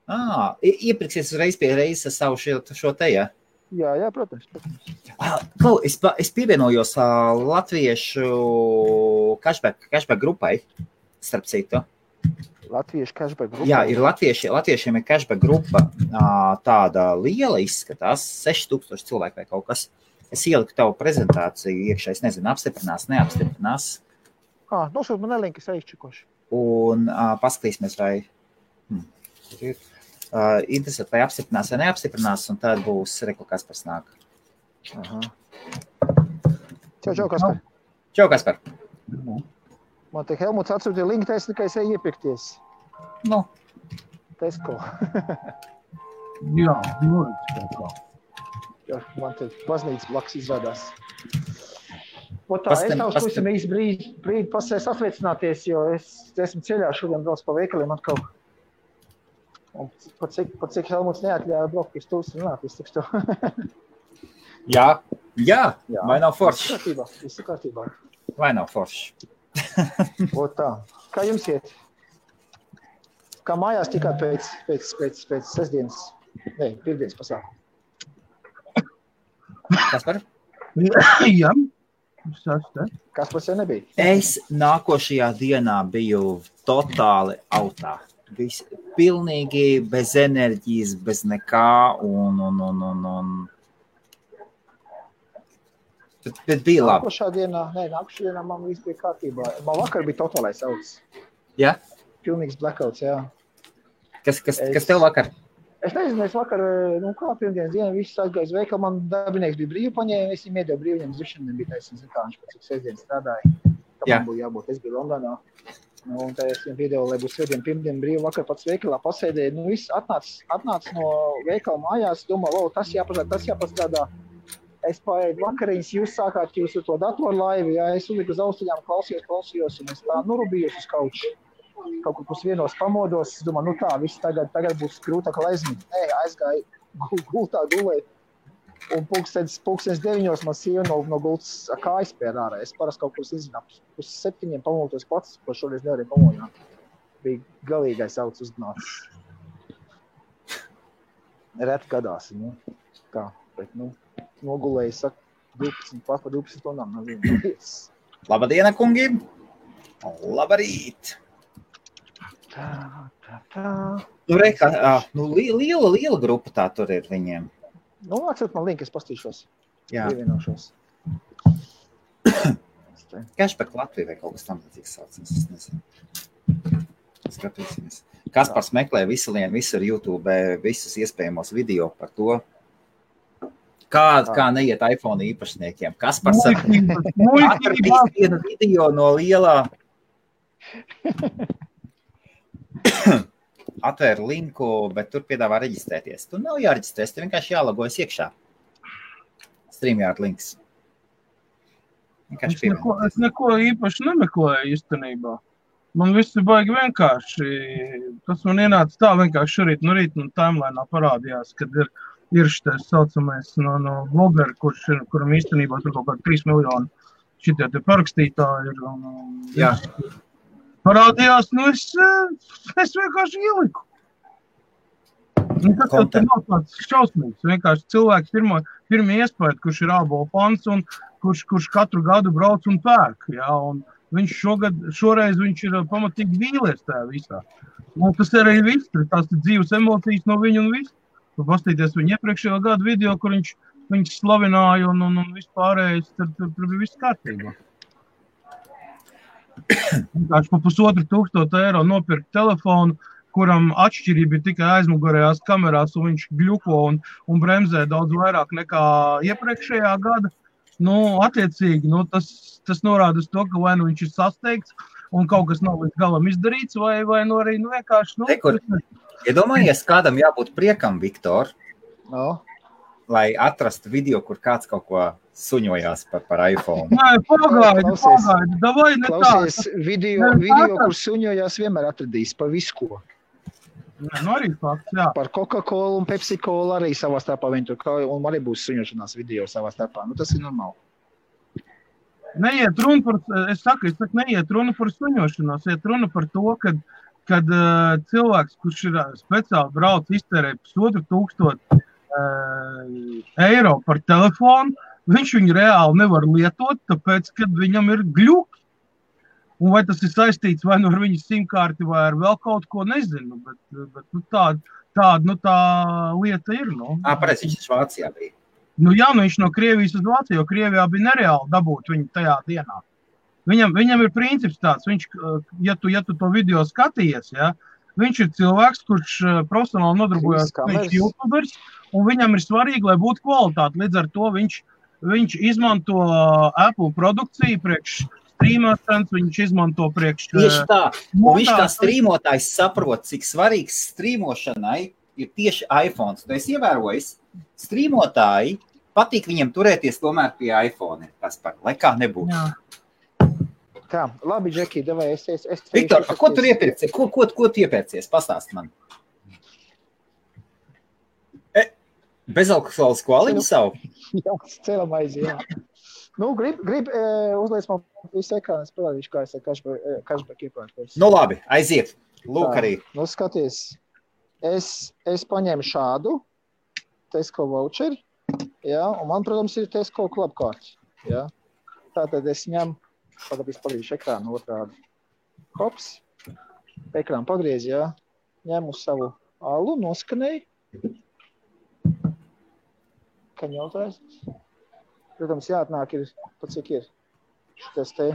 Iepirksies uzreiz pie reizes savu šo te, ja? Jā, protams. Es pievienojos latviešu cashback grupai, starp citu. Latviešu cashback grupa? Jā, ir latviešiem ir cashback grupa, tāda liela izskatās, 6000 cilvēku vai kaut kas. Es ieliku tavu prezentāciju iekšā, es nezinu, apstiprinās, neapstiprinās. Nosūt man link, es aizčikošu. Un paskatīsimies, vai interesēt, vai apstiprinās vai neapstiprinās, un tad būs reklākās par snāk. Čau, Kaspar. Čau, Kaspar. Man te Helmuts atsūtīja linku, es tikai eju iepirkties. Nu. Tesco. Jā, Tesco. Jā, man te baznīcas blakus izrādās. Es tavs pusim īsti brīdi pasēs atveicināties, jo es esmu ceļā šodien brauc pa veikaliem atkal. Un pat cik Helmuts neatļāja braukt pie stūs runāt, es tikstu. Jā, vai nav forši? Visu kārtībā. Vai nav forši? Tā. Kā jums iet? Kā mājās tikāt pēc sestdienas, pirmdienas pasākumu? Kaspar? Jā. Kaspars jau nebija? Es nākošajā dienā biju totāli autā. Pilnīgi bez enerģijas, bez nekā un... Bet bija labi. Nākošā dienā man viss bija kārtībā. Man vakar bija totālais auts. Jā? Pilnīgs blackouts, jā. Kas tev vakar? Es nezinu, es vakar, pirmdienas dienu, viss aizgāju uz veikalu, man darbinieks bija brīvu paņēma, es viņam iedevu brīvu, viņam zvišana nebija taisnība, kā viņš pēc cik sestdien strādāja. Kā man būtu jābūt, es biju Londonā. Un tā es viņam iedevu, lai būs svētdien, pirmdien brīvu, vakar pats veikalā pasēdēju. Viss atnāc no veikala mājās, domā, tas jāpastrādā. Es paēdu vakariņas, jūs sākāt jūsu to datorlaivu, jā, es uzliku uz austiņām, klausījos, un es tā nurubījos uz kauču. Kaut kur pusvienos pamodos, es domāju, tā, viss tagad būs grūtāk aizmīt. Aizgāju gultā gulēt, un pulkstens 9 man sieva no gultas kājas pēr ārā. Es parasti kaut kur izzināt, 7 pamodos pats, ko šoreiz nevarēju pamodināt. Bija galīgais auts uznācis. Reti gadās, tā, bet, nogulēju, saka, 12 stundām. Labadiena, kungi! Labarīt! Tā. Liela grupa tā tur ir viņiem. Atsūt man link, es pastīšos. Jā. Pievienošos. Cashback Latvija vai kaut kas tam līdzīgs saucams, es nezinu. Skatīsimies. Kaspars meklē visur YouTube, visus iespējamos video par to, kā neiet iPhone īpašniekiem. Kaspars atradīs vienu video no lielā... Atvēru linku, bet tur piedāvā reģistrēties. Tur nav jāreģistrēs, tur vienkārši jālogojas iekšā. StreamYard links. Es neko īpaši nemeklēju īstenībā. Man viss ir baigi vienkārši. Tas man ienāca tā vienkārši šorīt no rīta un timeline'ā parādījās, kad ir šitais saucamais no blogeri, kuram īstenībā tur kaut kādi 3 miljoni šitie te parakstītāji ir. Jā. Parādījās, es vienkārši ieliku. Tas jau nav tāds šausmīgs. Vienkārši cilvēks pirmie iespēja, kurš ir ābolu fans un kurš katru gadu brauc un pērk. Jā, un viņš šoreiz viņš ir pamatīgi vīlies tajā visā. Un tas arī viss, tās ir dzīves emocijas no viņa un viss. Pastīties viņa iepriekšējo gadu video, kur viņš slavināja un vispārējais, tur bija viss kārtībā. Vienkārši pa 1500 eiro nopirkt telefonu, kuram atšķirība ir tikai aizmugurējās kamerās, un viņš gļuko un bremzē daudz vairāk nekā iepriekšējā gada. Attiecīgi, tas norāda uz to, ka vai viņš ir sasteigts un kaut kas nav līdz galam izdarīts, vai arī vienkārši... Iedomājies, kādam jābūt priekam, Viktor, lai atrastu video, kur kāds kaut ko suņojās par iPhone. Nē, pagaidi. Davai ne tā. Klausies, video, kur suņojās vienmēr atradīs pa visu ko. Arī fakts, jā. Par Coca-Cola un Pepsi-Cola arī savā starpā viņi tur, un arī būs suņošanās video savā starpā. Tas ir normāli. Neiet runa par, es saku, neiet runa par suņošanos, iet runa par to, ka kad cilvēks, kurš ir speciāli brauc iztērē 1,500 eiro par telefonu, viņš viņu reāli nevar lietot, tāpēc, kad viņam ir gļuki. Un vai tas ir saistīts vai nu ar viņu simkārti vai ar vēl kaut ko, nezinu, bet nu, tā lieta ir. Nu. Pareizi, viņš Vācijā bija. Nu jā, viņš no Krievijas uz Vāciju, jo Krievijā bija nereāli dabūt viņu tajā dienā. Viņam ir princips tāds, viņš, ja tu to video skatījies, ja, viņš ir cilvēks, kurš profesionāli nodarbojas, viņš ir YouTubers, un viņam ir svarīgi, lai būtu kvalitāte. Līdz ar to viņš izmanto Apple produkciju priekš strīmošanas, viņš izmanto priekš... Tieši tā, un viņš kā strīmotājs saprot, cik svarīgs strīmošanai ir tieši iPhones. Tu esi ievērojis, strīmotāji patīk viņiem turēties tomēr pie iPhone, lai kā nebūtu. Jā. Tā, labi, Džeki, davai, es Viktor, ko tu iepērcies? Ko tu iepērcies? Pastāst man. Bezalkoholisku aliņu savu? Jā, celam aizi, jā. Nu, grib uzliec man visu ekrānu, es parādīšu, kā es ar cashback iepērkos. Nu, labi, aiziet. Lūk arī. Nu, skaties, es paņēmu šādu Tesco voucheri, jā, un man, protams, ir Tesco klubkārti, jā. Tātad es ņemu, padarīšu ekrānu otrādi. Hops, ekrānu pagriez, jā, ņemu savu alu, noskanēju. Kaņotājs. Protams, jāatnāk ir, pat cik ir šitas te,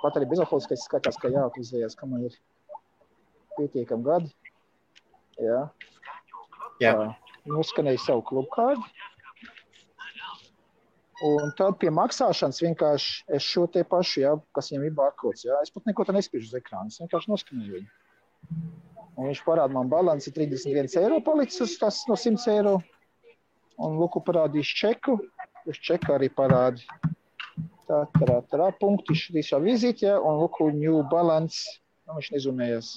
pat arī bezalkoholiskais skatās, ka jāatvizējās, ka man ir pietiekam gadi. Jā. Noskanēju savu klubkārdi. Un tad pie maksāšanas vienkārši es šo te pašu, jā, kas viņam ir barkods, jā. Es pat neko te nespiežu uz ekrānu, es vienkārši noskanēju viņu. Un viņš parāda man balansi 31 eiro palicis uz tas no 100 eiro. Un lūku parādīs čeku. Uz čeka arī parādi. Tā, punkti šā vizītē, un lūku new balance. Nu, viņš nezumējas.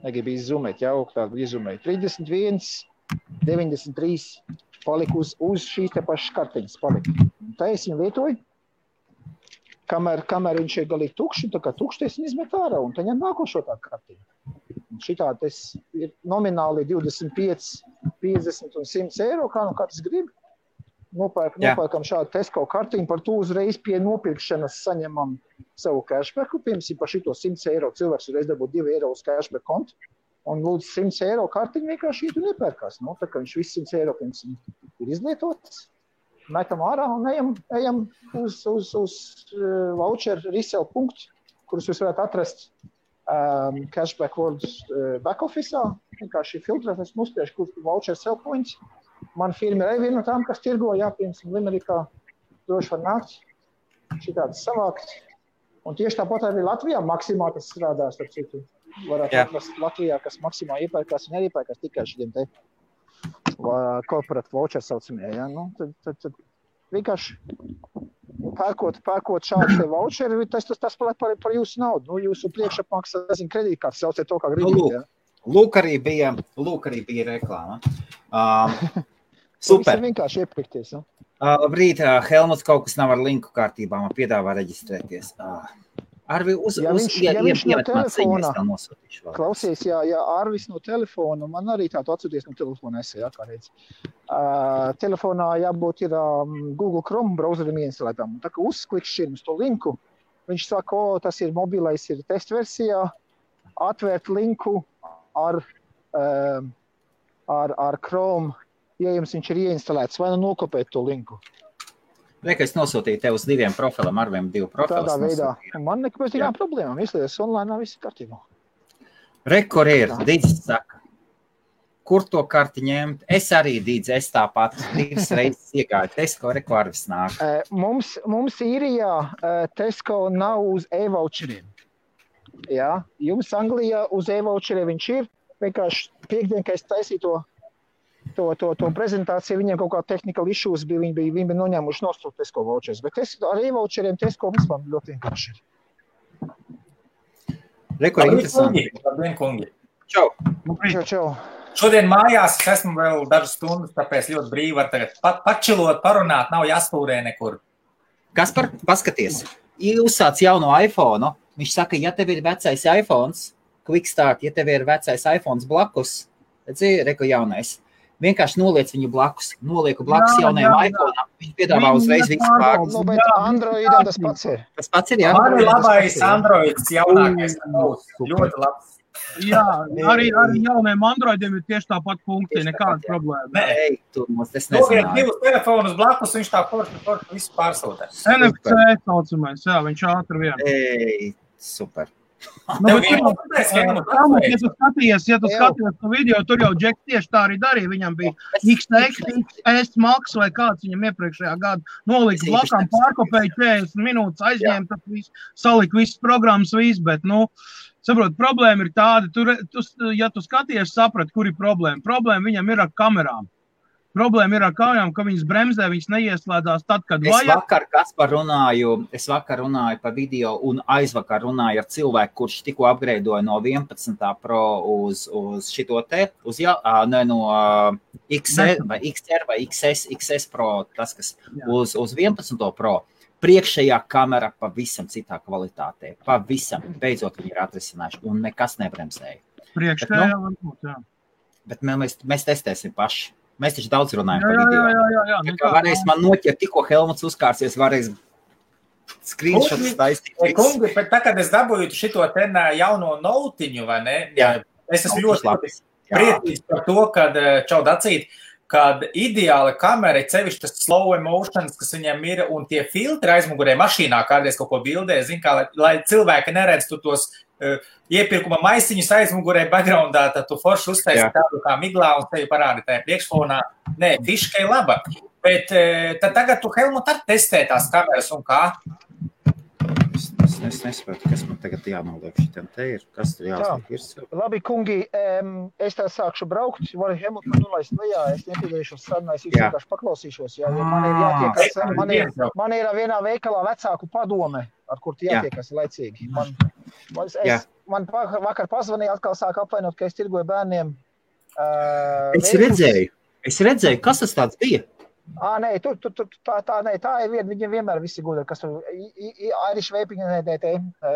Negribu izzumēt, jā, tādu izzumēt. 31, 93 palika uz šīs te pašas kartiņas palika. Tā es viņu lietoju. Kamēr viņš ir galīgi tukši, tā kā tukši, es viņu izmet ārā, un tā ņem nākošo tā kartiņu. Un šitā tas ir nomināli 25, 50 un 100 eiro, kā tas grib. Nopērkam šādu Tesco kartiņu, par to uzreiz pie nopirkšanas saņemam savu cashbacku. Piemēram, par šito 100 eiro cilvēks uzreiz dabūt 2 eiro uz cashback kontu. Un lūdzu 100 eiro kartiņu vienkārši iet un iepērkās. Nu, tā kā viņš viss 100 eiro pirms ir izlietots, metam ārā un ejam uz voucher resell punktu, kurus jūs varētu atrast cashback world back office'ā. Vienkārši filtrēt, es uzspiešu, kur voucher sell points. Man firma ir viena no tām, kas tirgo, piemēram, Limerikā droši var nākt, šitādas savākt. Un tieši tāpat arī Latvijā maksimā tas strādās, ar citu. Varētu atrast Latvijā, kas maksimā iepērkās un neiepērkās tikai šitiem te corporate voucher saucamie. Ja? Nu, tad vienkārši pērkot šādu te voucheri, tas paliek par jūsu naudu. Nu, jūsu priekšapmaksā, kredītkārts, sauciet to, kā gribīt. Ja? Lūk arī bija reklāma. Super. Tas ir vienkārši iepirkties. Ja? Labrīt, Helmuts, kaut kas nav ar linku kārtībā, man piedāvā reģistrēties. Arvi, viņš no telefona, klausies, ja Arvis no telefona, man arī tādu atsūties no telefona esē, kā reiz. Telefonā jābūt ir Google Chrome browserim ieinstalētām. Tā kā uzklikšķir uz to linku, viņš saka, tas ir mobilais, ir testversijā, atvērt linku ar Chrome, ja jums viņš ir ieinstalēts, vai nokopēt to linku. Reka, es nosūtīju tev uz 2 profilam, Arviem 2 profilus. Tādā veidā. Man nekāpēc tikām problēmām, izlies online, viss kārtībā. Kur ir, Dīdzis saka, kur to karti ņemt? Es arī, Dīdzi, es tāpat 2 reizes iegāju Tesco, Reku Arvis nāk. Mums īrijā Tesco nav uz e-voucheriem. Jā, jums Anglijā uz e-voucheriem viņš ir. Vienkārši piekdien, kad es taisīju to prezentāciju, viņiem kaut kā technical issues bija, viņi bija noņēmuši nostūt Tesco vouchers, bet ar e-voucheriem Tesco vispār ļoti vienkārši ir. Reku, interesanti. Labdien, kungi. Čau. Šodien mājās es esmu vēl dažas stundas, tāpēc ļoti brīvi var tagad pačilot, parunāt, nav jāspūrē nekur. Kaspar, paskaties. uzsāc jauno iPhone, viņš saka, ja tev ir vecais iPhones, Quick Start, ja tev ir vecais iPhones blakus, reku jaunais, vienkārši noliec viņu blakus, nolieku blakus jaunajam iPhone, viņš piedāvā uzreiz visu pārgus. Nu, bet Androidam tas pats ir. Tas pats ir, jā? Man ir labais Androids jaunākais, ļoti labs. Jā, arī jauniem Androidiem ir tieši tāpat funkcija, nekāda problēma. Nē, tu mums tas Noliek nezināji. 2 telefonus blakus, viņš tā forši visu pārsūtē. NFC saucamais, jā, viņš ātri vien. Super. Nu, ja tu skaties to video, tur jau Džeks tieši tā arī darīja. Viņam bija XS Max vai kāds viņam iepriekšējā gada nolika blakām, pārkopēja 40 minūtes, aizņēma, tad salika visas programmas, bet, saprot, problēma ir tāda, ja tu skaties, saprat, kur ir problēma. Problēma viņam ir ar kamerām. Problēma ir ar kamerām, ka viņas bremzē, viņas neieslēdzās tad, kad vajag. Es vakar runāju pa video un aizvakar runāju ar cilvēku, kurš tikko upgradeoja no 11. Pro uz šito te, no XR vai XS Pro, tas, kas uz 11. Pro. Priekšējā kamera pavisam citā kvalitātē. Pavisam. Beidzot viņi ir atrisinājuši un nekas nebremzēja. Priekšējā varbūt, jā. Bet mēs testēsim paši. Mēs taču daudz runājam par video. Jā. Varēs man noķert, tikko Helmuts uzkārsies, varēs screenshots taistīt. Kungi, bet tā, kad es dabūju šito ten jauno notiņu, vai ne? Jā. Es esmu ļoti priecīgs par to, kad Čaudacīt, kad ideāla kamera, cevišķi tas slow emotions, kas viņam ir, un tie filtri aizmugurē mašīnā kādreiz kaut ko bildē, zin kā, lai cilvēki neredz tu tos iepirkuma maisiņus aizmugurē backgroundā, tad tu forši uztaisi tādu kā miglā un tevi parādi tajā priekšfonā. Nē, fiška ir laba. Bet tad tagad tu, Helmut, ar testē tās kameras un kā? Es nesapratu, kas man tagad jānoliek šitiem te ir. Kas tur jāsliek ir? Labi, kungi, es tā sākšu braukt, varu Helmut man nolaist lejā, es nepiedalīšos sarunā, es vienkārši paklausīšos, jo man ir jātiekas, man ir vienā veikalā vecāku padome, ar kur jātiekas laicīgi. Man vakar pazvanīja, atkal sāk apvainot, ka es tirgoju bērniem. Es redzēju, kas tas tāds bija? Nē, tā ir viena, viņiem vienmēr visi gudri, kas tur Irish Vaping,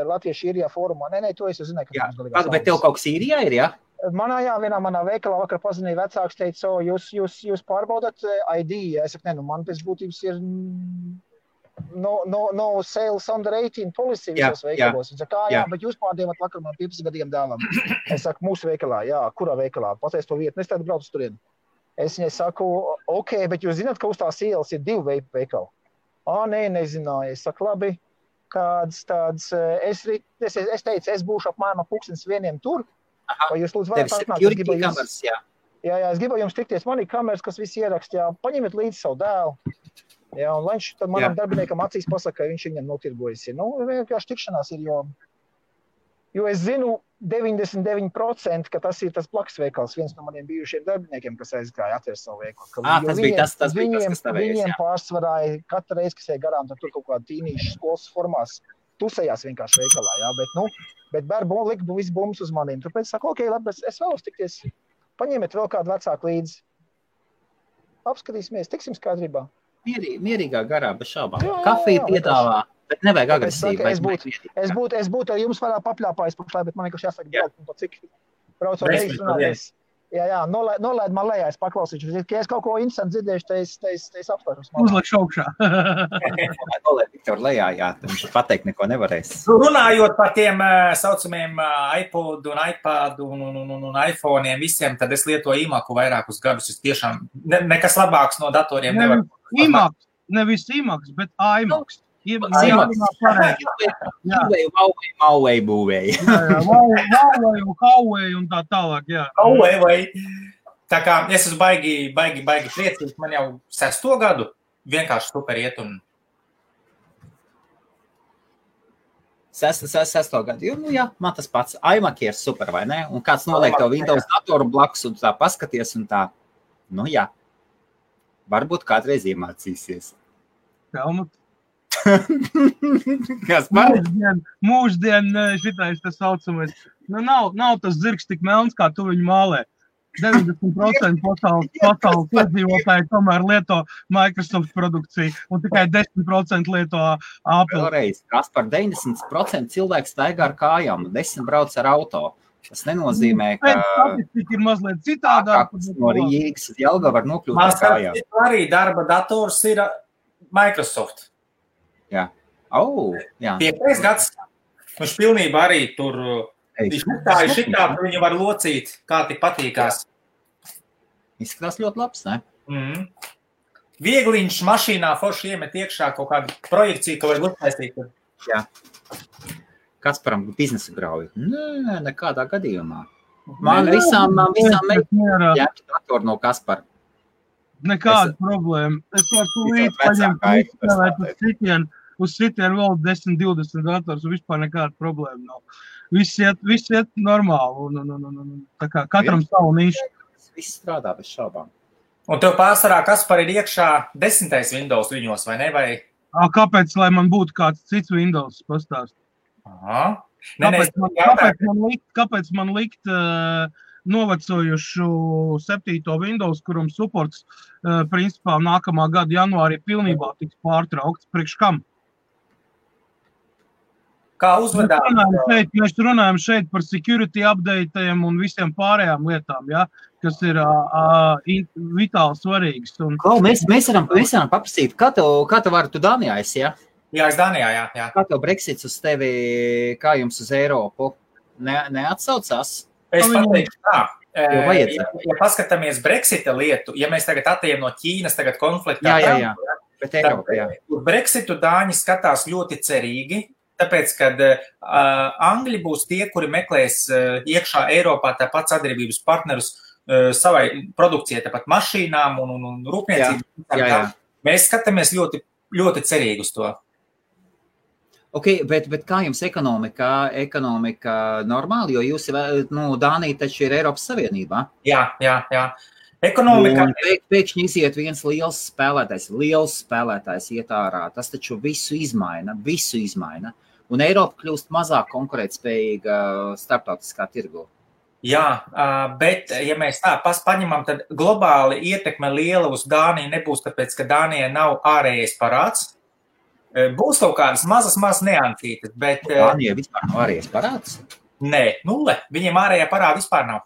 Latviešu īrijā fórumā. Nē, to es jau zināju, ka mums galīgās. Bet tev kaut kas īrijā ir, jā? Manā veikalā vakar pazinīja vecāks, teica, jūs pārbaudat ID. Es saku, man pēc būtības ir no sales under 18 policy visos veikalos. Viņš saka, jā, bet jūs pārdievat vakar man 15 gadiem dēlam. Es saku, mūsu veikalā, jā, kurā veikalā? Pateic to vietu, es tādu braucu turien. Es viņai saku, ok, bet jūs zināt, ka uz tās ielas ir 2 veikali? Nē, nezināju. Es saku, labi, kāds tāds, es teicu, es būšu apmēram 1:00 tur, vai jūs lūdzu varat atnākt? Jā, es gribu jums tikties, man ir kameras, kas visi ierakst, jā, paņemiet līdzi savu dēlu. Jā, un viņš tad manam darbiniekam acīs pasaka, ka viņš viņam notirgojas. Vienkārši tikšanās ir, jo es zinu 99%, ka tas ir tas blakus veikals, viens no maniem bijušiem darbiniekiem, kas aizgāja atvērt savu veikalu. Tas bija tas, kas tavējais, viņiem pārsvarāja katru reizi, kas ej garām, tad tur kaut kāda tīnīša skolas formās tusējās vienkārši veikalā, jā, bet bērbu lika visu bumbas uz maniem. Tāpēc saku, ok, labi, es vēlos tikties, paņemiet vēl kādu vecāku līdzi. Apskatīsimies, tiksim skaidrībā. Mierīgā garā, bez šaubām. Kafiju piedāvā, bet nevajag agresīvi. Es būtu ar jums varētu papļāpājis pašlai, bet man vienkārši jāsaka braukt un pa cik braucot reizi runāties. Jā, nolaid man lejā, es paklausīšu. Ja es kaut ko interesanti dzirdēšu, tad es apstāšos. Uzliek šaukšā. Nolaid Viktor lejā, jā, viņš pateikt neko nevarēs. Runājot par tiem saucamiem iPod un iPad un iPhoneiem visiem, tad es lietoju iMacu vairākus gadus. Es tiešām nekas labāks no datoriem nevar. iMacs, nevis iMacs, bet iMacs. Huawei būvēja. Huawei un Huawei un tā tālāk, jā. Huawei. Tā kā es esmu baigi priecīgs, man jau 6. gadu vienkārši super iet un... 6. gadu, jā, man tas pats. iMac ir super, vai ne? Un kāds noliek tev Windows datoru blakus un tā paskaties un tā. Jā. Varbūt kādreiz iemācīsies. Helmut. Kas par? Mūždien šitais tas saucamais. Nav tas zirgs tik melns, kā tu viņu mālē. 90% pasaules iedzīvotāji tomēr lieto Microsoft produkciju, un tikai 10% lieto Apple. Vēlreiz, Kaspar, 90% cilvēku staigā ar kājām, 10 brauc ar auto. Tas nenozīmē, ka statistika ir mazliet citādāk. No Rīgas uz Jelgavu var nokļūt ar kājām. Arī darba dators ir Microsoft. Jā. Jā. 5. gads. Viņš pilnībā arī tur šitā viņu var locīt, kā tik patīkās. Izskatās ļoti labs, ne? Viegliņš mašīnā forši iemet iekšā kaut kādu projekciju, ka var uztaisīt. Jā. Kasparam biznesa grauju? Nē, nekādā gadījumā. Man visām ņemt datoru no Kaspara. Nekāda problēma. Es varu tūlīt paņemt uz sitienu vēl 10-20 dators, un vispār nekāda problēma nav. Viss iet normāli, un tā kā katram savu nišu. Viss strādā bez šaubām. Un tev pārsvarā Kaspar ir iekšā 10. Windows viņos, vai ne? Vai... Kāpēc, lai man būtu kāds cits Windows pastāst? Kāpēc man likt novecojušu 7. Windows, kuram supports principā nākamā gada janvārī pilnībā tiks pārtraukts? Priekš kam? Kā uzvedāt? Mēs runājam šeit par security updateiem un visiem pārējām lietām, ja, kas ir vitāli svarīgas. Mēs varam paprasīt, kā tev var tu Dānijā esi, ja? Jā, es Dānijā, jā. Kā tev Brexits uz tevi, kā jums uz Eiropu? Neatsaucās? Es pateikšu tā. Ja paskatāmies Brexita lietu, ja mēs tagad atejam no Ķīnas tagad konfliktā, jā. Bet Eiropa, jā. Brexitu Dāņi skatās ļoti cerīgi, tāpēc, kad Angļi būs tie, kuri meklēs iekšā Eiropā tāpat sadarbības partnerus savai produkcijai, tāpat mašīnām un rūpniecību. Jā. Mēs skatāmies ļoti, ļoti cerīgi uz to. Ok, bet kā jums ekonomika normāli, jo jūs, Dānija taču ir Eiropas Savienībā? Jā. Ekonomika... Pēkšņi iziet viens liels spēlētājs iet ārā, tas taču visu izmaina, un Eiropa kļūst mazāk konkurētspējīga starptautiskā tirgu. Jā, bet, ja mēs tā paņemam, tad globāli ietekme liela uz Dāniju nebūs, tāpēc, ka Dānijai nav ārējais parāds. Būs kaut kādas mazas neancītas, bet... Dānijai vispār nav ārējais parāds? Nē, 0. Viņiem ārējā parāda vispār nav.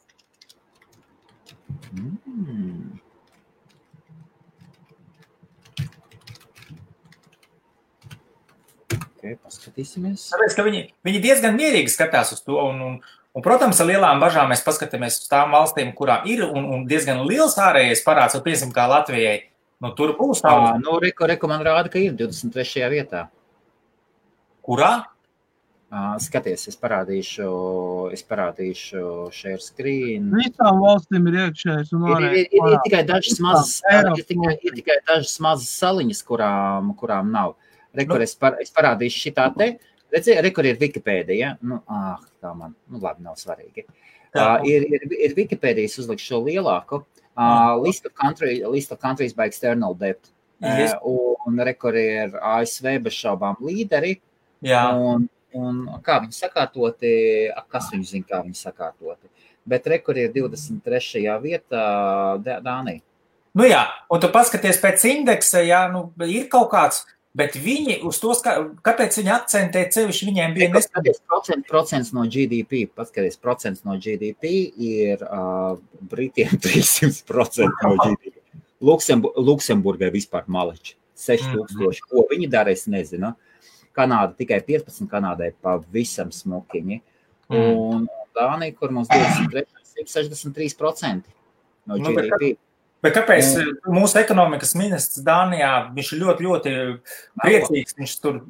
Ok, paskatīsimies. Tāpēc, ka viņi diezgan mierīgi skatās uz to, un, protams, ar lielām bažām mēs paskatāmies uz tām valstīm, kurām ir un diezgan liels ārējais parāds, un piemēram, kā Latvijai. Tur būs tā. Reku man rāda, ka ir 23. vietā. Kurā? Skaties, es parādīšu share screen. Visām valstīm ir iekšējais un ārējais. Ir tikai dažas mazas saliņas, kurām nav. Rekur, es parādīšu šitā te. Redzi, rekur ir Wikipēdija. Labi, nav svarīgi. Ir Wikipēdijas uzlikšu šo lielāku. List of countries by external debt. Un rekur ir ASV bez šaubām līderi. Jā. Un kā viņi sakārtoti, kas viņi zina, kā viņi sakārtoti. Bet rekur ir 23. vietā Dānija. Jā, un tu paskaties pēc indeksa, jā, ir kaut kāds, bet viņi uz tos, kāpēc viņi akcentē cevišķi, viņiem bija procents no GDP, paskaties, procents no GDP ir Britiem 300% no GDP. Luksemburgai vispār maleči, 6000. Ko viņi dara, es nezinu. Kanāda tikai 15, Kanādai pavisam smukiņi. Un Dānija, kur mums 63% no GDP. Bet kāpēc mūsu ekonomikas ministrs Dānijā, viņš ir ļoti, ļoti priecīgs, viņš tur,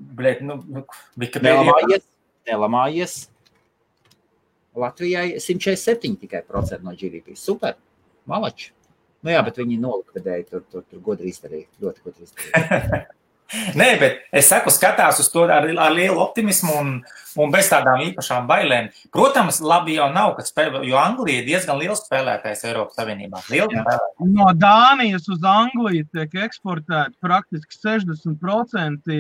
nelamājies. Latvijai 147 tikai procenti no GDP. Super, malači. Jā, bet viņi nolikvidēja, tur godri izdarīja, ļoti godri izdarīja. Nē, bet es skatās uz to ar lielu optimismu un bez tādām īpašām bailēm. Protams, labi jau nav, jo Anglija ir diezgan liels spēlētājs Eiropas Savienībā. No Dānijas uz Angliju tiek eksportēti praktiski 60%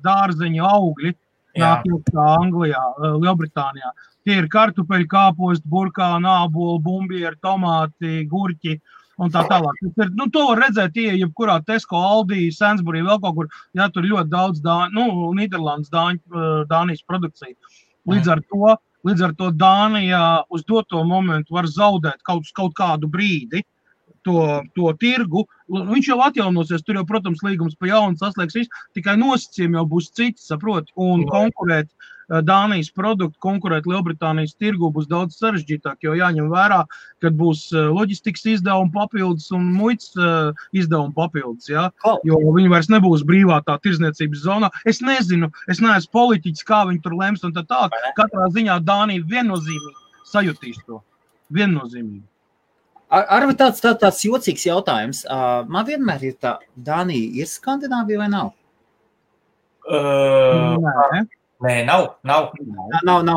dārzeņu augļi. nāk iekšā Anglijā, Lielbritānijā. Tie ir kartupeļi, kāposti, burkāni, āboli, bumbieri, tomāti, gurķi un tā tālāk. To var redzēt, jebkurā Tesco, Aldi, Sainsbury, vēl kaut kur, tur ļoti daudz Nīderlandes Dānijas produkcija. Līdz ar to Dānijā uz doto momentu var zaudēt kaut kādu brīdi to tirgu. Viņš jau atjaunosies, tur jau, protams, līgums pa jaunu saslēgs viss, tikai nosacījumi jau būs citi, saproti, un konkurēt Dānijas produktu, konkurēt Lielbritānijas tirgu būs daudz sarežģītāk, jo jāņem vērā, kad būs loģistikas izdevumi papildus un muitas izdevumi papildus, ja? Jo viņi vairs nebūs brīvā tā tirzniecības zonā. Es nezinu, es neesmu politiķis, kā viņi tur lems un tā. Katrā ziņā Dānija viennozīmīgi sajutīs to. Viennozīmīgi. Arvi tāds jocīgs jautājums. Man vienmēr ir tā, Dānija ir Skandināvija vai nav? Nē, nav. Nav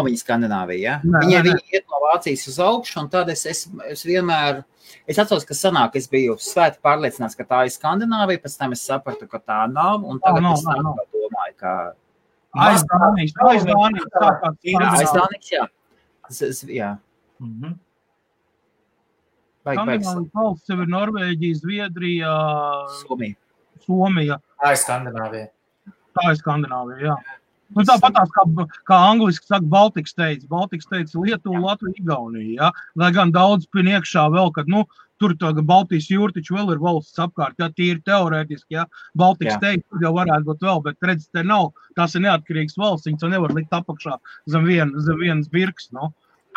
viņa Skandināvija, ja? Viņi iet no Vācijas uz augšu, un tad es vienmēr, es atceros, ka sanāk, es biju svēti pārliecināts, ka tā ir Skandināvija, pēc tam es sapratu, ka tā nav, un tagad es domāju, ka... Aiz Dānijas, jā. Skandināvijas valsts jau ir Norvēģija, Zviedrija, Somija. Tā ir Skandināvija. Jā. Tāpatās, kā angliski saka, Baltic States, Lietuva, Latvija, Igaunija, ja? Lai gan daudz pin iekšā vēl, kad, tur Baltijas jūra taču vēl ir valsts apkārt, ja tīri teorētiski, ja? Baltic States jau varētu būt vēl, bet redz, te nav, tās ir neatkarīgas valsts, viņas jau nevar likt apakšā zem vienas birks,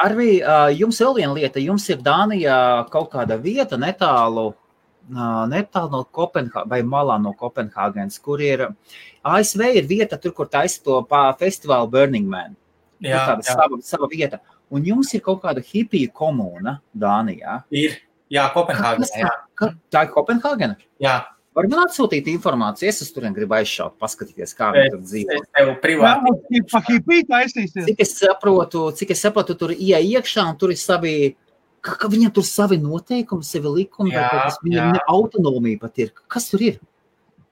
Arvi, jums vēl viena lieta, jums ir Dānijā kaut kāda vieta netālu no Kopenhāgenes vai malā no Kopenhāgenes, kur ir ASV ir vieta tur, kur taisa to festivālu Burning Man. Sava vieta. Un jums ir kaut kāda hipija komūna Dānijā. Ir, Kopenhāgenē. Tā ir Kopenhāgena? Jā. Var man atsūtīt informāciju, es turien gribu aizšaut, paskatīties, kā viņi tur dzīvo. Es tev privāti. Cik es saprotu, tur iekšā, un tur ir savi, ka viņam tur savi noteikumi, savi likumi, vai kaut kas, viņam autonomija pat ir. Kas tur ir?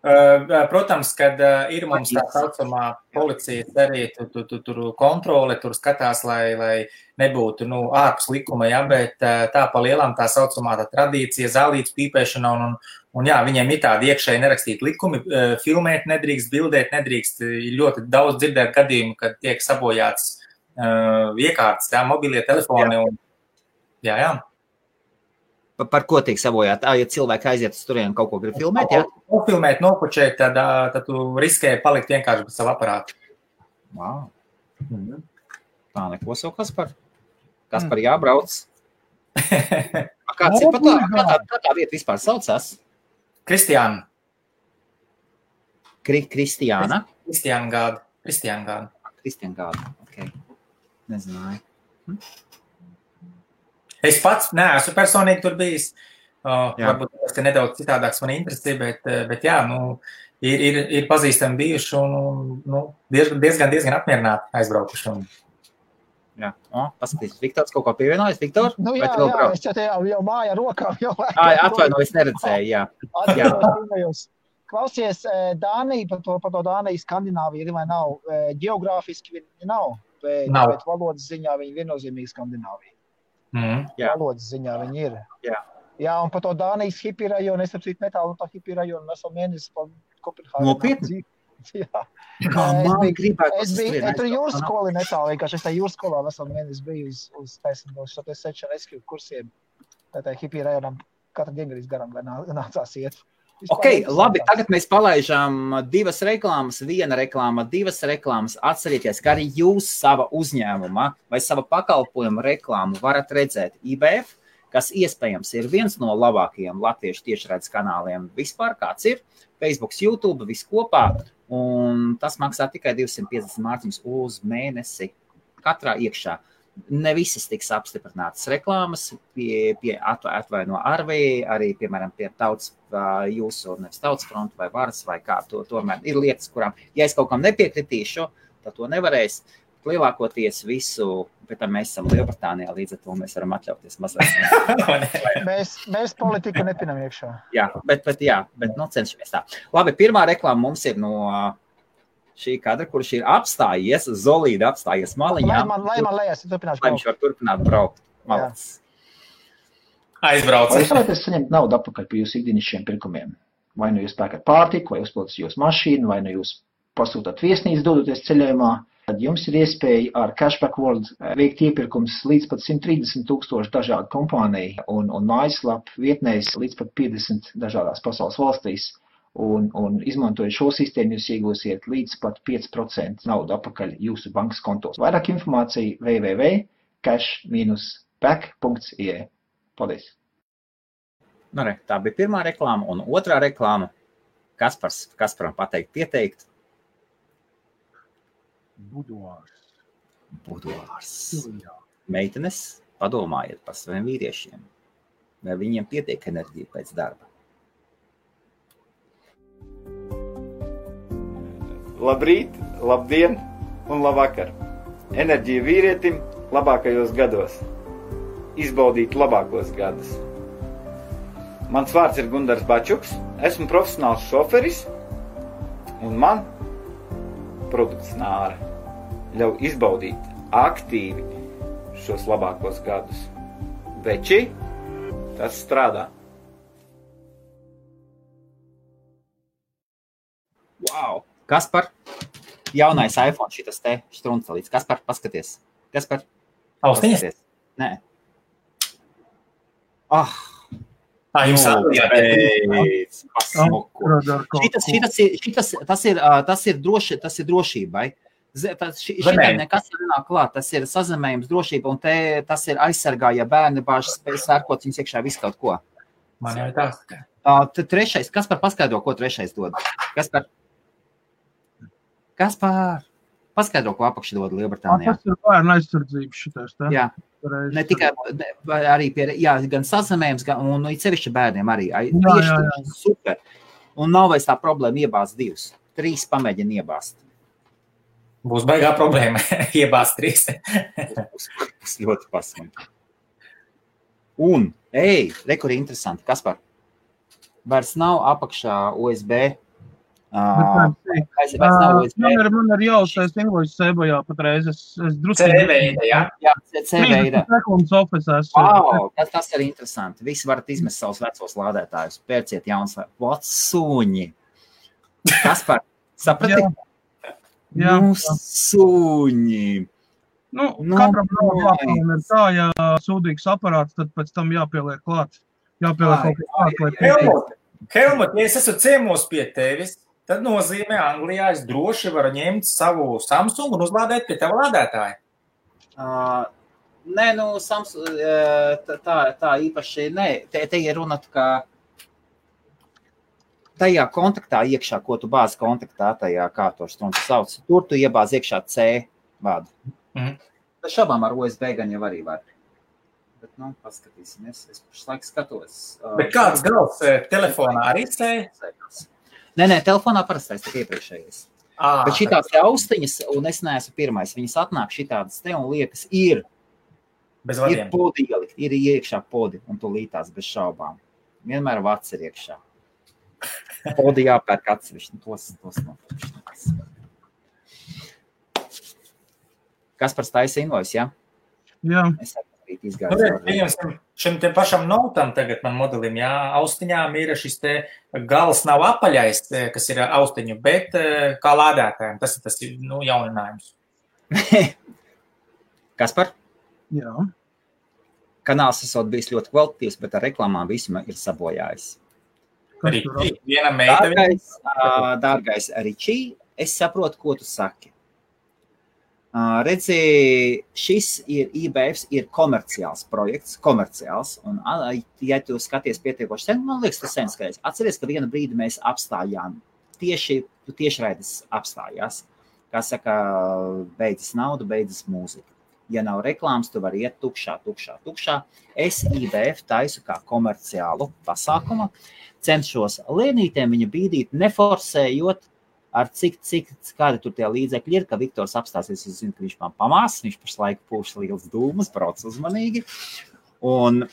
Protams, kad ir mums tā saucamā policija arī tur kontrole, tur skatās, lai nebūtu ārpus likuma, ja, bet tā pa lielām tā saucamā tā tradīcija, zālītes pīpēšana un jā, viņiem ir tādi iekšēji nerakstīti likumi, filmēt nedrīkst, bildēt nedrīkst, ļoti daudz dzirdēt gadījumu, kad tiek sabojāts iekārtas, mobilie telefoni un jā. Par ko tiek sabojāt? Ja cilvēki aiziet uz turienu kaut ko grib filmēt, jā? Nofilmēt, nopučēt, tad tu riskēji palikt vienkārši bez savu aparātu. Wow. Tā neko savu, Kaspar? Kaspar jābrauc. Kāds ir kā tā vieta vispār saucās? Kristiāna. Kristiāna? Kristiāna Gāda, ok. Nezināju. Es pats neesmu personīgi tur bijis. Varbūt ka nedaudz citādāks man interesē, bet jā, ir pazīstami bijuši un diezgan apmierināti aizbraukuši. Jā, paskatīs, Viktors kaut ko pievienojas, Viktor? Jā, es jau māja rokām. Atvaino, es neredzēju, jā. Klausies, Dānija, par to Dāniju Skandināvija ir vai nav, geogrāfiski viņi nav, bet valodas ziņā viņi viennozīmīgi Skandināvija. Valodas ziņā viņi ir. Jā, un par to Dānijas hipi rajonu, es apsīt netālu no tā hipi rajonu, mēs vēl mēnesis pa Kopenhāgenā. Nopietni? Jā. Es tur jūras skoli netālu, vienkārši es tā jūras skolā veselu mēnesi biju uz search and rescue kursiem. Tā hipi rajonam katru diengarīs garām nācās iet. Ok, labi, tagad mēs palaižām 2 reklāmas, 1 reklāma, 2 reklāmas. Atcerieties, ka arī jūs sava uzņēmuma vai sava pakalpojuma reklāmu varat redzēt IBF, kas iespējams ir viens no labākajiem latviešu tiešraides kanāliem vispār, kāds ir, Facebook, YouTube, viss kopā, un tas maksā tikai 250 mārciņas uz mēnesi katrā iekšā. Ne visas tiks apstiprinātas reklāmas, atvaino Arvī, arī, piemēram, pie tautas jūsu, nevis tautas fronta vai varas vai kā to, tomēr ir lietas, kurām, ja es kaut kam nepiekritīšu, tad to nevarēs. Lielākoties visu, bet mēs esam Lielbritānijā, līdz ar to mēs varam atļauties mazliet. Mēs politiku nepinam iekšā. Jā, bet cenšamies tā. Labi, pirmā reklāma mums ir no šī kadra, kurš ir apstājies, Zolīda apstājies maliņā. Lai man lejās, turpināšu. Lai viņš var turpināt braukt. Malacis. Aizbrauc. Vai jūs varētu saņemt naudu atpakaļ par jūsu ikdienišķiem pirkumiem? Vai nu jūs pērkat pārtiku, vai uzpildat jūsu mašīnu, vai nu jūs pasūtāt viesnīcu dodoties ceļojumā, tad jums ir iespēja ar Cashback World veikt iepirkums līdz pat 130,000 dažādu kompāniju un mājaslapu vietnēs līdz pat 50 dažādās pasaules valstīs. Un izmantojot šo sistēmu, jūs iegūsiet līdz pat 5% naudu atpakaļ jūsu bankas kontos. Vairāk informācija www.cash-back.ie. Paldies! Nu, re, tā bija pirmā reklāma un otrā reklāma. Kasparam pateikt pieteikt? Buduārs. Meitenes, padomājiet par saviem vīriešiem. Vai viņiem pietiek enerģija pēc darba? Labrīt, labdien un labvakar. Enerģija vīrietim labākajos gados. Izbaudīt labākos gadus. Mans vārds ir Gundars Bačuks, esmu profesionāls šoferis un man produkts Nāra ļauj izbaudīt aktīvi šos labākos gadus. Veči, tas strādā. Wow! Kaspar, jaunais iPhone šitas te štruncelīts. Kaspar, paskaties. Kaspar, Austiņas? Nē. Jums Tas ir drošībai. Šitai nekas nenāk klāt. Tas ir sazemējums drošība, un tas ir aizsargā, ja bērni bāžas spēj sērkot viņus iekšā visu kaut ko. Man jau tā. Trešais. Kaspar, paskaidro, ko trešais dod. Kaspar, paskaidro, ko apakši dod Lielbritānijā. Tas ir bērnu aizsardzības šitais, tā? Jā. Ne tikai arī gan sazemējums, un sevišķi bērniem arī. Tieši super. Un nav vairs tā problēma iebāzt 2. 3 pamēģina iebāzt. Būs baigā problēma iebāzt 3. Būs ļoti pasmīgi. Un, rekuri interesanti, Kaspar, vairs nav apakšā USB. Man ir jāuztais invoice sebojā patreiz. Es drusku... C-veida, jā? Jā, C-veida. Sekundes office Wow, tas ir interesanti. Visi varat izmest savus vecos lādētājus. Pērciet jauns suņi. Kaspar, saprati? Jā. Nu, suņi. Katram nav jāpieliek ir tā, ja sūdīgs aparāts, tad pēc tam jāpieliek klāt. Jāpieliek kaut kā klāt. Helmut, ja es esmu ciemos pie tevis, tad nozīmē Anglijā es droši varu ņemt savu Samsung un uzlādēt pie tava lādētāja. Nē, tā īpaši, nē. Te ir runa, ka tajā kontaktā iekšā, ko tu bāzi kontaktā, tajā, kā to štrunci sauc, tur tu iebāzi iekšā C vadu. Bet šabām ar USB gan jau arī var. Bet, paskatīsimies. Es pašlaik skatos. Bet kāds gals telefonā arī C? Nē, telefonā parastais tik iepriekšējais. Bet šitās te austiņas, un es neesmu pirmais, viņas atnāk šitādas te un liekas ir podi ielikt, ir iekšā podi, un tu lītās bez šaubām. Vienmēr vats ir iekšā. Podi jāpērk atsevišķi, tos nopirkšanās. Kaspars taisa invoice, ja? Jā. Es izgāju. Šim te pašam notam tagad man modelim, jā, austiņām ir šis te gals nav apaļais, kas ir austiņu, bet kā lādētājiem, tas ir jauninājums. Kaspar? Jā. Kanāls esot bijis ļoti kvalitatīvs, bet ar reklāmām visuma ir sabojājis. Dārgais Ričī, es saprotu, ko tu saki. Redzi, šis ir IBF, ir komerciāls projekts, un ja tu skaties pietiekoši sen, man liekas, tas sen skaties. Atceries, ka vienu brīdi mēs apstājām, tiešraides apstājās, kā saka, beidzas nauda, beidzas mūzika. Ja nav reklāmas, tu vari iet tukšā. Es IBF taisu kā komerciālu pasākumu, cenšos lēnītēm viņu bīdīt, neforsējot, ar cik kādi tur tie līdzekļi ir, ka Viktors apstāsies, es zinu, ka viņš man pamās, viņš pašlaik pūš liels dūmus, brauc uzmanīgi. Un,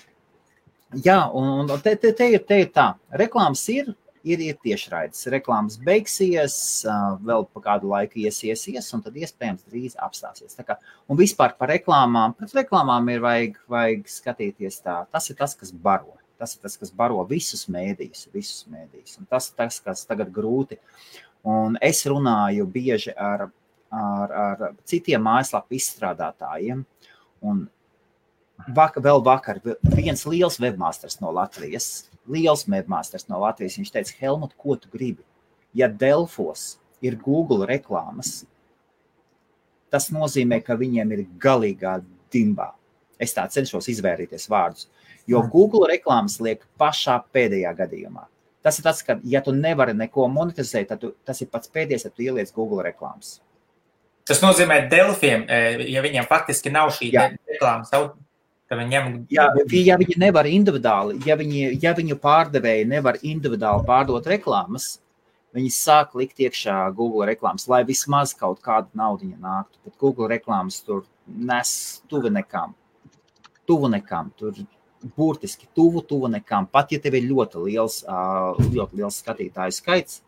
jā, un te ir tā. Reklāmas ir, ir tiešraides. Reklāmas beigsies, vēl pa kādu laiku iesies, un tad iespējams drīz apstāsies. Tā kā, un vispār par reklāmām, pret reklāmām ir vajag skatīties tā. Tas ir tas, kas baro. Tas ir tas, kas baro visus mēdījus. Un tas ir tas, kas tagad grūti. Un es runāju bieži ar citiem mājaslapu izstrādātājiem, un vēl vakar viens liels webmasters no Latvijas, viņš teica, Helmut, ko tu gribi? Ja Delfos ir Google reklāmas, tas nozīmē, ka viņiem ir galīgā dimbā. Es tā cenšos izvērīties vārdus, jo Google reklāmas liek pašā pēdējā gadījumā. Tas ir tas, ka, ja tu nevari neko monetizēt, tad tas ir pats pēdējais, ja tu ieliec Google reklāmas. Tas nozīmē Delfiem, ja viņiem faktiski nav šī reklāmas, tad viņiem... Ja viņi nevar individuāli, ja viņu pārdevēji nevar individuāli pārdot reklāmas, viņi sāk likt iekšā Google reklāmas, lai vismaz kaut kādu naudiņu nāktu. Bet Google reklāmas tur nes tuvu nekam, tur burtiski tuvu nekam. Pat ja tev ir ļoti liels skatītāju skaits,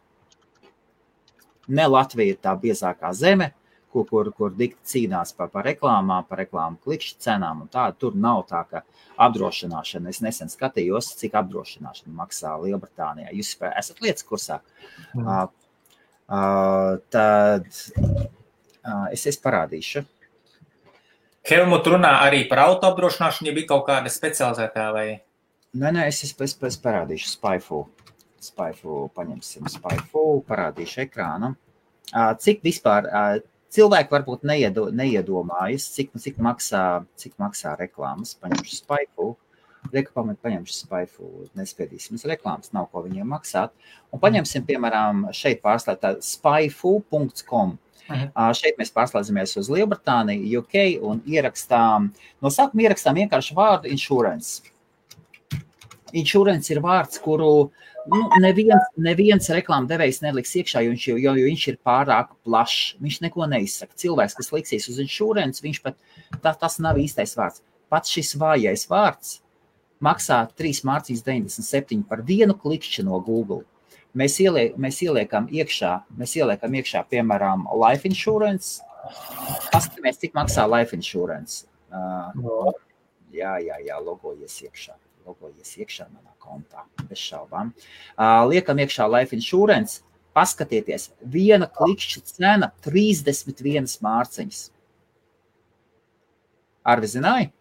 ne Latvija ir tā biezākā zeme, kur dikti cīnās par reklāmām, par reklāmu klikšķi cenām un tādu. Tur nav tā, ka apdrošināšana, es nesen skatījos, cik apdrošināšana maksā Lielbritānijā. Jūs esat lietas kursā. Tad es parādīšu. Helmut runā arī par auto apdrošināšanu, ja bija kaut kāda specializētā vai? Nē, es parādīšu Spyfu, paņemsim Spyfu, parādīšu ekrānu. Cik vispār... Cilvēki varbūt neiedomājas, cik maksā reklāmas. Paņemšu Spyfu. Paņemšu Spyfu. Nespiedīsim uz reklāmas, nav ko viņiem maksāt. Un paņemsim, piemēram, šeit pārslēgt spyfu.com. Šeit mēs pārslēdzamies uz Lielbritāniju, UK un no sākuma ierakstām vienkārši vārdu insurance. Insurance ir vārds, kuru neviens reklāma devējs neliks iekšā, jo viņš ir pārāk plašs. Viņš neko neizsaka. Cilvēks, kas liksies uz insurance, viņš pat tas nav īstais vārds. Pats šis vājais vārds maksā 3,97 par vienu klikšķi no Google. Mēs ieliekam iekšā, piemēram, life insurance. Paskatāmies, cik maksā life insurance. Jā, logojies iekšā manā kontā, bez šaubām. Liekam iekšā life insurance, paskatieties, viena klikšķa cena 31 mārciņas. Arvi zināji?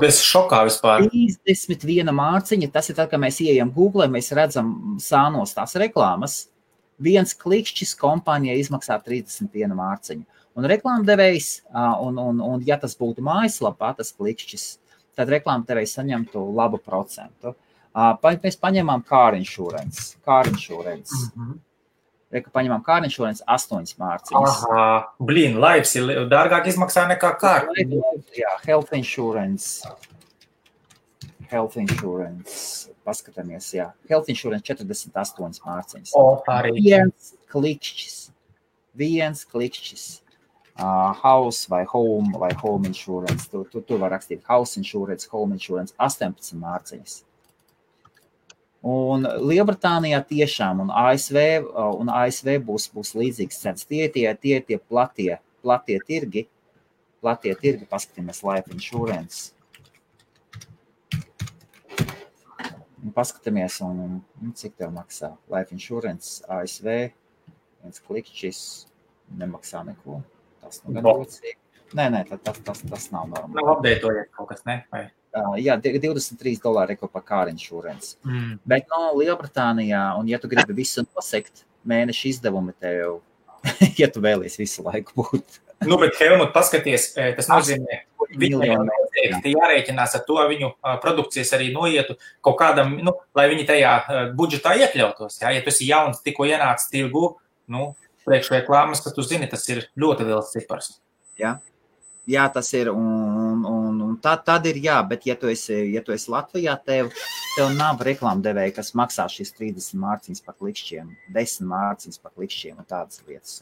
Es šokā vispār. 31 mārciņa, tas ir tad, kad mēs ieejam Google, mēs redzam sānos tās reklāmas. Viens klikšķis kompānijai izmaksā 31 mārciņu. Un reklāmdevējs, un ja tas būtu mājaslapā, tas klikšķis, tad reklāmdevējs saņemtu labu procentu. Mēs paņemam car insurance. Paņemam car insurance 8 mārciņas. Lives ir dārgāk izmaksā nekā car. Jā, health insurance. Paskatāmies, jā. Health insurance 48 mārciņas. Viens klikšķis. House vai home insurance. Tu var rakstīt house insurance, home insurance 18 mārciņas. Un Lielbritānijā tiešām un ASV būs līdzīgs cenas. Tie platie tirgi, paskatāmies life insurance. Paskatāmies, un cik tev maksā life insurance ASV, viens klikšķis nemaksā neko. Tas nu gan ļoti. Nē, tas nav normāli. Nav updētojies kaut kas, ne? Vai? Jā, $23 par car insurance. Bet Lielbritānijā, un ja tu gribi visu nosekt, mēneša izdevumi tev, ja tu vēlies visu laiku būt. Bet Helmut, paskaties, tas nozīmē, viņiem noteikti jārēķinās ar to, viņu produkcijas arī noietu kaut kādam, lai viņi tajā budžetā iekļautos. Ja tu esi jauns, tikko ienāc tirgu, priekšreklāmas, ka tu zini, tas ir ļoti liels cipars. Jā, tas ir, un tad ir jā, bet ja tu esi Latvijā, tev nav reklāmdevēja, kas maksā šīs 30 mārciņas par klikšķiem, 10 mārciņas par klikšķiem un tādas lietas.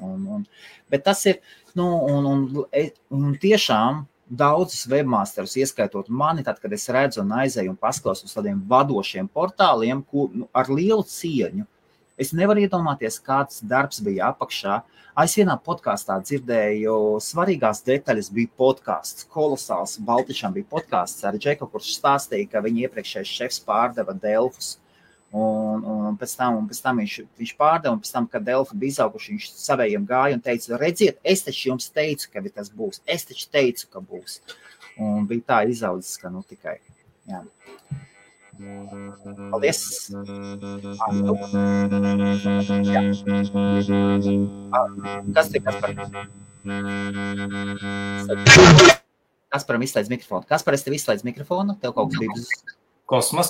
Bet tas ir, un tiešām daudzus webmasterus, ieskaitot mani, tad, kad es redzu un aizēju un paskausu uz tādiem vadošiem portāliem, ar lielu cieņu, Es nevaru iedomāties, kāds darbs bija apakšā. Es vienā podkāstā dzirdēju, svarīgās detaļas bija podkāsts, kolosāls. Baltišam bija podkāsts ar Džeku, kurš stāstīja, ka viņa iepriekšējais šefs pārdeva Delfus. Un pēc tam viņš pārdeva, un pēc tam, kad Delfi bija izauguši, viņš savējiem gāja un teica, redziet, es taču jums teicu, ka tas būs. Es taču teicu, ka būs. Un bija tā izaudzis, ka nu tikai. Jā. Paldies! Jā. Kas te, Kaspar? Kasparam izslēdz mikrofonu. Kaspar, es tev izslēdz mikrofonu? Tev kaut kas bija uz... Kosmos?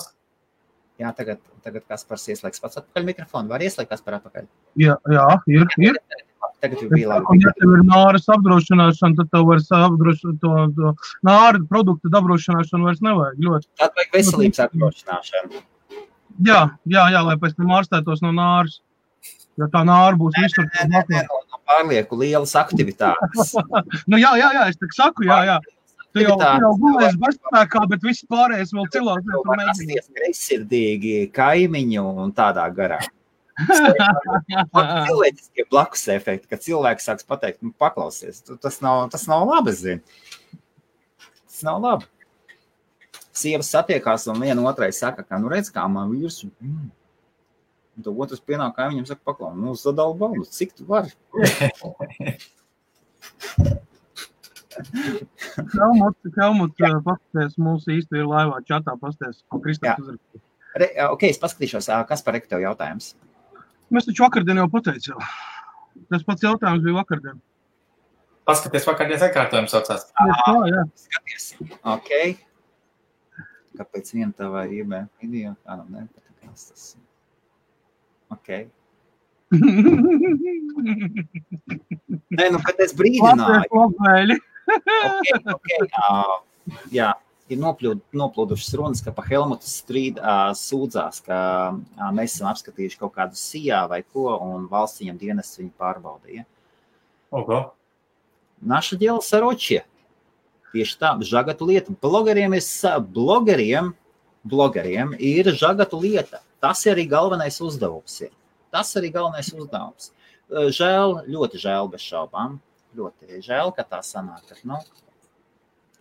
Jā, tagad Kaspars ieslēgs pats atpakaļ mikrofonu. Var ieslēgt Kaspar atpakaļ? Jā, ir. Tagad jau bija labi. Ja tev ir nāras apdrošināšana, tad tev vairs apdrošināt to nāra produktu apdrošināšanu vairs nevajag ļoti. Tad vajag veselības apdrošināšanu. Jā, lai pēc tam ārstētos no nāras. Ja tā nāra būs visur. Nē, no pārlieku lielas aktivitātes. Nu jā, es tak saku, jā. Tu jau gulēs bezspēkā, bet viss pārējais vēl cilvēks. Tu var rasties greizsirdīgi kaimiņu un tādā garā. Cilvēciskie blakus efekti, kad cilvēks sāks pateikt, nu, paklausies, tas nav labi, zini. Tas nav labi. Sievas satiekās un viena otrai saka, ka, nu redz, kā man vīrs, un to otrs pienāk kaimiņam saka, paklau, nu, sadala baldu, cik tu vari? Helmut, pasties, mūsu īsti ir laivā čatā, pasties, ko Kristaps uzrakstīja. Ok, es paskatīšos, kas par tev jautājums? Mēs taču vakardien jau pateicu. Tas pats jautājums bija vakardien. Paskaties, vakardienas atkārtojums saucās. Jā. Skaties, ok. Kāpēc viena tavā IB video? Kādam nepatikās tas? Ok. Nē, nu, bet es brīdināju. Ok. Jā. Ir noplūdušas runas, ka pa Helmutu sūdzās, ka mēs esam apskatījuši kaut kādu sijā vai ko, un valsts viņam dienests viņu pārbaudīja. Oho. Naša dēla saročie. Tieši tā, žagatu lieta. Blogeriem ir žagatu lieta. Tas ir arī galvenais uzdevums. Žēl, ļoti žēl bez šaubām. Ļoti žēl, ka tā sanāk.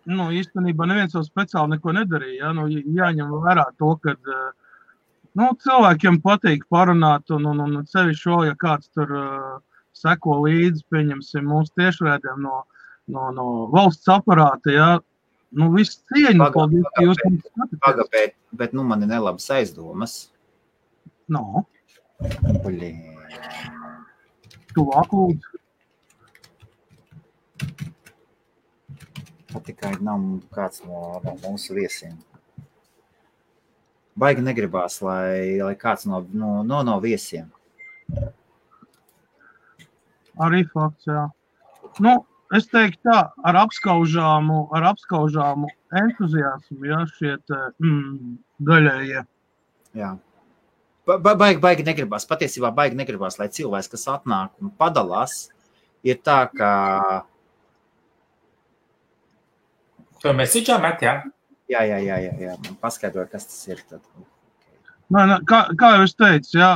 Nu, īstenībā neviens jau speciāli neko nedarīja. Nu, jāņem vērā to, ka cilvēkiem patīk parunāt un sevišķi vēl, ja kāds tur seko līdzi, pieņemsim mūsu tiešraidēm no valsts aparāta, jā. Nu, viss cieņa. Bet man ir nelabas aizdomas. No. Blin. Tuvāk lūdzu. Tikai nav kāds no mūsu viesiem. Baigi negribās, lai kāds no viesiem. Arī fakts, jā. Nu, es teiktu tā, ar apskaužāmu entuziasmu, jā, šiet daļējie. Jā. Baigi negribās, patiesībā baigi negribās, lai cilvēks, kas atnāk un padalās, ir tā, ka To mesīčā met, jā? Jā. Paskaidroju, kas tas ir tad. Kā jau es teicu, jā,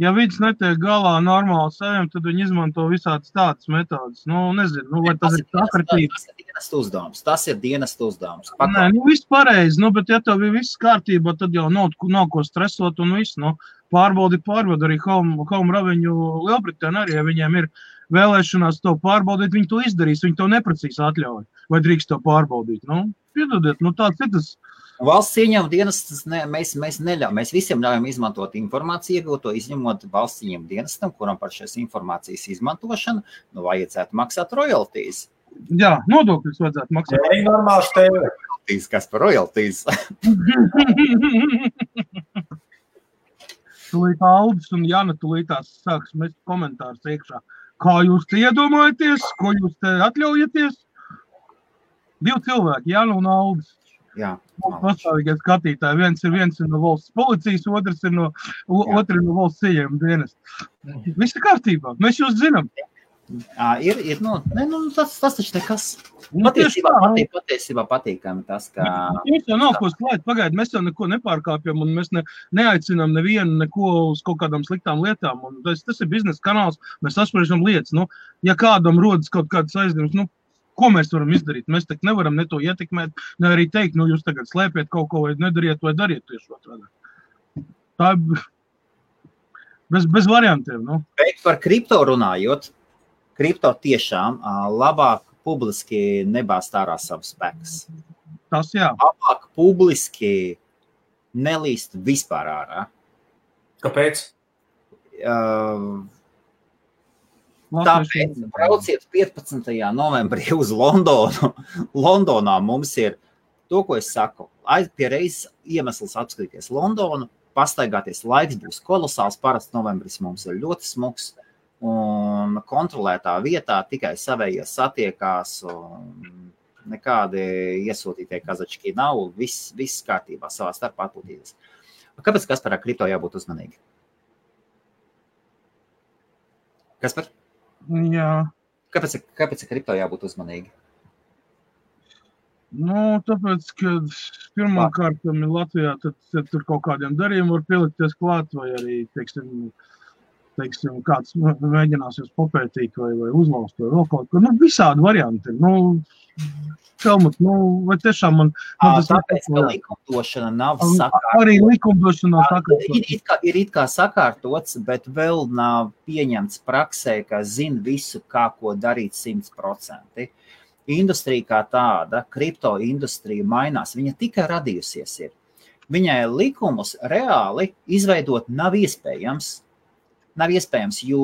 ja vids netiek galā normāli saviem, tad viņi izmanto visādas tādas metodas. Nezinu, vai tas ir sakritība. Tas ir dienestu uzdevums. Nē, viss pareizi, bet ja tev bija viss kārtībā, tad jau nav ko stresot un viss. Pārbaudi arī Home Revenue Lielbritānija arī, ja viņiem ir vēlēšanās to pārbaudīt, viņi to izdarīs, viņi to neprecīzi atļauj. Vai drīkst to pārbaudīt? Piedodiet, tāds ir tas. Valsts ieņēmuma dienestas mēs neļaujam. Mēs visiem ļaujam izmantot informāciju, iegūto izņemot valsts ieņēmuma dienestam, kuram par šīs informācijas izmantošanu vajadzētu maksāt royalties. Jā, nodokļus vajadzētu maksāt. Jā, normāls tev. Kas par royalties? Tūlīt Aldis un Jana tūlītās sāks mest komentārus iekšā. Kā jūs te iedomājaties? Ko jūs te atļaujaties? 2 cilvēki, Jana un Aldis. Jā. Pastāvīgie skatītāji. Viens ir no valsts policijas, otrs ir no valsts ieņēmuma dienesta. Viss ir kārtībā. Mēs jūs zinām. Tas taču nekas. Patiesībā patīkami tas, ka... Mums jau nav ko slēgt, pagaid, mēs jau neko nepārkāpjam un mēs neaicinām nevienu neko uz kaut kādām sliktām lietām. Un tas ir biznesa kanāls, mēs apspriežam lietas. Ja kādam rodas kaut kādas aizņemas, ko mēs varam izdarīt? Mēs tak nevaram ne to ietekmēt, ne arī teikt, jūs tagad slēpiet kaut ko vai nedariet vai dariet tieši otrādi. Tā bez variantiem. Bet par kripto runājot, kripto tiešām labāk publiski nebāzt ārā savus spēkus. Tas jā. Labāk publiski nelīst vispār ārā. Kāpēc? Tāpēc brauciet 15. novembrī uz Londonu. Londonā mums ir to, ko es saku. Pie reizes iemesls apskatīties Londonu, pastaigāties, laiks būs kolosāls, parasti novembris mums ir ļoti smuks. Un kontrolētā vietā tikai savējie satiekās un nekādi iesūtītie kazački nav, viss kārtībā savā starpā atpūtīties. Kāpēc Kasparā kripto jābūt uzmanīgi? Kaspar? Jā. Kāpēc kripto jābūt uzmanīgi? Tāpēc, ka pirmkārt Latvijā tad tur kaut kādiem darījumiem var pielikties klāt vai arī, teiksim, kāds mēģinās jūs popētīt vai uzlaust vai vēl kaut ko. Visādi varianti. Helmut, vai tiešām man... Tāpēc, ka likumdošana nav sakārtots. Arī likumdošana nav sakārtots. Ir it kā sakārtots, bet vēl nav pieņemts praksē, ka zina visu, kā ko darīt 100%. Industrija kā tāda, kripto industrija mainās. Viņa tikai radījusies ir. Viņai likumus reāli izveidot nav iespējams, jo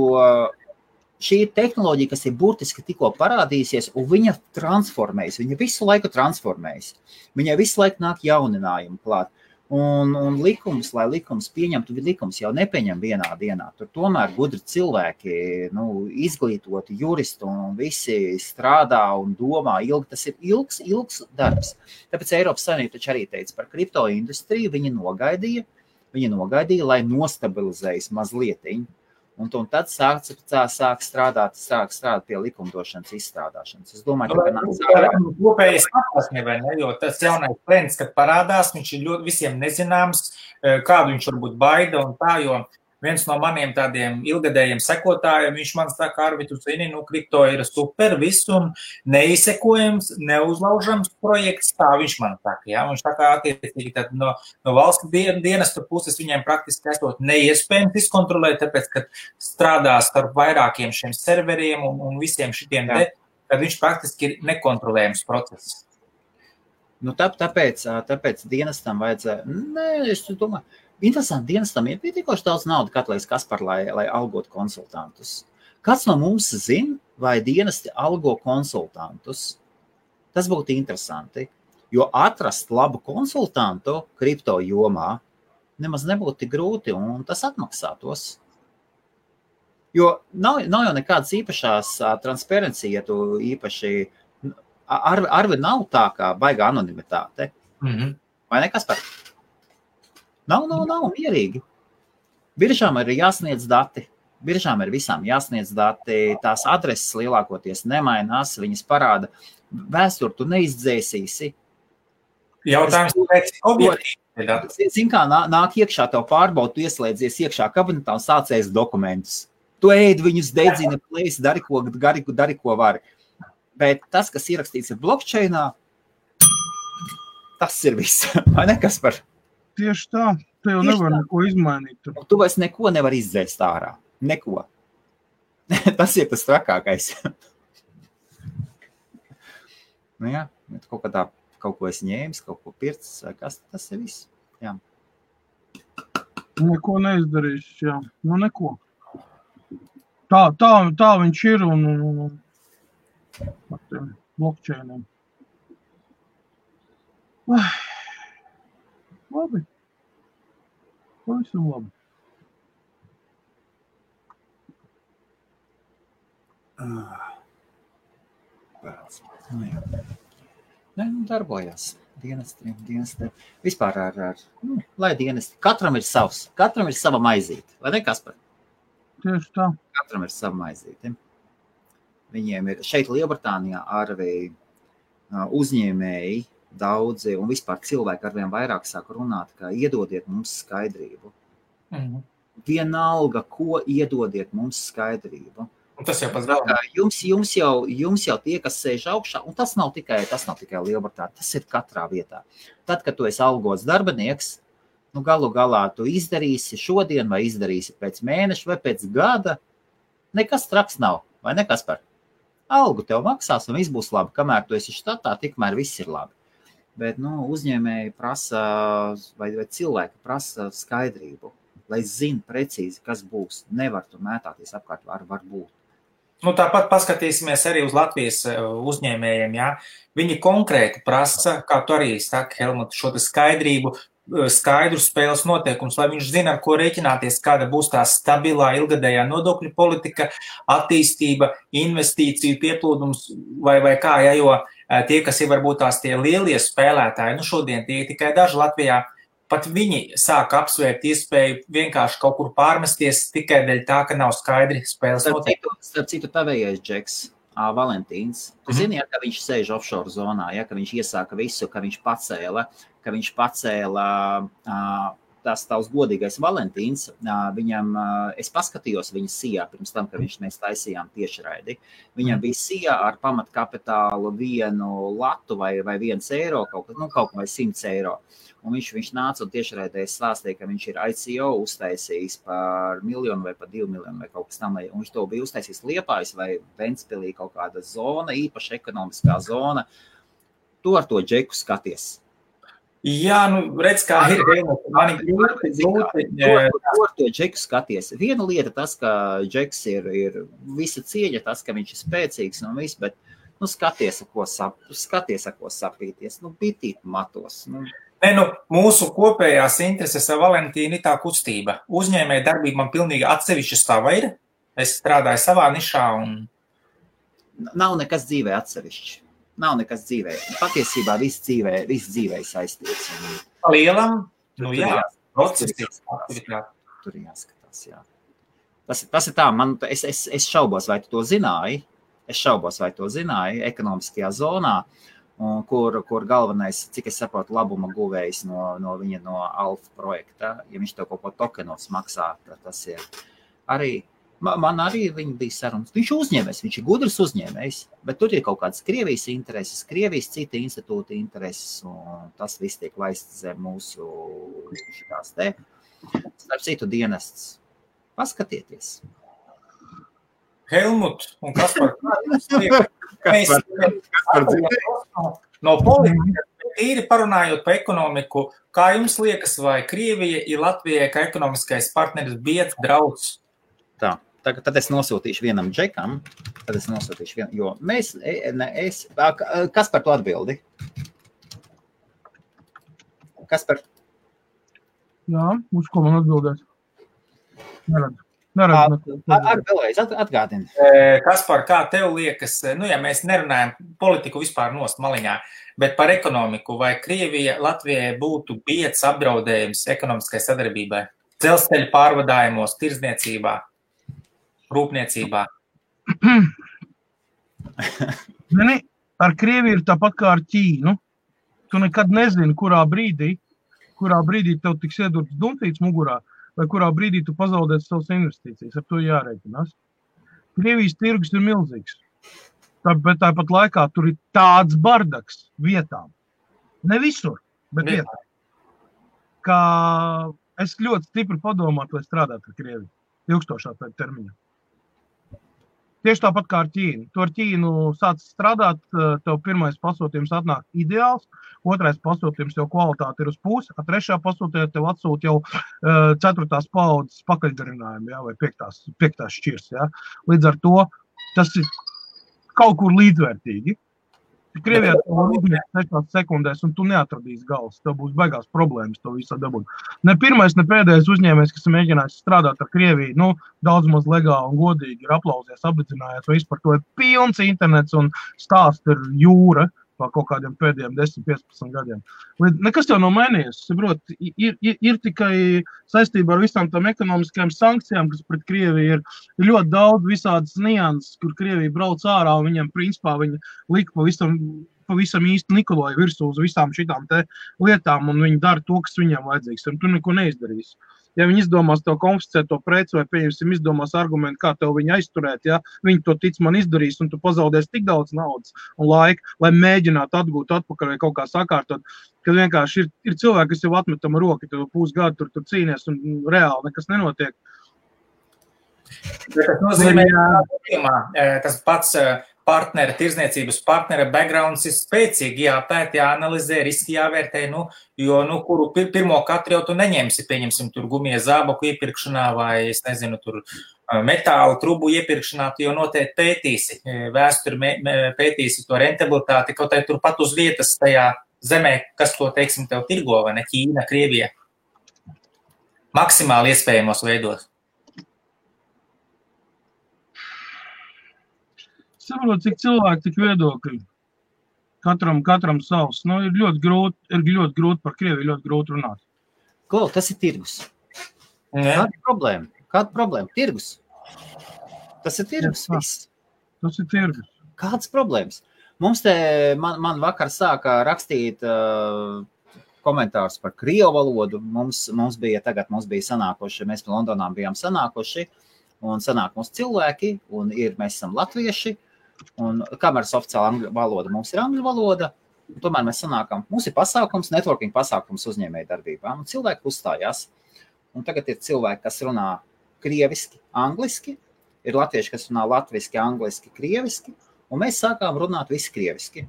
šī ir tehnoloģija, kas ir burtiski tikko parādījusies, un viņa transformējas, viņa visu laiku transformējas. Viņai visu laiku nāk jauninājumi klāt. Un lai likums pieņemtu, likums jau nepieņem vienā dienā. Tur tomēr gudri cilvēki, izglītoti juristi un visi strādā un domā ilgi. Tas ir ilgs darbs. Tāpēc Eiropas Savienība taču arī teica par kripto industriju, viņi nogaidīja, lai nostabilizējas mazlietiņi. Un tad sāk strādāt pie likumdošanas izstrādāšanas. Es domāju, ka kopējas atklāsmībai, jo tas jaunais trends, kad parādās, viņš ir ļoti visiem nezināms, kādu viņš varbūt baida un tā, jo viens no maniem tādiem ilgadējiem sekotājiem, viņš man saka, Arvi, tu zini, kripto ir super, viss un neizsekojams, neuzlaužams projekts, tā viņš man saka, jā, viņš tā kā attiecīgi tad no valsts dienestu puses viņiem praktiski esot neiespējams izkontrolēt, tāpēc, ka strādās ar vairākiem šiem serveriem un visiem šitiem kad viņš praktiski ir nekontrolējams process. Tāpēc dienestam vajadzēja, es domāju, interesanti, dienestam ir pietiekoši daudz naudu katlais Kaspar, lai algot konsultantus. Kāds no mums zina, vai dienesti algo konsultantus? Tas būtu interesanti, jo atrast labu konsultantu kripto jomā nemaz nebūtu tik grūti, un tas atmaksātos. Jo nav jau nekādas īpašās transparencija, ja tu īpaši... Arvi nav tā kā baigā anonimitāte. Vai ne, Kaspar? Nav mierīgi. Biržām ir jāsniedz dati. Biržām ir visām jāsniedz dati. Tās adreses lielākoties nemainās. Viņas parāda vēsturi, tu neizdzēsīsi. Jautājums pēc objektīvi. Zin kā, nāk iekšā tev pārbaud, tu ieslēdzies iekšā kabinetā un sācies dokumentus. Tu ēd viņus, dedzina, plēsi, dari ko vari. Bet tas, kas ierakstīts ir blockchainā, tas ir viss. Vai ne, Kaspar? Tieši tā. Te jau nevar neko izmainīt. Tu vairs neko nevar izdzēst ārā. Neko. Tas ir tas trakākais. Jā, kaut ko es ņēmis, kaut ko pircis, vai kas, tas ir viss. Jā. Neko neizdarīšu, jā. Neko. Tā viņš ir un ar tiem blockchainiem. Labi. Pavisam labi. Darbojās. Dienesti. Vispār lai dienesti. Katram ir savs. Katram ir sava maizīte. Vai ne, Kaspar? Tieši tā. Katram ir sava maizīte. Viņiem ir šeit Lielbritānijā arī uzņēmēji daudzi un vispār cilvēki arvien vairāk sāk runāt, ka iedodiet mums skaidrību. Vienalga, ko iedodiet mums skaidrību. Un tas jau pats galvenais. Jums jau tie, kas sēž augšā, un tas nav tikai Lielbritānija, tas ir katrā vietā. Tad, kad tu esi algots darbinieks, galu galā tu izdarīsi šodien vai izdarīsi pēc mēneša vai pēc gada, nekas traks nav, vai nekas par algu tev maksās un viss būs labi. Kamēr tu esi štatā, tikmēr viss ir labi. Bet uzņēmēji prasa, vai cilvēki prasa skaidrību, lai zina precīzi, kas būs. Nevar tu mētāties apkārt, var būt. Tāpat paskatīsimies arī uz Latvijas uzņēmējiem. Ja? Viņi konkrēti prasa, kā tu arī saki, Helmut, šo skaidrību, skaidru spēles noteikums, lai viņš zina, ar ko rēķināties, kāda būs tā stabilā, ilgadējā nodokļu politika, attīstība, investīciju pieplūdums vai kā, ja, jo tie, kas ir varbūt tās tie lielie spēlētāji, šodien tie tikai daži Latvijā, pat viņi sāk apsvērt iespēju vienkārši kaut kur pārmesties tikai dēļ tā, ka nav skaidri spēles noteikumi. Starp citu tavējais Džeks, Valentīns, tu zini, ja, ka viņš sēž offshore zonā, ja, ka viņš iesāka visu, ka viņš pacēla tas tavs godīgais Valentīns, viņam, es paskatījos viņa sijā pirms tam, ka mēs taisījām tiešraidi. Viņam bija sijā ar pamatkapitālu 1 latu vai 1 eiro, kaut vai 100 eiro. Un viņš nāca un tiešraidē stāstīja, ka viņš ir ICO uztaisījis par 1 miljonu vai par 2 miljonu vai kaut kas tam. Un viņš to bija uztaisījis Liepājs vai Ventspilī kaut kāda zona, īpaša ekonomiskā zona. Tu ar to Džeku skaties. Jā, redz, kā ir. Mani grūti. Tu ar to Džeku skaties. Viena lieta tas, ka Džeks ir visa cieņa, tas, ka viņš ir spēcīgs un viss, bet skaties, ar ko sapīties. Bitīt matos. Mūsu kopējās intereses ar Valentīnu ir tā kustība. Uzņēmēja darbība man pilnīgi atsevišķa sava ir. Es strādāju savā nišā un... Nav nekas dzīvē atsevišķi. Nav nekas dzīvē. Patiesībā viss dzīvē saistīts. Lielam? Jā. Tur jāskatās, jā. Tas ir tā, es šaubos, vai tu to zināji. Ekonomiskajā zonā, kur galvenais, cik es saprotu, labuma guvējs no Alfa projekta. Ja viņš tev kaut ko tokenos maksā, tas ir arī... Man arī viņi bija sarunas. Viņš uzņēmējs, viņš ir gudrs uzņēmējs, bet tur ir kaut kādas Krievijas intereses, Krievijas cita institūta intereses, un tas viss tiek laists zem mūsu šitās te. Starp citu dienests. Paskatieties. Helmut un Kaspar, no politikas tīri parunājot par ekonomiku, kā jums liekas, vai Krievija ir Latvijai kā ekonomiskais partneris biedrs, draugs? Tā. Tad es nosūtīšu vienam Džekam, jo kas par to atbildi? Kas par? Jā, uz ko man atbildēs? Neredzu. Vēlreiz atgādini. Kaspar, kā tev liekas, ja mēs nerunājam politiku vispār nost maliņā, bet par ekonomiku, vai Krievija Latvijai būtu biedrs apdraudējums ekonomiskai sadarbībai? Dzelzceļa pārvadājumos, tirdzniecībā? Rūpniecībā. Ar Krieviju ir tāpat kā ar Ķīnu. Tu nekad nezini, kurā brīdī tev tiks iedurts dumfīts mugurā, vai kurā brīdī tu pazaudēsi savas investīcijas. Ar to jārēķinās. Krievijas tirgus ir milzīgs. Bet tāpat laikā tur ir tāds bardaks vietām. Ne visur, bet vietām. Kā es ļoti stipri padomātu, lai strādātu ar Krieviju. Ilgstošā termiņā. Tieši tāpat kā ar Ķīnu. Tu ar Ķīnu sāc strādāt, tev pirmais pasūtījums atnāk ideāls, otrais pasūtījums jau kvalitāte ir uz pusi, a trešā pasūtījumā tev atsūt jau 4. paudzes pakaļgarinājumu, ja, vai 5. šķirs. Ja. Līdz ar to tas ir kaut kur līdzvērtīgi. Krievijā tev uzņēs 6 sekundēs, un tu neatradīsi galvas. Tev būs baigās problēmas to visā dabūt. Ne pirmais, ne pēdējais uzņēmējs, kas ir mēģinājis strādāt ar Krieviju, daudz maz legāli un godīgi ir aplausies, apdedzinājies, vai vispār to ir pilns internets un stāsts ir jūra. pa kaut kādiem pēdējiem 10-15 gadiem. Nekas jau nav mainījies. Saprot, ir tikai saistībā ar visām tām ekonomiskajām sankcijām, kas pret Krieviju ir ļoti daudz visādas nianses, kur Krievija brauc ārā un viņam principā viņa lika pavisam īsti Nikoloja virsū uz visām šitām te lietām un viņi dara to, kas viņam vajadzīgs. Un tu neko neizdarīs. Ja viņi izdomās tev konfiscēt to preci vai, pieņemsim, izdomās argumentu, kā tev viņu aizturēt, ja, viņi to tic man izdarīs un tu pazaudēsi tik daudz naudas un laika, lai mēģinātu atgūt atpakaļ vai kaut kā sakārtot, kad vienkārši ir cilvēki, kas jau atmetam roki, tu pusgadu tur cīnies un reāli nekas nenotiek. Tas nozīmē, tas pats partnera, tirzniecības partnera backgrounds ir spēcīgi, jāpēt, jāanalizē, riski jāvērtē, jo, kuru pirmo katru jau tu neņemsi, pieņemsim, tur gumija zābaku iepirkšanā vai, es nezinu, tur metālu trubu iepirkšanā, tu jau noteikti pētīsi, vēsturi pētīsi to rentabilitāti, kaut arī tur pat uz vietas tajā zemē, kas to, teiksim, tev tirgo, vai ne, Ķīna, Krievija, maksimāli iespējamos veidos. Saprot, cik cilvēki, tik viedokļi. Katram savs. Ir ļoti grūti par Krieviju, ļoti grūti runāt. Klau, tas ir tirgus. Kāda problēma? Tirgus. Tas ir tirgus, viss. Tas ir tirgus. Kādas problēmas? Mums man vakar sāka rakstīt komentārus par krievu valodu. Mums bija sanākoši, mēs Londonā bijām sanākoši, un sanāk mums cilvēki, un mēs esam latvieši, un kameras oficiāla angļu valoda mums ir angļu valoda, un tomēr mēs sanākam, mums ir pasākums, networking pasākums uzņēmēju darbībā, un cilvēki uzstājās, un tagad ir cilvēki, kas runā krieviski, angliski, ir latvieši, kas runā latviski, angliski, krieviski, un mēs sākām runāt visi krieviski.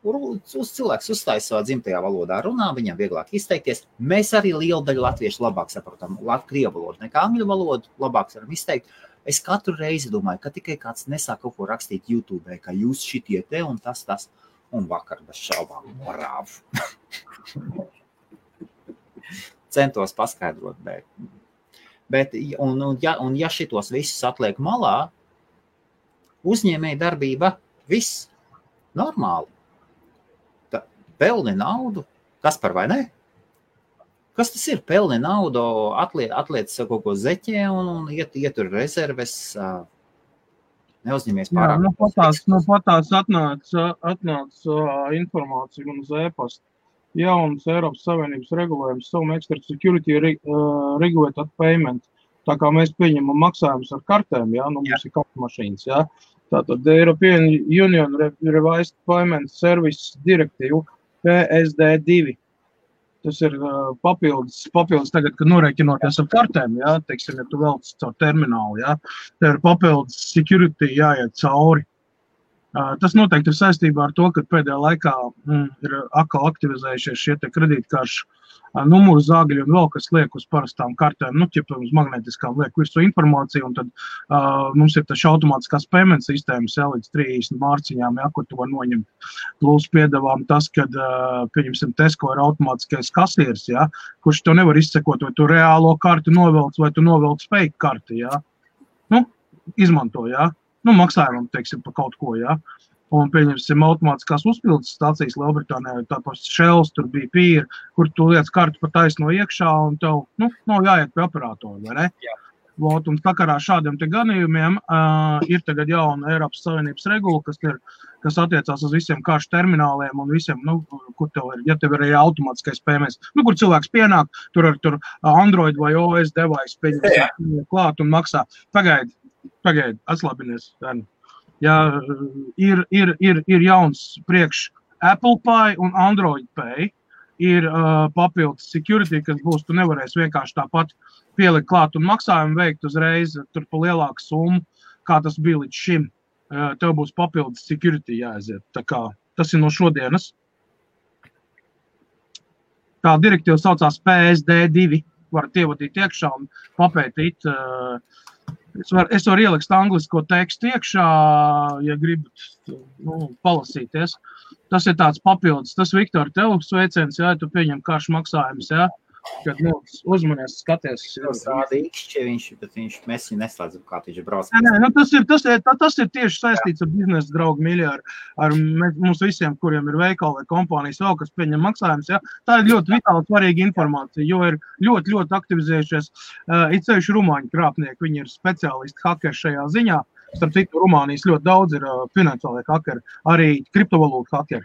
Cilvēks uzstājas savā dzimtajā valodā, runā, viņam vieglāk izteikties. Mēs arī lielu daļu latviešu labāk saprotam krievu valodu nekā angļu valodu, labāk varam izteikt. Es katru reizi domāju, ka tikai kāds nesāk kaut ko rakstīt YouTube, ka jūs šitie te un tas, un vakar bez šaubām brāvu. Centos paskaidrot, bet ja šitos visus atliek malā, uzņēmēja darbība, viss normāli. Pelni naudu, kas par vai ne? Kas tas ir? Pelni naudu, atliec kaut ko zeķē un ietur rezerves, neuzņemies pārāk. Jā, patās atnāca informācija un uz e-pasta. Jauns Eiropas Savienības regulējums, Some Extra Security Regulated Payment. Tā kā mēs pieņemam maksājumus ar kartēm, mums ir kartu mašīnas, Tātad European Union Revised Payment Service Directive PSD2. Tas ir papildus tagad, kad norēķinoties ar kartēm, teiksim, ja tu velc caur terminālu, tev ir papildus security jāiet cauri. Tas noteikti ir saistībā ar to, ka pēdējā laikā ir atkal aktivizējušies šie te kredītkaršu numuru zāgļi un vēl kas liek uz parastām kartēm, ķipa uz magnetiskām liek visu informāciju, un tad mums ir taču automātiskās payment sistēmas, līdz 30 mārciņām, kur tu var noņemt. Plus piedāvām tas, kad, pieņemsim, Tesco ir automātiskais kasieris, kurš tev nevar izsekot, vai tu reālo karti novelc, vai tu novelc fake karti, izmanto, maksājumam, teiksim, pa kaut ko, Un pieņemsim automātiskās uzpildes stācijas Lielbritānijā, tāpēc Shells, tur bija pīri, kur tu liec kartu pa taisno iekšā un tev, nav jāiet pie operatora, vai ne? Jā. Un sakarā šādiem te ganījumiem ir tagad jauna Eiropas Savienības regula, kas attiecās uz visiem karšu termināliem un visiem, kur tev ir, ja tev ir arī automātiskais PMS, kur cilvēks pienāk, tur Android vai OS device pieņems klāt un maksā. Pagaid, atslābinies, Ja ir jauns priekš Apple Pay un Android Pay, ir papildus security, kas būs, tu nevarēsi vienkārši tāpat pielikt klāt un maksājumu veikt uzreiz tur pa lielāku summu, kā tas bija līdz šim. Tev būs papildus security jāaiziet. Tā kā tas ir no šodienas. Tā direktīva saucās PSD2. Varat ievadīt iekšā un papētīt. Es varu ielikt anglisko tekstu iekšā, ja gribat palasīties. Tas ir tāds papildus. Tas, Viktor, tev sveiciens, tu pieņem karšu maksājumus, kad, uzmanies, skaties. Rāda ikšķi, bet mēs viņu neslēdzam, kā viņš brauc. Tas ir tieši saistīts ar biznesa draugu mīļi, ar mums visiem, kuriem ir veikali vai kompānijas vēl, kas pieņem maksājumus. Ja? Tā ir ļoti vitāli svarīga informācija, jo ir ļoti, ļoti aktivizējušies it sevišķi rumāņu krāpnieki. Viņi ir speciālisti hakeri šajā ziņā. Starp citu, Rumānijas ļoti daudz ir finansiālie hakeri, arī kriptovalūtu hakeri,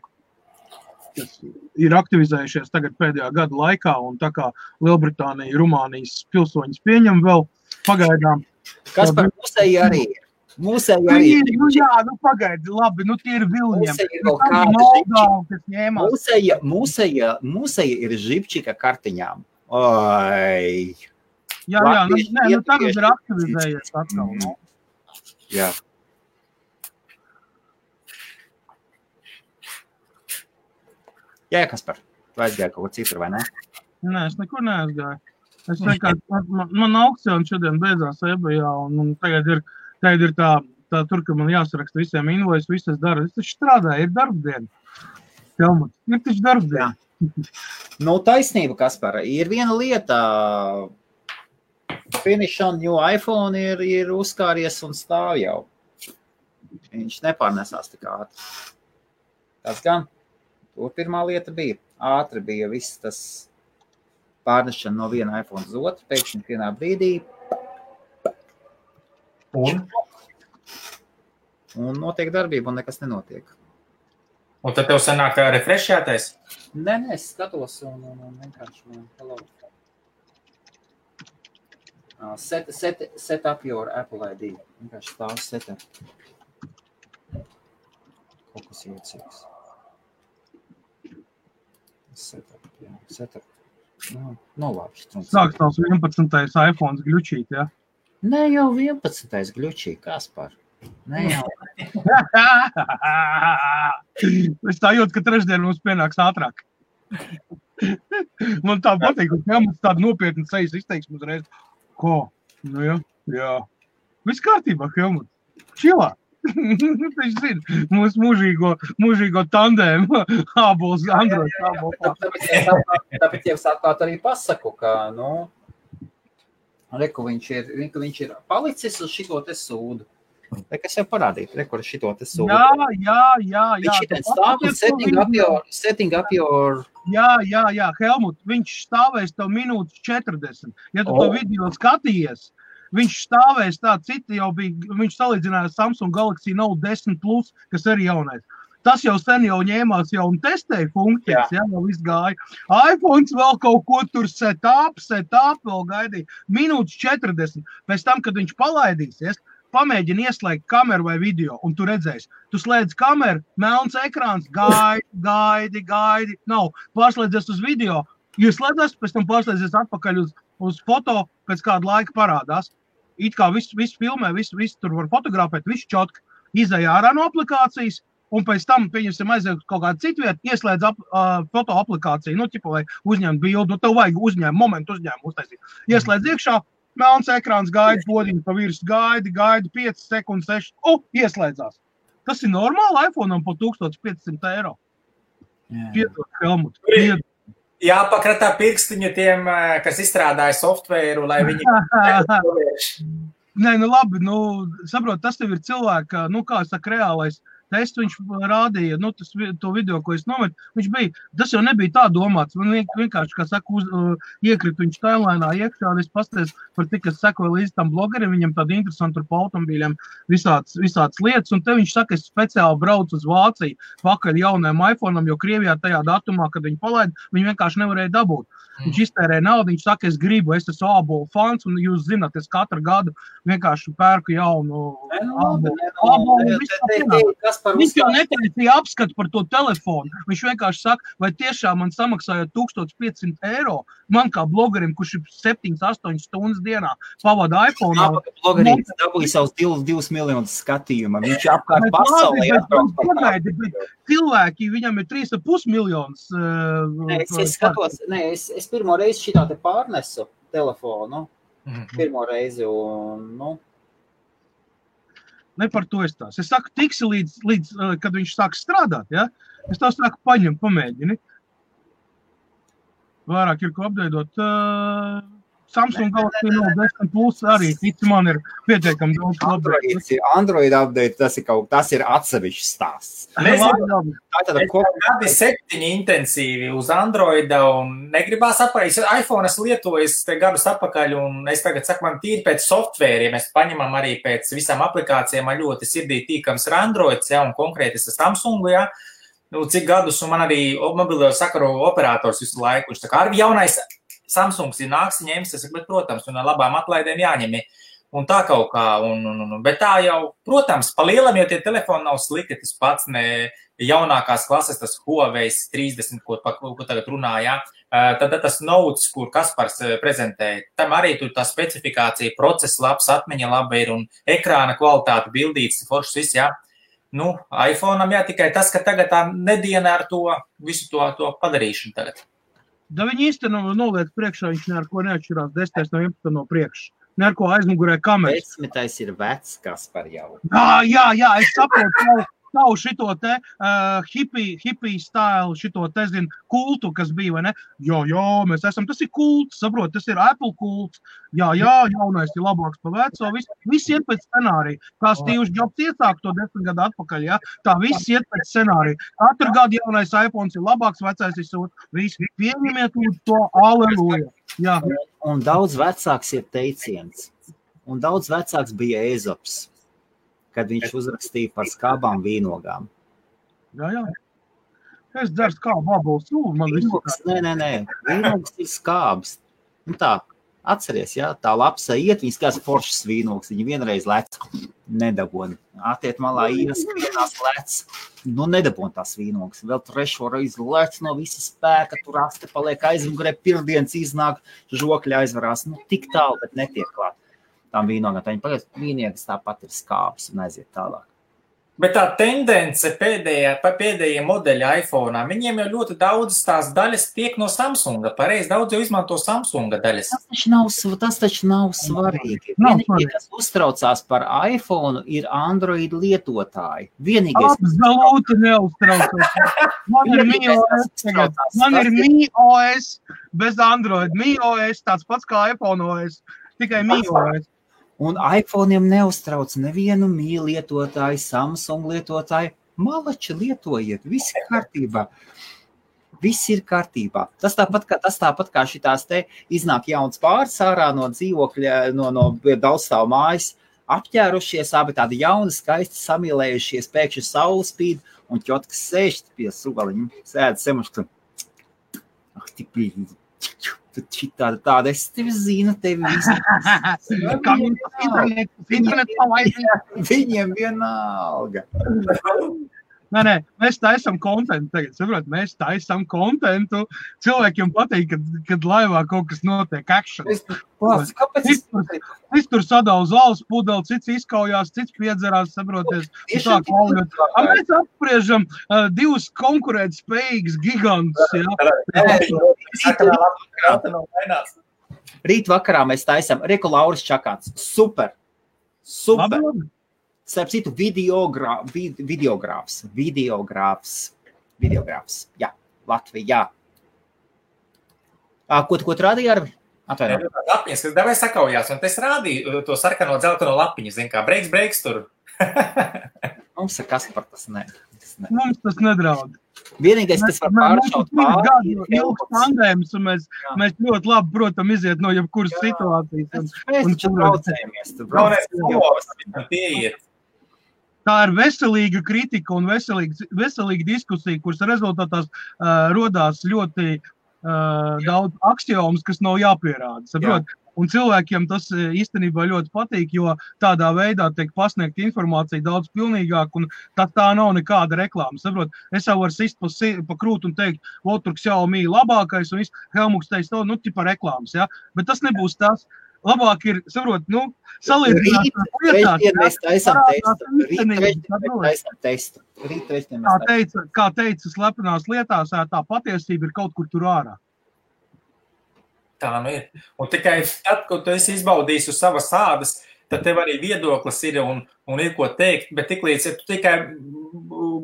kas ir aktivizējušies tagad pēdējā gada laikā, un tā kā Lielbritānija, Rumānijas pilsoņus pieņem vēl pagaidām. Kas par mūsēji arī ir? Mūsēji arī ir. Jā, pagaidi, labi, tie ir Vilņiem. Mūsēji ir žipčika kartiņām. Oi. Jā, tagad ir aktivizējies atkal, Jā. Jā, Kaspar, tu aizgāji kaut ko citur, vai ne? Nē, es nekur neaizgāju. Es vienkārši, man aukcioni šodien beidzās eBayā, un tagad ir tā tur, ka man jāsaraksta visiem invoice, viss es daru. Es taču strādāju, ir darbdiena. Helmut, ir taču darbdiena. Taisnība, Kaspar, ir viena lieta. Finish on new iPhone ir uzkāries un stāv jau. Viņš nepārnesās tik ātri. Tas gan. Tur pirmā lieta bija. Ātri bija viss tas pārnešana no viena iPhone uz otru. Pēkšņi vienā brīdī. Un notiek darbība un nekas nenotiek. Un tad tev sanāk refreshētais? Nē, es skatos un vienkārši hello. Set up your Apple ID. Vienkārši stāv set up. Kaut kas jūtīgs. Set up, jā. Set up. Labi. Sāks tavs 11. iPhones gļučīt, jā? Ne jau 11. gļučīt, Kaspar. Ne jau. Es tā jūtu, ka trešdien mums pienāks ātrāk. Man tā patīk, ka mums tāda nopietna sejas izteiksme uzreiz. Ko? Jā. Viss kārtībā, Helmut. Čilā. Viņš zina, mūsu mūžīgo tandēmu ābols, Android ābols. Tāpēc jau sākāt arī pasaku, ka, viņš ir palicis uz šito te sūdu. Kas jau parādīt, kur šito te sūdu. Jā. Viņš šitien stāv un setting up your... Jā, Helmut, viņš stāvēs tev minūtes 40. Ja tu to video skatījies, viņš stāvēs tā, citi jau bija, viņš salīdzināja Samsung Galaxy Note 10 Plus, kas arī jaunais. Tas jau sen jau ņēmās jau un testēja funkcijas, jau viss gāja. iPhones vēl kaut ko tur set up, vēl gaidīja. Minūtes 40. Pēc tam, kad viņš palaidīsies, pamēģini ieslēgt kameru vai video, un tu redzēsi. Tu slēdz kameru, melns ekrāns, gaidi. Nav, pārslēdzies uz video, ieslēdzies, pēc tam pārslēdzies atpakaļ uz foto, pēc kāda laika parādās. It kā viss filmē, viss tur var fotografēt, viss čotki, izēja ārā no aplikācijas, un pēc tam, pieņemsim, aiziet kaut kādu citu vietu, ieslēdz foto aplikāciju, vai uzņemt bildu, tev vajag momentu uzņēmumu uztaisīt. Ieslēdz iekšā, melns ekrāns gaida, podiņu pa virs gaida 5 sekundes, 6, ieslēdzās. Tas ir normāli iPhone'am po 1500 €. Piedod, Helmut, piedod. Jāpakratā pirkstiņu tiem, kas izstrādāja softvēru, lai viņi... Nē, labi, saprot, tas tev ir cilvēka, kā saka, reālais tests, viņš rādīja, to video, ko es nometu, tas jau nebija tā domāts, man vienkārši, kā saka, iekrit viņš timelinā iekšā, un es pasties par tik, kas sekoja līdz tam blogeriem, viņam tādi interesanti par automobīļiem visāds lietas, un te viņš saka, es speciāli braucu uz Vāciju pakaļ jaunajam iPhone'am, jo Krievijā tajā datumā, kad viņi palaida, viņi vienkārši nevarēja dabūt. Viņš iztērēja naudu, viņš saka, es esmu ābolu fans, un jūs zināt, es katru gadu vienkārši pērku jaunu ābolu. Viņš jau netaisīja apskatu par to telefonu. Viņš vienkārši saka, vai tiešām man samaksājot 1500 €, man kā blogerim, kurš ir 7-8 stundas dienā pavada iPhone. Blogerīts dabūja savus 2 miljonus skatījuma. Viņš apkārt pasaulē atbrauc. Cilvēki, viņam ir 3,5 miljonus. Es pirmo reizi šitā te pārnesu telefonu. Pirmo reizi un, Ne par to es tās. Es saku, tiksi līdz kad viņš sāk strādāt, ja? Es tā saku, paņem, pamēģini. vairāk ir ko apdaidot. Samsung Galaxy Note 10 Plus arī, man ir pietiekami daudz Android update, tas ir atsevišķs stāsts. Gadi 7 intensīvi uz Androida un negribās apakaļ. iPhone es lietoju te gadus apakaļ un es tagad saku, man tīri pēc softvēri, ja mēs paņemam arī pēc visām aplikācijām, man ļoti sirdī tīkams ir Androids, ja, un konkrēti es Samsungu, ja. Nu, cik gadus, un man arī mobilo sakaru operators visu laiku, viņš tā kā arī jaunais Samsungs ir nāks, ņems, es saku, bet, protams, un ar labām atlaidēm jāņem. Un tā kaut kā, bet tā jau, protams, pa lielam, jo tie telefoni nav slikti, tas pats ne jaunākās klases, tas Huawei 30, ko tagad runā, jā. Tad tas Notes, kur Kaspars prezentē, tam arī tur tā specifikācija, process labs, atmiņa laba ir un ekrāna kvalitāte, bildīts, foršs viss, jā. Nu, iPhone'am jā, tikai tas, ka tagad tā nediena ar to visu to padarīšanu tagad. Da viņi īstenībā noliec priekšā, viņš ne ar ko neatšķirās 10 no 11 no priekšu. Ne ar ko aizmugurē kameras. 10 ir vecs, kas par jau. Jā, es saprotu savu šito te hippie style, šito te, zinu, kultu, kas bija, vai ne? Jā, mēs esam, tas ir kults, saprot, tas ir Apple kults. Jā, jaunais ir labāks pa veco, viss iet pēc scenārija. Kā Steve's Jobs iesāk to 10 gadu atpakaļ, jā, tā viss iet pēc scenārija. Katru gadu jaunais iPhones ir labāks, vecais ir sūt, visi pieņemiet to, aleluja. Jā. Un daudz vecāks ir teiciens, un daudz vecāks bija Ezops, kad viņš uzrakstīja par skābām vīnogām. Jā. Es dzeru skābu vabalu sūlu, man visu. Nē. Vīnogs ir skābs. Un tā, atceries, jā, tā lapsa iet, viņas kāds foršs vīnogs, viņa vienreiz lec, nedaboni. Atiet malā ieskrienās lec, nedabon tās vīnogs. Vēl trešo reizi lec no visa spēka, tur aste paliek aizmugurē, pirmdienas iznāk, žokļi aizvarās. Tik tālu, bet netiek klāt. Tām vīnogām, tā viņi pagaies, vīniegas tāpat ir skābs un aiziet tālāk. Bet tā tendence pēdējie modeļi iPhone'ā, viņiem jau ļoti daudz tās daļas tiek no Samsunga. Pareizi, daudz jau izmanto Samsunga daļas. Tas taču nav svarīgi. Vienīgie, kas uztraucās par iPhone, ir Android lietotāji. Absolūti neuztraucās. Man ir MiOS bez Android. MiOS tāds pats kā iPhone OS, tikai MiOS. Un iPhone'iem neuztrauc nevienu Mi lietotāju, Samsung lietotāju. Malači lietojiet, viss ir kārtībā. Viss ir kārtībā. Tas tāpat kā šitās te iznāk jauns pāris ārā no dzīvokļa, no daudzstāvu mājas, apķērušies, abi tādi jauni, skaisti samīlējušies, pēkšņi saule spīd, un ķotkas sēž pie suvaliņa, sēd semuška. Tāda, es tevi zinu, tevi visi. Viņiem vienalga. Nē, mēs taisam kontentu tagad, saprot, mēs taisam kontentu. Cilvēkiem patīk, kad laivā kaut kas notiek action. Cits tur sadala zāles pudeli, cits izkaujās, cits piedzerās, saproties. Mēs apspriežam divus konkurēt spējīgus gigantus, Rīt vakarā mēs taisam Reku Lauris Čakāts. Super. Starp citu, videogrāfs. Jā, Latvijā. Ko tu rādīji, Arvi? Atvainot. Lapiņas, kas davai sakaujās, un es rādīju to sarkano dzelteno lapiņu, zin kā, breiks tur. Mums ir kas par tas ne. Mums tas nedraud. Vienīgais, kas var pāršaut pāri, ilgs tandēms, un mēs ļoti labi, protam, iziet no jebkuras situācijas. Mēs taču braucējamies. Tā ir veselīga kritika un veselīga diskusija, kuras rezultātās rodās ļoti daudz aksiomus, kas nav jāpierāda. Saprot? Un cilvēkiem tas īstenībā ļoti patīk, jo tādā veidā tiek pasniegta informācija daudz pilnīgāk, un tā nav nekāda reklāma. Saprot? Es jau varu sist pa krūtu un teikt, tur Xiaomi labākais, un Helmuks teiks, tipa reklāmas, ja? Bet tas nebūs tas. Labāk ir, saprot, salīdzināt testu. Kā teica slepenās lietās, tā patiesība ir kaut kur tur ārā. Tā ir. Un tikai tad, kad tu esi izbaudījis uz savas ādas, tad tev arī viedoklis ir un ir ko teikt, bet tiklīdz, ja tu tikai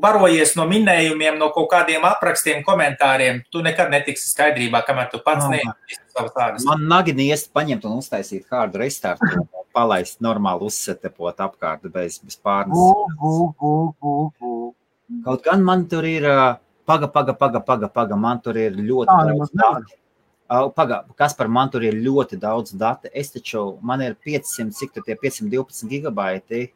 barojies no minējumiem, no kaut kādiem aprakstiem, komentāriem, tu nekad netiksi skaidrībā, kamēr tu pats neizdarīsi savas ādas. Man nagini iest paņemt un uztaisīt hard restartu un palaist normāli uzsetepot apkārt bez pārnes. Kaut gan man tur ir, paga, man tur ir ļoti daudz dati. Kaspar, man tur ir ļoti daudz dati. Es taču, man ir 500, cik tur tie 512 gigabaiti.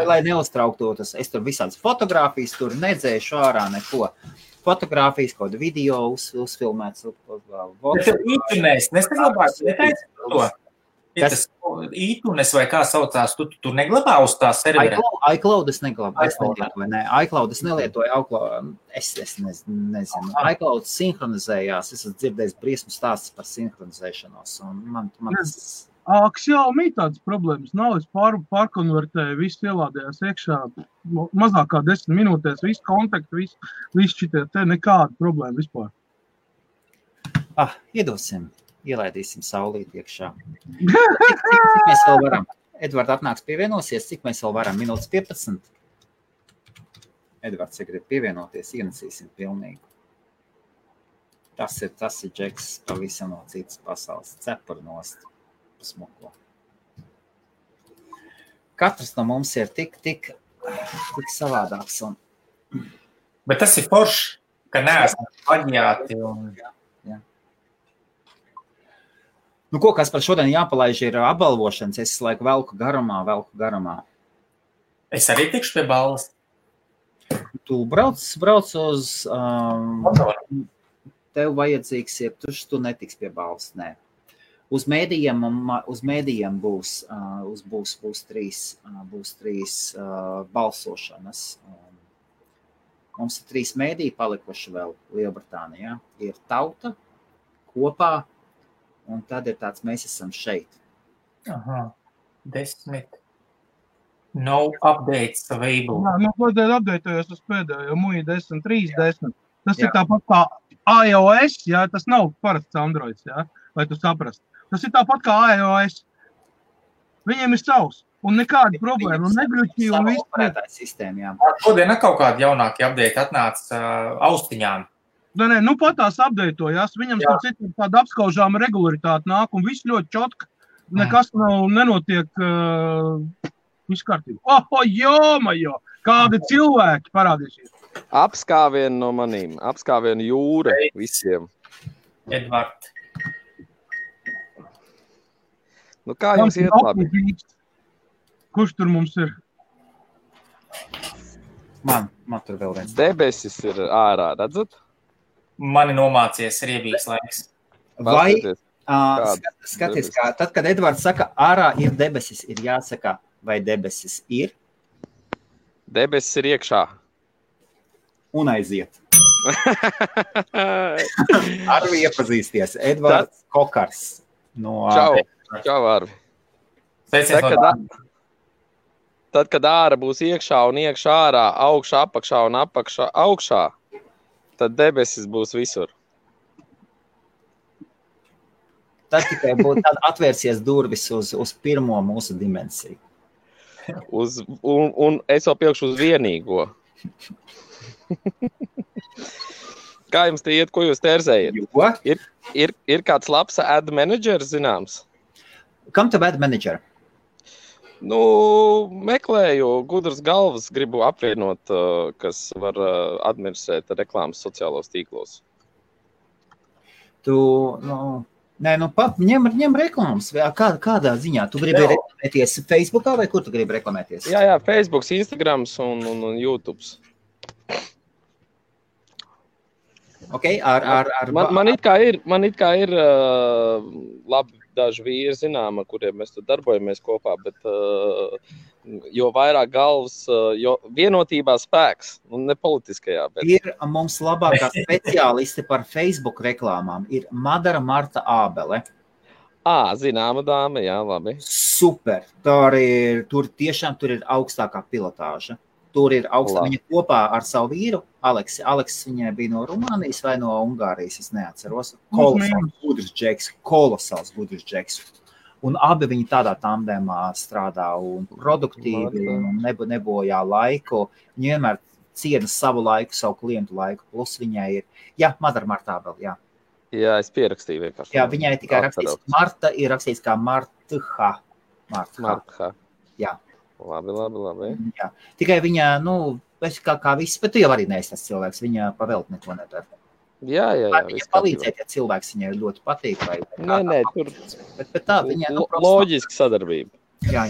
Lai neuztrauktos, es tur visādas fotogrāfijas tur nedzēšu ārā neko. Fotogrāfijas, kaut video uzfilmēts. Bet tev ītunēs, nesaglabāts, netaici to? Ir tas ītunes vai kā saucās, tu tur neglabā uz tā servera? iCloud es neglabāju, iCloud es nelietoju, es nezinu. iCloud sinhronizējās, es esmu dzirdējis briesmu stāstus par sinhronizēšanos, un man tas... Xiaomi tādas problēmas nav, es pārkonvertēju, viss ielādējās iekšā, mazāk kā 10 minūtēs, viss kontakti, viss šitie, te nekāda problēma vispār. Iedosim. Ielaidīsim saulīt iekšā. Cik mēs vēl varam? Edvards atnāks pievienosies, cik mēs vēl varam? Minūtes 15? Edvards, ja grib pievienoties, ienesīsim pilnīgi. Tas ir Džeks pavisam no citas pasaules. Cepur nost smuko. Katrs no mums ir tik savādāks. Bet tas ir forši, ka neesam paņāti un... Nu, ko, kas par šodien jāpalaiž, ir apbalvošanas. Es laiku velku garumā. Es arī tikšu pie balvas. Tu brauc uz... tev vajadzīgs ir, tu netiks pie balvas, nē. Uz mēdījiem būs trīs balsošanas. Mums ir 3 mēdīji palikuši vēl Lielbritānijā. Ir Tauta, Kopā, un tad ir tāds, mēs esam šeit. 10. No updates available. Kodēļ updateojos uz pēdējo, muja 10, 3, 10. Tas ir tāpat kā iOS, jā, tas nav parasts Androids, jā, vai tu saprast. Tas ir tāpat kā iOS. Viņiem ir savs, un nekāda problēma, un negļuķi, un viss. Operētājs sistēma, jā. Šodien kaut kādi jaunāki update atnāca austiņām. Nē, nu pat tās updateojās, viņam citu tāda apskaužāma regularitāte nāk, un viss ļoti čotka, nekas nenotiek viss kārtībā. Jomajo, kādi cilvēki parādīsies. Apskāvienu no manīm, apskāvienu jūra visiem. Edvard. Nu kā jums iet labi? Kurš tur mums ir? Man tur vēl viens. Debesis ir ārā, redzat? Mani nomācies riebīgs laiks. Vai, skaties, kā, tad, kad Edvards saka, ārā ir debesis, ir jāsaka, vai debesis ir? Debesis ir iekšā. Un aiziet. Arvi iepazīsties. Edvards Kokars. No Čau, Arvi. Tad, kad ārā būs iekšā un iekšā ārā, augšā, apakšā un apakšā, augšā, tad debesis būs visur. Tad tikai tad atvērsies durvis uz pirmo mūsu dimensiju. Un es vēl pielikšu uz vienīgo. Kā jums te iet, ko jūs terzējat? Ir kāds labs ad manager zināms? Kam tev ad manager? Nu, meklēju gudras galvas, gribu apvienot, kas var administrēt reklāmas sociālos tīklos. Ņem reklāmas. Kādā ziņā? Tu gribi reklamēties Facebookā vai kur tu gribi reklamēties? Jā, Facebooks, Instagrams un YouTubes. Okay, man it kā ir labi daži vīri zināma, kuriem mēs tur darbojamies kopā, bet jo vairāk galvas, jo vienotībā spēks, un ne politiskajā. Bet... Ir mums labākā speciāliste par Facebook reklāmām, ir Madara Marta Ābele. Zināma dāma, jā, labi. Super, tur tiešām ir augstākā pilotāža. Tur ir augstā, viņa kopā ar savu vīru, Aleksis. Aleksis viņai bija no Rumānijas vai no Ungārijas, es neatceros. Kolosāls gudrs džeks. Un abi viņi tādā tandemā strādā un produktīvi un nebojā laiku. Viņi vienmēr ciena savu laiku, savu klientu laiku, plus viņai ir, Madara Martābel, Jā, es pierakstīju vienkārši. Jā, viņai tikai rakstīts, Marta ir rakstīts kā Martha. Jā. Labi. Jā. Tikai viņa, kā viss, bet tu jau arī neesi tas cilvēks, viņa pavēlt neko nedara. Jā. Viņa palīdzēt, ja cilvēks viņai ļoti patīk. Nē, tur bet tā viņa... loģiska sadarbība. Jā.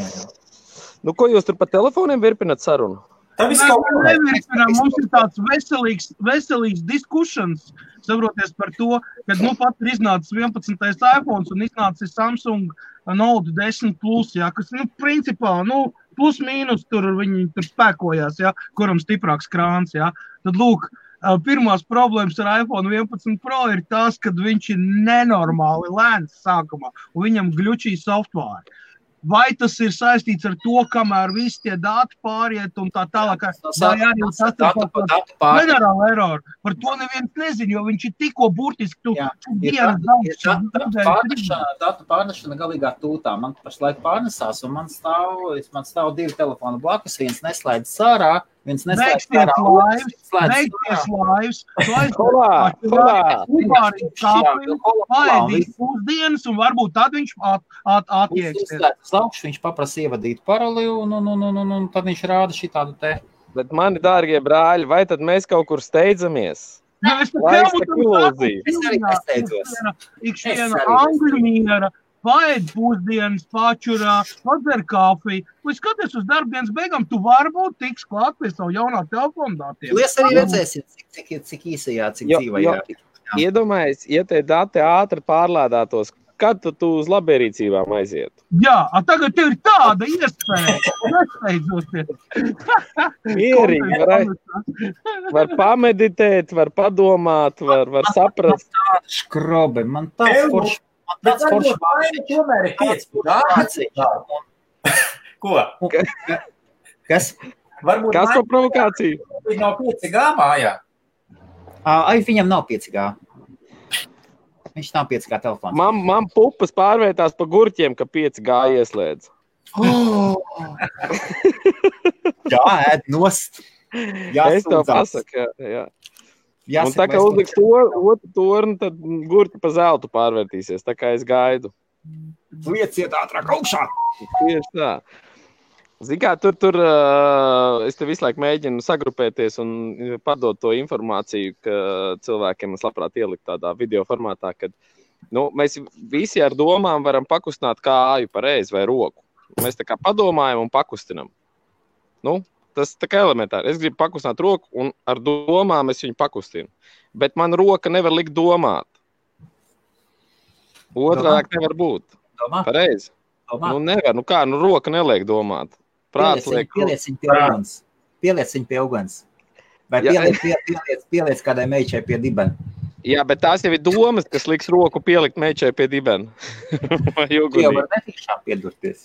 Ko jūs tur pa telefoniem virpinat sarunu? Mums ir tāds veselīgs diskussions, saproties par to, kad pat ir iznācis 11. iPhones un iznācis Samsung Note 10 Plus, kas, principā, plus mīnus viņi tur spēkojās, kuram stiprāks krāns, Tad, lūk, pirmās problēmas ar iPhone 11 Pro ir tās, kad viņš ir nenormāli lēns sākumā un viņam gļučī software. Vai tas ir saistīts ar to, kamēr visi tie dati pāriet un tā tālāk? Vai arī tas ir generāla error? Par to neviens nezin, jo viņš ir tikko burtiski datu pārnešana galīgā tūtā. Man pašlaik pārnesās un man stāv 2 telefoni blakus, viens neslēdz sārā, viens neslēdz sārā. Beigties laivs. Paēdīt pusdienas un varbūt tad viņš atieksies. Viņš paprasa ievadīt paroli un tad viņš rāda šitādu te. Bet mani dārgie brāļi, vai tad mēs kaut kur steidzamies? Es arī nesteidzos. Ikšiena angļu miera, paēd pusdienas, pačurā, padzer kafiju. Vai skaties uz darbdienas beigām, tu varbūt tiks klāt pie savu jaunā telefonu datiem. Jūs arī redzēsiet, cik īsajā, cik dzīvajā. Iedomājies, ja tie dati ātri pārlādātos, kad tu uz labierīcībām aizietu? Jā, tagad tev ir tāda iespēja. Nesteidzoties. Mierīgi, var pameditēt, var padomāt, var saprast. Man tāda škrobe, man tāds foršs. Tomēr ir 5G. Ko? Kas? Kas par provokāciju? Viņa nav 5G mājā. Viņam nav 5G. Viņš nav 5G telefons. Man pupas pārvērtās pa gurķiem, ka 5G ieslēdz. Jā, ēd nost. Es to pasaku, jā. Un tā kā uzliks otru torni, tad gurķi pa zeltu pārvērtīsies. Tā kā es gaidu. Lieciet ātrāk augšā. Tieši tā. Zini kā, tur es te visu laiku mēģinu sagrupēties un padot to informāciju, ka cilvēkiem es labprāt ielikt tādā video formātā, kad mēs visi ar domām varam pakustināt kāju pareizi vai roku. Mēs tā kā padomājam un pakustinam. Tas tā kā elementāri. Es gribu pakustināt roku un ar domām es viņu pakustinu. Bet man roka nevar likt domāt. Otrādāk nevar būt. Pareizi. Nevar. Kā? Roka neliek domāt. Pieliec viņu pie uguns. Vai pieliec kādai meičai pie dibena. Jā, bet tās jau ir domas, kas liks roku pielikt meičai pie dibena. Vai ugunī. Jau var netīšām piedurties.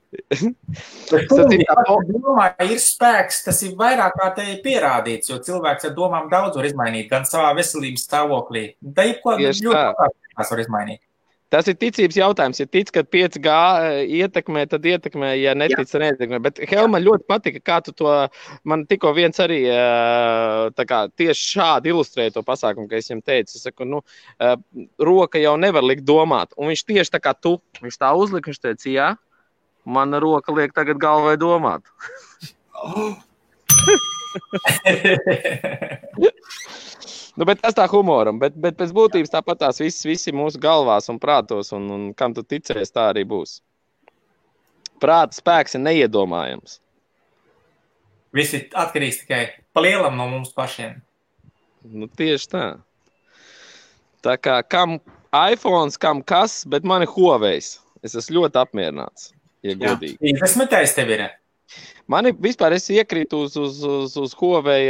Ir spēks, tas ir vairāk kā te ir pierādīts, jo cilvēks ar domām daudz var izmainīt, gan savā veselības stāvoklī. Tā ir ko ļoti var izmainīt. Tas ir ticības jautājums. Ja tic, ka 5G ietekmē, tad ietekmē, ja netic, tad neietekmē. Bet Helma ļoti patika, kā tu to, man tikko viens arī tieši šādi ilustrēja to pasākumu, ka es viņam teicu. Es saku, roka jau nevar likt domāt. Un viņš tieši tā kā tu, viņš tā uzlika, viņš teica, jā, mana roka liek tagad galvai domāt. Bet tas tā humoram, bet pēc būtības tāpat tās visi mūsu galvās un prātos, un kam tu ticēs, tā arī būs. Prāta spēks ir neiedomājams. Viss ir atkarīgs tikai pa lielam no mums pašiem. Tieši tā. Tā kā kam iPhones, kam kas, bet man ir Huawei's. Es esmu ļoti apmierināts, ja godīgi. 50 tev ir. Mani vispār es iekrītu uz Huawei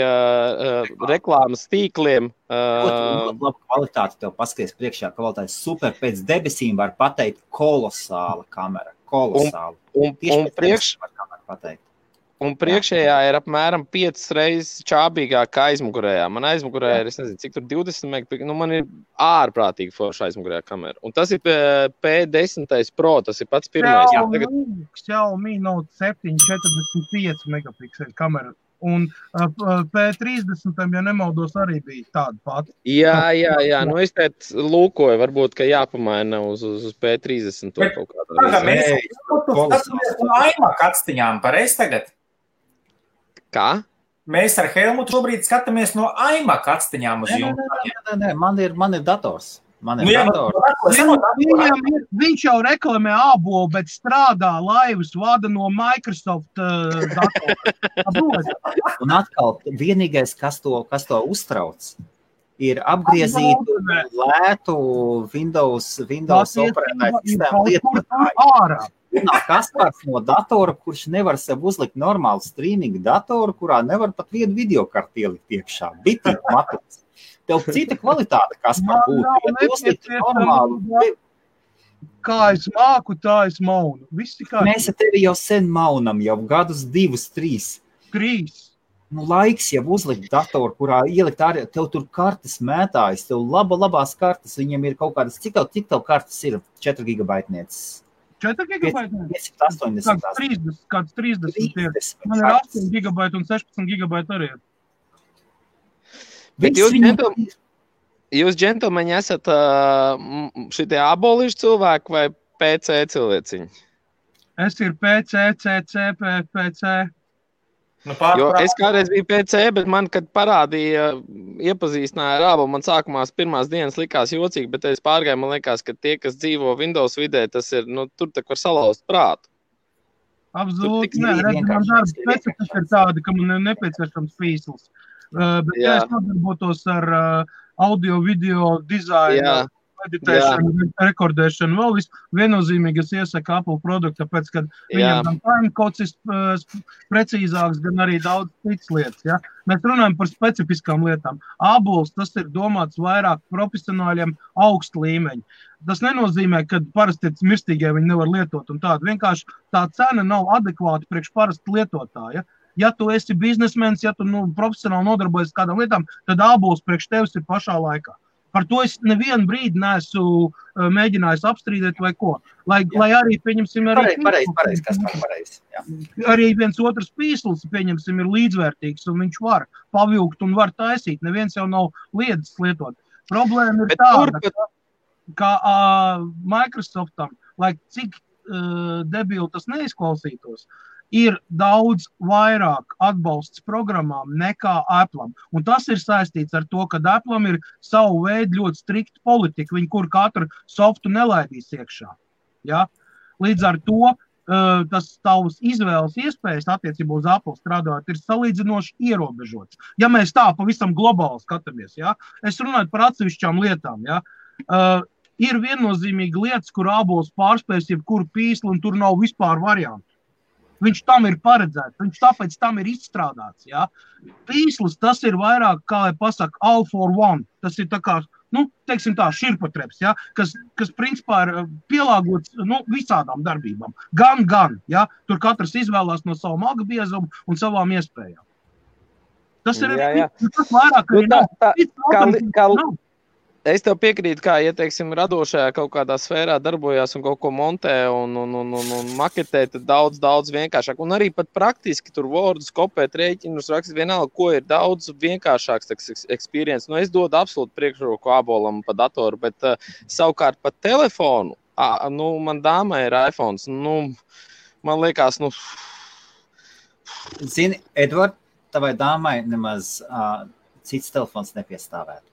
reklāmas tīkliem. Labu kvalitāti tev paskaties priekšā, kvalitāte super pēc debesīm var pateikt kolosāla kamera. Kolosāla. Un Un priekšējā ir apmēram 5 reizes čābīgāk kā aizmugurējā. Man aizmugurējā ir, es nezinu, cik tur 20 megapikseli. Nu, man ir ārprātīgi forša aizmugurējā kamera. Un tas ir P10 Pro, tas ir pats pirmais. Xiaomi Note 7 45 megapikseli kamera. Un P30, ja nemaldos, arī bija tāda pati. Jā. Nu, es teicu, lūkoju, varbūt, ka jāpamaina uz P30 to kaut kādā reizē. Mēs no iMac atstiņām, pareizi tagad? Kā? Mēs ar Helmutu šobrīd skatāmies no iMac atstiņām uz jums. Nē, man ir dators. Viņš jau reklamē ābolu, bet strādā laivas vada no Microsoft datora. Un atkal, vienīgais, kas to uztrauc, ir apgriezītu lētu Windows operētāju sistēmu lietotāju. Kaspars no datora, kurš nevar sev uzlikt normālu streamingu datoru, kurā nevar pat vienu videokarti ielikt iekšā. Bitīgi matots. Tev cita kvalitāte, Kaspar, būtu. Ja tu uzliktu normālu. Kā es māku, tā es maunu. Mēs ar tevi jau sen maunam, jau gadus 2, 3. 3. Nu, laiks jau uzlikt datoru, kurā ielikt arī, tev tur kartes mētājas, tev labās kartes, viņiem ir kaut kādas, cik tev kartes ir 4 gigabaitnieces? 4 gigabaiti? 580. Kāds 30. Man ir 8 gigabaiti un 16 gigabaiti arī. Bet jūs, džentlmeņi, esat šitie abolīšu cilvēki vai PC cilvēciņi? Es ir PC, CC, PC. Jo es kādreiz biju PC, bet man, kad parādīja, iepazīstināja ar ābolu, man sākumā pirmās dienas likās jocīgi, bet es pārgāju, man liekas, ka tie, kas dzīvo Windows vidē, tas ir, tur tak var salauzt prātu. Absolūti, nē, redz, man darba specifika ir tāda, ka man ir nepieciešams pīsls. Bet ja es nodarbotos ar audio, video, dizainu, editēšanu, rekordēšanu, vēl viennozīmīgi es iesaku Apple produktu, tāpēc, ka viņam gan timecodes ir precīzāks, gan arī daudz citas lietas. Ja? Mēs runājam par specifiskām lietām. Abols, tas ir domāts vairāk profesionāļiem augstu līmeņu. Tas nenozīmē, ka parasti mirstīgie viņi nevar lietot un tādu. Vienkārši tā cena nav adekvāta priekš parasti lietotāja. Ja tu esi biznesmens, ja tu profesionāli nodarbojies kādām lietām, tad abols priekš tevis ir pašā laikā. Par to es nevienu brīdi neesmu mēģinājis apstrīdēt vai ko. Lai arī, pieņemsim, arī viens otrs pīsls, pieņemsim, ir līdzvērtīgs un viņš var pavilkt un var taisīt. Neviens jau nav liedzis lietot. Problēma ir tāda, ka Microsoftam, lai cik debili tas neizklausītos, ir daudz vairāk atbalsts programmām nekā Apple'am. Un tas ir saistīts ar to, ka Apple'am ir savu veidu ļoti strikta politika, viņi kur katru softu nelaidīs iekšā. Ja? Līdz ar to tas tavs izvēles iespējas attiecībā uz Apple strādājot ir salīdzinoši ierobežots. Ja mēs tā pavisam globāli skatāmies, ja? Es runāju par atsevišķām lietām. Ja? Ir viennozīmīgi lietas, kur abols pārspējas jebkuru pīslu un tur nav vispār variantu. Viņš tam ir paredzēts, viņš tāpēc tam ir izstrādāts. Ja? Pīslis, tas ir vairāk, kā lai pasaka, all for one. Tas ir tā kā, teiksim tā, širpatreps, ja? kas principā ir pielāgots visādām darbībām. Gan, ja? Tur katrs izvēlās no savu magu biezumu un savām iespējām. Tas ir tas vairāk, arī nav. Es tev piekrītu, kā, ja, teiksim, radošajā kaut kādā sfērā darbojās un kaut ko montē un maketē, tad daudz vienkāršāk. Un arī pat praktiski tur Wordus, kopēt, rēķinus, rakstīt vienalga, ko ir daudz vienkāršāks experience. Es dodu absolūti priekšroku abolam pa datoru, bet savukārt pa telefonu, man dāmai ir iPhones, man liekas, Zini, Edvard, tavai dāmai nemaz cits telefons nepiestāvētu.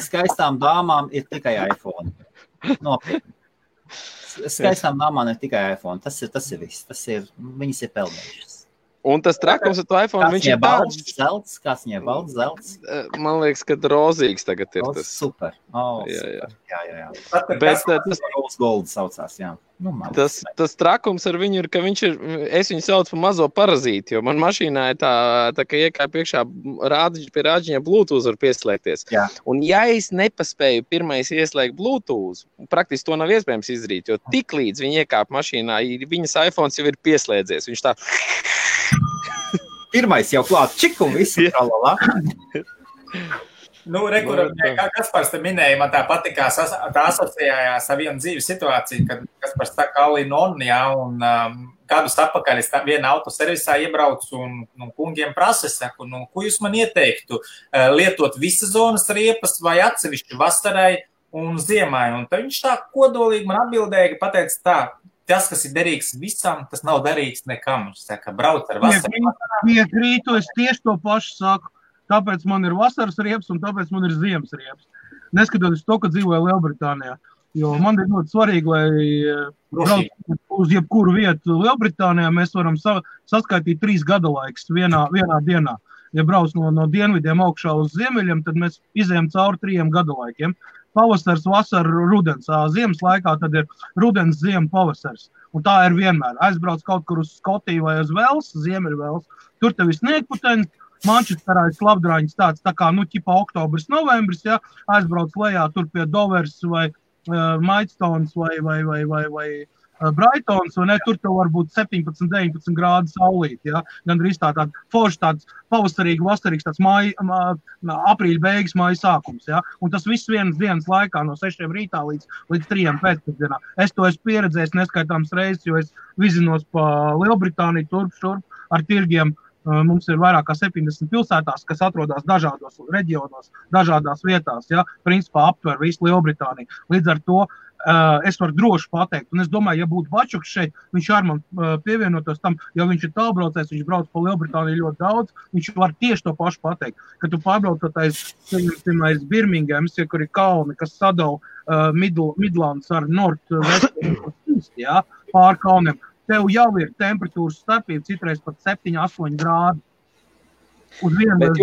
Skaistām dāmām ir tikai iPhone. Nopietni. Skaistām dāmām ir tikai iPhone. Tas ir viss. Viņas ir pelnījušas. Un tas trakums ar to iPhone, viņš ir tāds. Kāds viņai balts zelts? Man liekas, ka rozīgs tagad ir tas. Super. Jā. Bet tas Rose Gold saucās, jā. Nu, tas trakums ar viņu ir, ka viņš ir, es viņu saucu par mazo parazīti, jo man mašīnā ir tā ka iekāp priekšā pie rāģiņa Bluetooth var pieslēgties. Jā. Un ja es nepaspēju pirmais ieslēgt Bluetooth, praktiski to nav iespējams izdarīt, jo tik līdz viņi iekāp mašīnā, viņas iPhones jau ir pieslēdzies. Viņš tā... Pirmais jau klāt čiku un visu tralalā. Nu, kā Kaspars te minēja, man tā patikā, tā asociējās ar vienu dzīves situāciju, kad Kaspars tā kā Alinon, jā, un gadus atpakaļ es vienu autoservisā iebraucu un kungiem prasa, saku, ko jūs man ieteiktu, lietot visas zonas riepas vai atsevišķi vasarai un ziemai, un tad viņš tā kodolīgi man atbildēja, pateica tā, tas, kas ir derīgs visam, tas nav derīgs nekam. Viņš saka, brauc ar vasaru. Piekrītu, es tieši to pašu saku. Tāpēc man ir vasaras riepas un tāpēc man ir ziemas riepas. Neskatoties to, ka dzīvoju Lielbritānijā. Jo man ir ļoti svarīgi, lai brauc uz jebkuru vietu Lielbritānijā, mēs varam saskaitīt 3 gada laiks vienā dienā. Ja brauc no dienvidiem augšā uz ziemeļiem, tad mēs izējam cauri 3 gada laikiem. Pavasars, vasara, rudens. Ziemas laikā tad ir rudens, ziema, pavasars. Un tā ir vienmēr. Aizbrauc kaut kur uz Skotiju vai uz Vels, Ziemeļvels. Tur tev ir sniegputeņi, Mančesterā ir slapdrāņas tāds, tā kā, ķipa oktobris, novembris, ja, aizbrauc lejā tur pie Dovers vai Maidstones vai Brightons, vai ne, tur tev var būt 17-19 grādu saulīt, ja, gandrīz tāda forši tāds pavasarīgi, vasarīgs tāds aprīļa beigas, māja sākums, ja, un tas viss vienas dienas laikā no 6 rītā līdz 3 pēcpusdienā. Es to esmu pieredzējis neskaitāms reizes, jo es vizinos pa Lielbritāniju turp ar tirgiem. Mums ir vairāk kā 70 pilsētās, kas atrodas dažādos reģionos, dažādās vietās, ja, principā aptver visu Lielbritāniju. Līdz ar to es varu droši pateikt, un es domāju, ja būtu Bačuks šeit, viņš ar man pievienotos tam, ja viņš ir tālbraucējs, viņš brauc pa Lielbritāniju ļoti daudz, viņš var tieši to pašu pateikt, ka tu pārbraucotais Birminghams, ja, kur ir kalni, kas sadala Midlands ar North-West, ja, pār kalniem. Tev jau ir temperatūras starpība, citreiz pat 7-8 grādi. Bet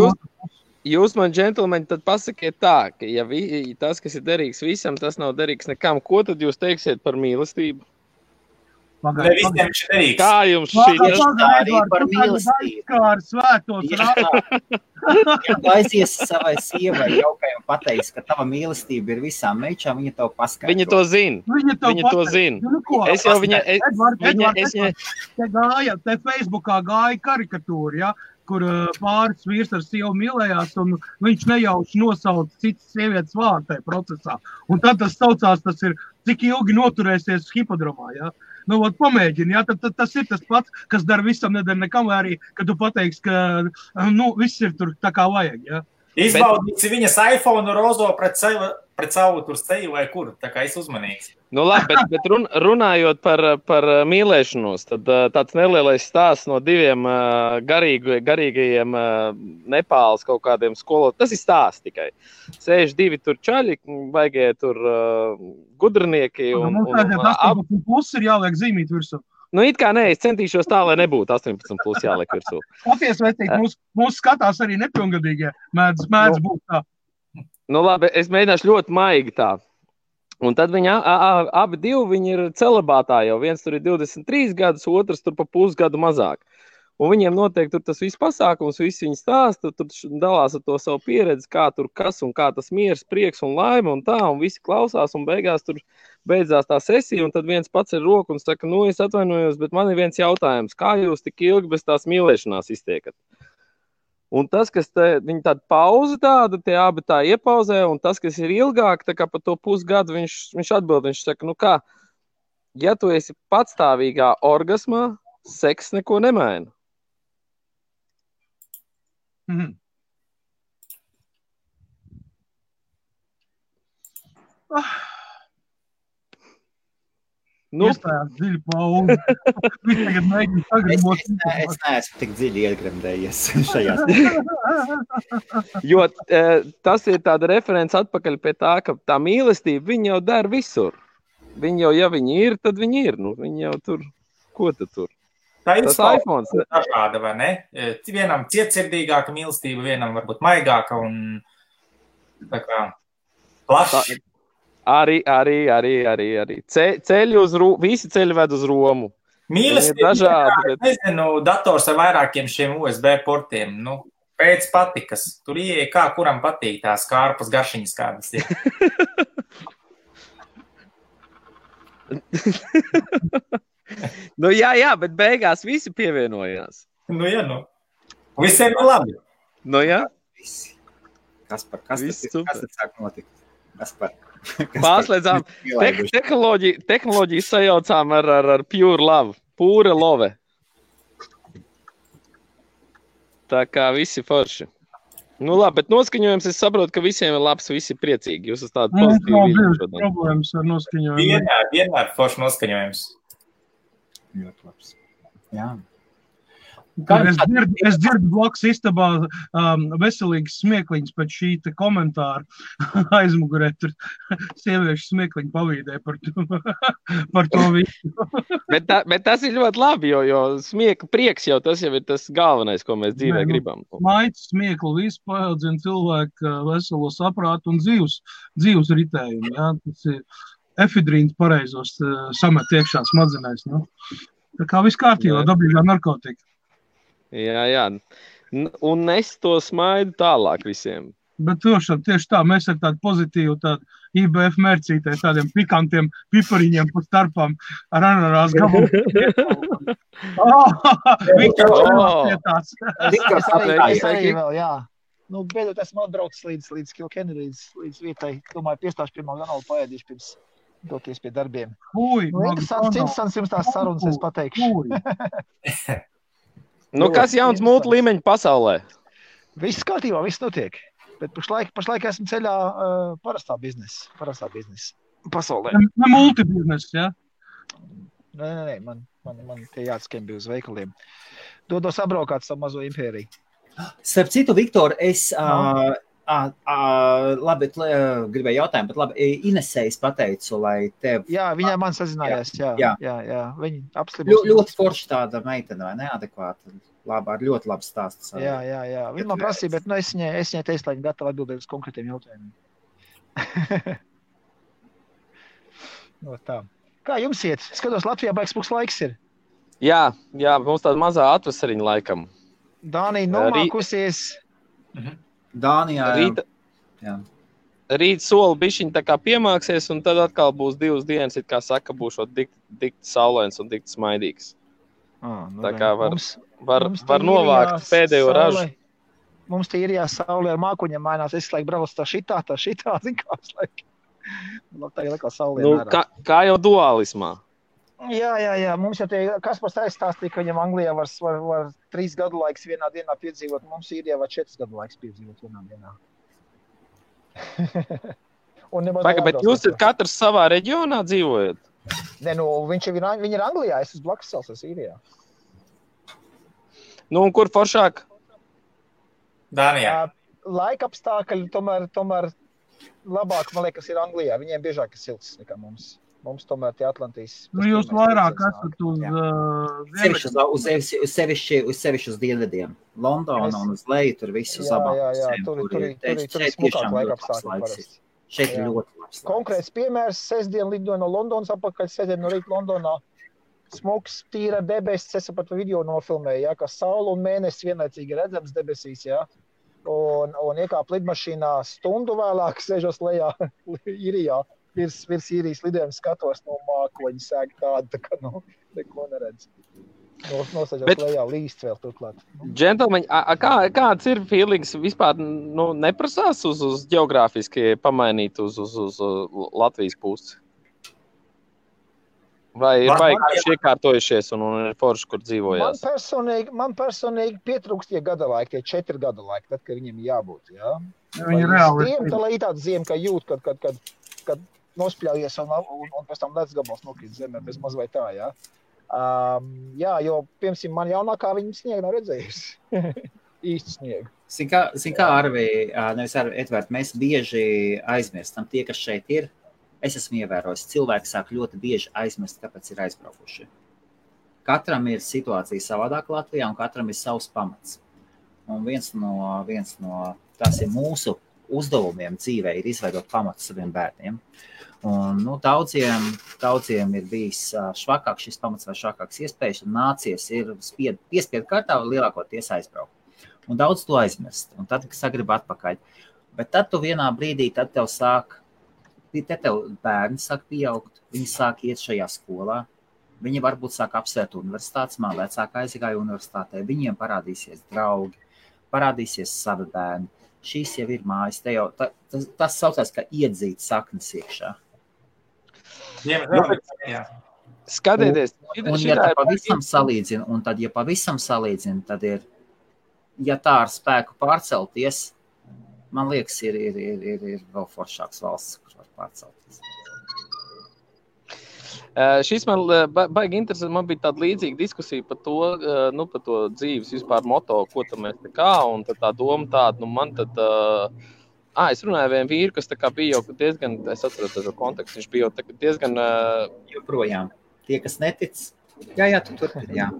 jūs man, džentlmeņi, tad pasakiet tā, ka ja tas, kas ir derīgs visam, tas nav derīgs nekam. Ko tad jūs teiksiet par mīlestību? Ne visiem viņš ir derīgs. Kā jums šī arī par mīlestību? Ja aizies savai sievai jaukai un pateiks, ka tava mīlestība ir visām meičām, viņa tev paskaidro. Viņa to zina. Viņa to zina. Es jau Te Facebookā gāja karikatūra, ja, kur pāris vīrs ar sievu mīlējās, un viņš nejauši nosauca citas sievietes vārdu tajā procesā. Un tad tas saucās, tas ir, cik ilgi noturēsies hipodromā, ja. Nu, pamēģini, ja, tad tas ir tas pats, kas dara visam, nedara nekam, vai arī, kad tu pateiksi, ka, viss ir tur tā kā vajag, ja. Izbaudīsi viņas iPhone rozo pret savu tur seju vai kur, tā kā es uzmanīgs. Nu labi, bet runājot par mīlēšanos, tad tāds nelielais stāsts no 2 garīgajiem Nepāles kaut kādiem skolotājiem. Tas ir stāsts tikai. Sēž 2 tur čaļi, vajag tur gudrinieki. Mums tādiem 18 plus ir jāliek zīmīt virsū. Nu, it kā nē, es centīšos tā, lai nebūtu 18 plus jāliek virsū. Paties, vecīgi, mūs skatās arī nepilngadīgie, mēdz būt tā. Nu labi, es mēģināšu ļoti maigi tā. Un tad viņi abi viņi ir celibātā jau. Viens tur ir 23 gadus, otrs tur pa pusgadu mazāk. Un viņiem notiek tur tas viss pasākums, visi viņi stāsta, tur dalās ar to savu pieredzi, kā tur kas un kā tas miers, prieks un laime un tā, un visi klausās, un beigās tur beidzās tā sesija, un tad viens pats ir roku un saka, es atvainojos, bet man ir viens jautājums, kā jūs tik ilgi bez tās mīlēšanās iztiekat? Un tas, kas viņi tādu pauzi tādu, tie abi tā iepauzē, un tas, kas ir ilgāk, tā kā pa to pusgadu, viņš atbild, viņš saka, kā, ja tu esi patstāvīgā orgasmā, seks neko nemaina. Mhm. Iestājās dziļi pauzi. Viņš tagad mēģina sagribot. Es neesmu tik dziļi iegremdējies šajās. Jo tas ir tāda referents atpakaļ pie tā, ka tā mīlestība, viņa jau dara visur. Viņa jau, ja viņi ir, tad viņi ir. Nu, viņi jau tur, ko tad tur? Tā ir Tas iPhones. dažāda, vai ne? Vienam cietsirdīgāka mīlestība, vienam varbūt maigāka un tā kā plaši. Arī. Ceļi visi ceļi ved uz Romu. Mīlestība dažādi, bet... nezinu, dators ar vairākiem šiem USB portiem. Nu, pēc patikas. Tur ieeja kā kuram patīk tās kārpas garšiņas kādas ir. Nu jā, bet beigās visi pievienojās. Nu jā, nu. Visiem ir labi. Nu jā. Visi. Kas tad sāk notikt? Pārslēdzām tehnoloģiju sajaucām ar pure love. Pure love. Tā kā visi forši. Nu labi, bet noskaņojums, es saprotu, ka visiem ir labs, visi priecīgi. Jūs esat tādi pozitīvi. Mums nav problēmas ar noskaņojumu. Vienmēr forši noskaņojums. Ļoti labs. Jā. Es dzirdu blakus istabā veselīgas smieklīņas pēc šī komentāra aizmugurē. Tur sieviešu smieklīņu pavīdē par to visu. Bet tas ir ļoti labi, jo prieks jau tas jau ir tas galvenais, ko mēs dzīvē gribam. Maitas smieklu visu paaudzina cilvēku veselo saprātu un dzīves ritējumu. Ja? Tas ir efidrīns pareizos samet iekšā smadzenēs. Nu? Tā kā viss kārtībā, dabīgā narkotika. Jā. Un es to smaidu tālāk visiem. Bet tieši tā, mēs ar tādu pozitīvu IBF mērcītē, tādiem pikantiem pipariņiem pa starpām ar ananās gabalu. Es arī vēl, jā. Nu, beidzot esmu atbraucis līdz Kilkenny, līdz vietai. Domāju, piestāšu pie McDonald's paēdīšu pirms doties pie darbiem. Interesants jums tās sarunas, es pateikšu. Nu, kas jauns multi līmeņa pasaulē? Viss kārtībā, viss notiek. Bet pašlaik esmu ceļā parastā biznesa pasaulē. Ne multi biznesa, jā? Nē, man tie jāatskembi uz veikaliem. Dodos apbraukāt savu mazo impēriju. Starp citu, Viktor, es labi, gribēju jautājumu, bet labi, Inesējas pateicu, lai tev... Jā, viņai man sazinājās, jā. Viņa apslibos. Ļoti forši tāda meitene, vai neadekvāta? Labi, ar ļoti labu stāstu. Jā. Viņa man prasīja, bet es viņai teicu, lai viņa gatava atbildēt uz konkrētiem jautājumiem. No tā. Kā jums iet? Skatos, Latvijā baigs puks laiks ir. Jā, mums tāda mazā atvasariņa laikam. Dānija nomākusies. Dānijā, Rīt soli bišķiņ tā kā piemāksies, un tad atkal būs 2 dienas, it kā saka, būšot dikti saulains un dikti smaidīgs. Tā kā var novākt pēdējo ražu. Mums tie ir saulē ar mākuņiem mainās. Es laik braucu tā šitā, zin kā es laik. Tā ir laikā saulē mērā. Kā jau dualismā. Jā. Mums jau tie, Kaspars aizstāstīja, ka viņam Anglijā var 3 gadu laiks vienā dienā piedzīvot. Mums ir var 4 gadu laiks piedzīvot vienā dienā. Bet jūs katrs savā reģionā dzīvojat? Nē, viņi ir Anglijā, es uz blakus salas esmu Īrijā. Nu, un kur foršāk? Dānijā. Laika apstākļi tomēr labāk, man liekas, ir Anglijā. Viņiem biežāk ir silts nekā mums. Mums tomēr tie Atlantijas... Nu, jūs vairāk esat uz sevišķi uz dienvidiem. Londona un uz leju, tur visu zabāk. Tur ir smukāk laika apstākļi parasti. Šeit ir ļoti labs. Konkrēts piemērs, sestdien lidoju no Londonas apakaļ, sestdien no rīta Londonā. Smuks, tīra debesis, es pat video nofilmēju, ka saule un mēnesis vienlaicīgi redzams debesīs, un iekāp lidmašīnā stundu vēlāk, sēžos lejā Īrijā. Virs Īrijas lidojuma skatos no mākoņa sēga tāda, tā kā neko neredz. Nosēžot lejā līst vēl turklāt. Džentelmeņi, kāds ir feelings vispār neprasās uz ģeogrāfiski pamainīt uz Latvijas pusi? Vai ir baigi iekārtojušies un ir forši, kur dzīvojās? Man personīgi pietrūkst tie gada laiki, tie 4 gada laiki, tad, kad viņiem jābūt, jā? Viņi reāli. Tā lai ir tāda ziema, ka jūt, kad nospļaujies un pēc tam ledus gabals nokrīt zemē, bez maz vai tā, jā. Jo, piemēram, man jaunākā viņa sniegu nav redzējusi. Īsti sniegu. Zin kā, Arvi, nevis Arvi, Edvard, mēs bieži aizmirstam tie, kas šeit ir. Es esmu ievērojis, cilvēki sāk ļoti bieži aizmirst, kāpēc ir aizbraukuši. katram ir situācija savādāk Latvijā un katram ir savs pamats. Un viens no tas ir mūsu uzdevumiem dzīvē ir izveidot pamatu saviem bērniem. Un, daudziem ir bijis švakāks šis pamats vai švakāks iespējas, un nācies ir piespiedu kārtā lielākoties aizbraukt. Un daudz to aizmirst, un tad sagrib atpakaļ. Bet tad tu vienā brīdī, tad tev bērni sāk pieaugt, viņi sāk iet šajā skolā, viņi varbūt sāk apsvērt universitātes, man vecāka aizgāja universitātē, viņiem parādīsies draugi, parādīsies savi bērni. Šīs jau ir mājas, tas saucās, ka iedzīt saknes iekšā. Skatieties, un ja pavisam salīdzina, tad ir, ja tā ar spēku pārcelties, man liekas, ir vēl foršāks valsts, kur var pārcelties. Šis man baigi interesanti, man bija tāda līdzīga diskusija par to dzīves vispār moto, ko tam mēs un tad tā doma tāda, man tad, es runāju vienu vīru, kas tā kā bija jau diezgan, es atceros šo kontekstu, viņš bija jau diezgan... Joprojām, tie, kas netic, jā, tu turpini, jā.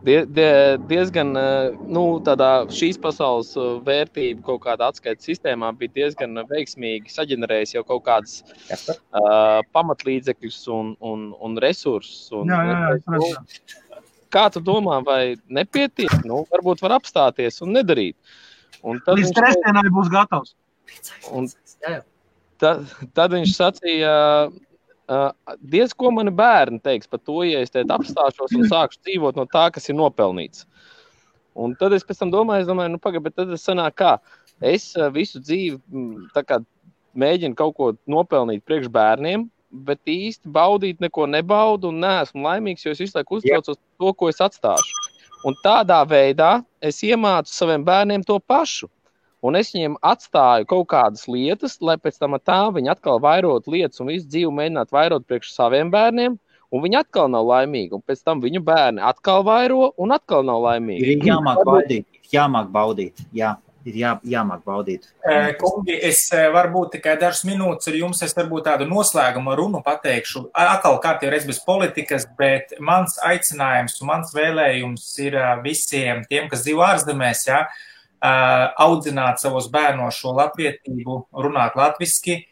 Diezgan, tādā šīs pasaules vērtība kaut kāda atskaites sistēmā bija diezgan veiksmīgi saģenerējis jau kaut kādas pamatlīdzekļus un resursus. Kā tu domā, vai nepietiek? Varbūt var apstāties un nedarīt. Un tad līdz trešdienai būs gatavs. Tad viņš sacīja, diez ko mani bērni teiks par to, ja es apstāšos un sākšu dzīvot no tā, kas ir nopelnīts. Un tad es pēc tam domāju, pagaid, bet tad es sanāk kā, es visu dzīvi tā kā mēģinu kaut ko nopelnīt priekš bērniem, bet īsti baudīt neko nebaudu un neesmu laimīgs, jo es visu laiku uztraucos to, ko es atstāšu. Un tādā veidā es iemācu saviem bērniem to pašu. Un es viņiem atstāju kaut kādas lietas, lai pēc tam tā viņi atkal vairot lietas un visu dzīvi mēģināt vairot priekš saviem bērniem, un viņi atkal nav laimīgi. Un pēc tam viņu bērni atkal vairo un atkal nav laimīgi. Ir jāmāk baudīt. Jāmāk baudīt. Kungi, es varbūt tikai dažas minūtes ar jums, es varbūt tādu noslēgumu runu pateikšu. Atkal kārtīgi reiz bez politikas, bet mans aicinājums un mans vēlējums ir visiem tiem, kas dzīvo ārzemēs, audzināt savos bērnos šo latvietību, runāt latviski,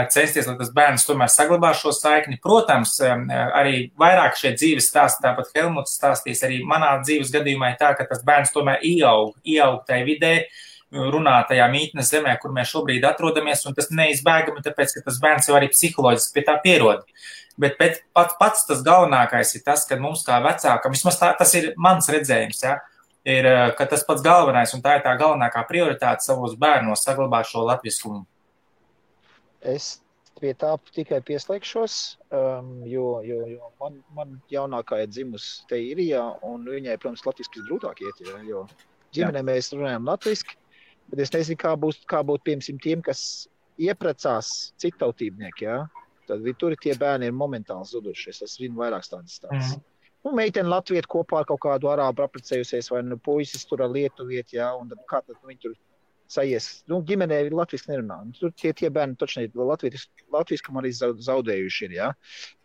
censties, lai tas bērns tomēr saglabā šo saikni. Protams, arī vairāk šie dzīves stāsti, tāpat Helmuts stāstīs, arī manā dzīves gadījumā ir tā, ka tas bērns tomēr ieaug tai vidē, runā tajā mītnes zemē, kur mēs šobrīd atrodamies, un tas neizbēgami, tāpēc, ka tas bērns jau arī psiholoģiski pie tā pierod. Bet pats tas galvenākais ir tas, ka mums kā vecākam, vismaz tas ir mans redzējums, ir, ka tas pats galvenais, un tā ir tā galvenākā prioritāte savos bērnos saglabāt šo latviskumu. Es pie tā tikai pieslēgšos, jo man jaunākā ir dzimusi te Irijā, un viņai, protams, latviski grūtāk iet, jo ģimenē mēs runājam latviski, bet es nezinu, kā būt piemēram tiem, kas ieprecās citautībnieki, tad tur tie bērni ir momentāli zuduši. Es zinu vairākas tādas stāstas. Meiteni Latvieti kopā ar kaut kādu arābu apprecējusies, vai puisis tur ar lietuvieti, un tad kā tad viņi tur sajies. Ģimenē latviski nerunā. Tur tie bērni točni latviskam arī zaudējuši ir,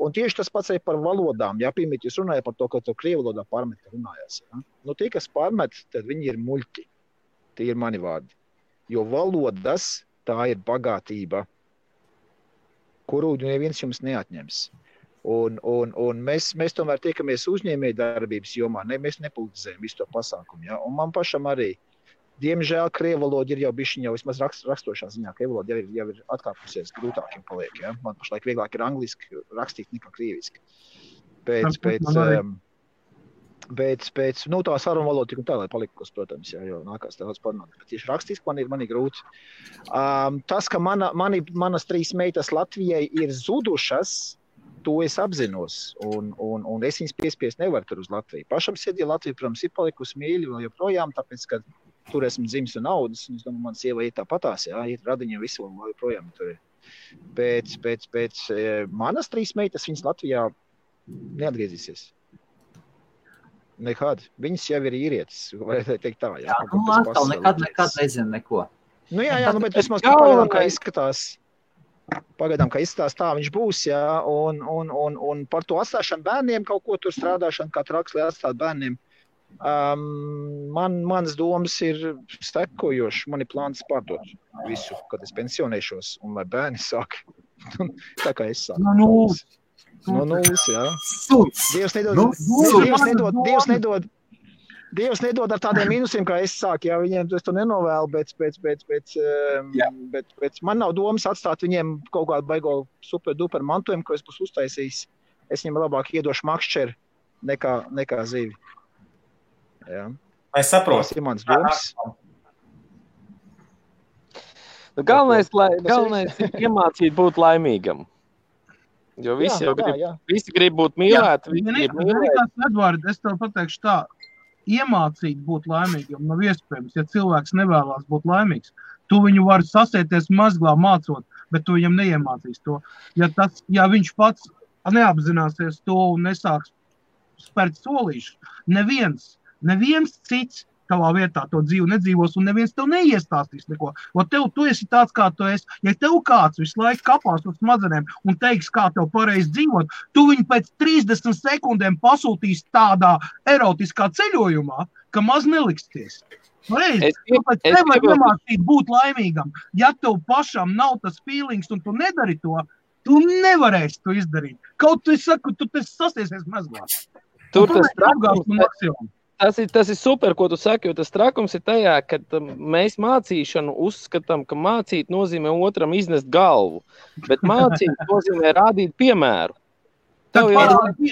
Un tieši tas pats arī par valodām, Pirmīt jūs runājat par to, ka to krievu valodā pārmet runājās, Tie, kas pārmet, tad viņi ir muļķi. Tie ir mani vārdi. Jo valodas, tā ir bagātība, kuru neviens jums neatņems. Un mēs tomēr tiekamies uzņēmēju darbības jomā, mēs nepolitizējam visu to pasākumu, Un man pašam arī, diemžēl, krievu valoda ir jau bišķiņ jau vismaz rakstošā ziņā, krievu valoda jau ir atkāpusies, grūtākiem paliek, Man pašlaik vieglāk ir angliski rakstīt nekā krieviski. Pēc tā saruna valoda tik un tā, lai palikos, protams, jo nākās daudz parunāt, bet tieši rakstiski man ir grūti. Tas, ka manas 3 meitas Latvijai ir zudušas, to es apzinos, un es viņas piespiest nevaru tur uz Latviju. Pašam sirdī Latvija, protams, ir palikusi mīļa vēl joprojām, tāpēc, ka tur esmu dzimis un audzis, un es domāju, man sieva ir tāpatās, ir radiņa visu un joprojām tur ir. Pēc manas 3 meitas viņas Latvijā neatgriezīsies. Nekad. Viņas jau ir īrietis, varētu teikt tā, Atkal nekad nezinu neko. Bet vismaz pagaidām, kā izskatās. Pagaidām, kā izstāst, tā viņš būs, jā, un par to atstāšanu bērniem kaut ko tur strādāšanu, kā traks, lai atstāt bērniem. Manas domas ir sekojošas. Man ir plāns pārdot visu, kad es pensionēšos, un lai bērni sāk. Tā kā es sāku. No nulles, jā. Dievs nedod ar tādiem mīnusiem, kā es sāku. Jā, viņiem es to nenovēlu, bet man nav domas atstāt viņiem kaut kādu baigo super-duper mantojumu, ko es būs uztaisījis. Es viņiem labāk iedošu makšķeri nekā zivi. Jā. Es saprotu. Tas ir mans domas. Galvenais ir iemācīt būt laimīgam. Jo visi visi grib būt mīlēti. Edvard, es tev pateikšu tā, iemācīt būt laimīgam nav iespējams, ja cilvēks nevēlās būt laimīgs. Tu viņu vari sasieties mazglā mācot, bet tu viņam neiemācīs to. Ja viņš pats neapzināsies to un nesāks spērt solīšu, neviens cits tavā vietā to dzīvu nedzīvos un neviens tev neiestāstīs neko. Tu esi tāds, kā tu esi. Ja tev kāds visu laiku kapās uz smadzenēm un teiks, kā tev pareizi dzīvot, tu viņu pēc 30 sekundēm pasūtīs tādā erotiskā ceļojumā, ka maz neliksties. Tāpēc nevar iemācīt būt laimīgam. Ja tev pašam nav tas feelings un tu nedari to, tu nevarēsi to izdarīt. Kaut tu saku, tu sasiesies mazglā. Tas ir super, ko tu saki, jo tas trakums ir tajā, ka mēs mācīšanu uzskatām, ka mācīt nozīmē otram iznest galvu, bet mācīt nozīmē rādīt piemēru. Pat nemāci,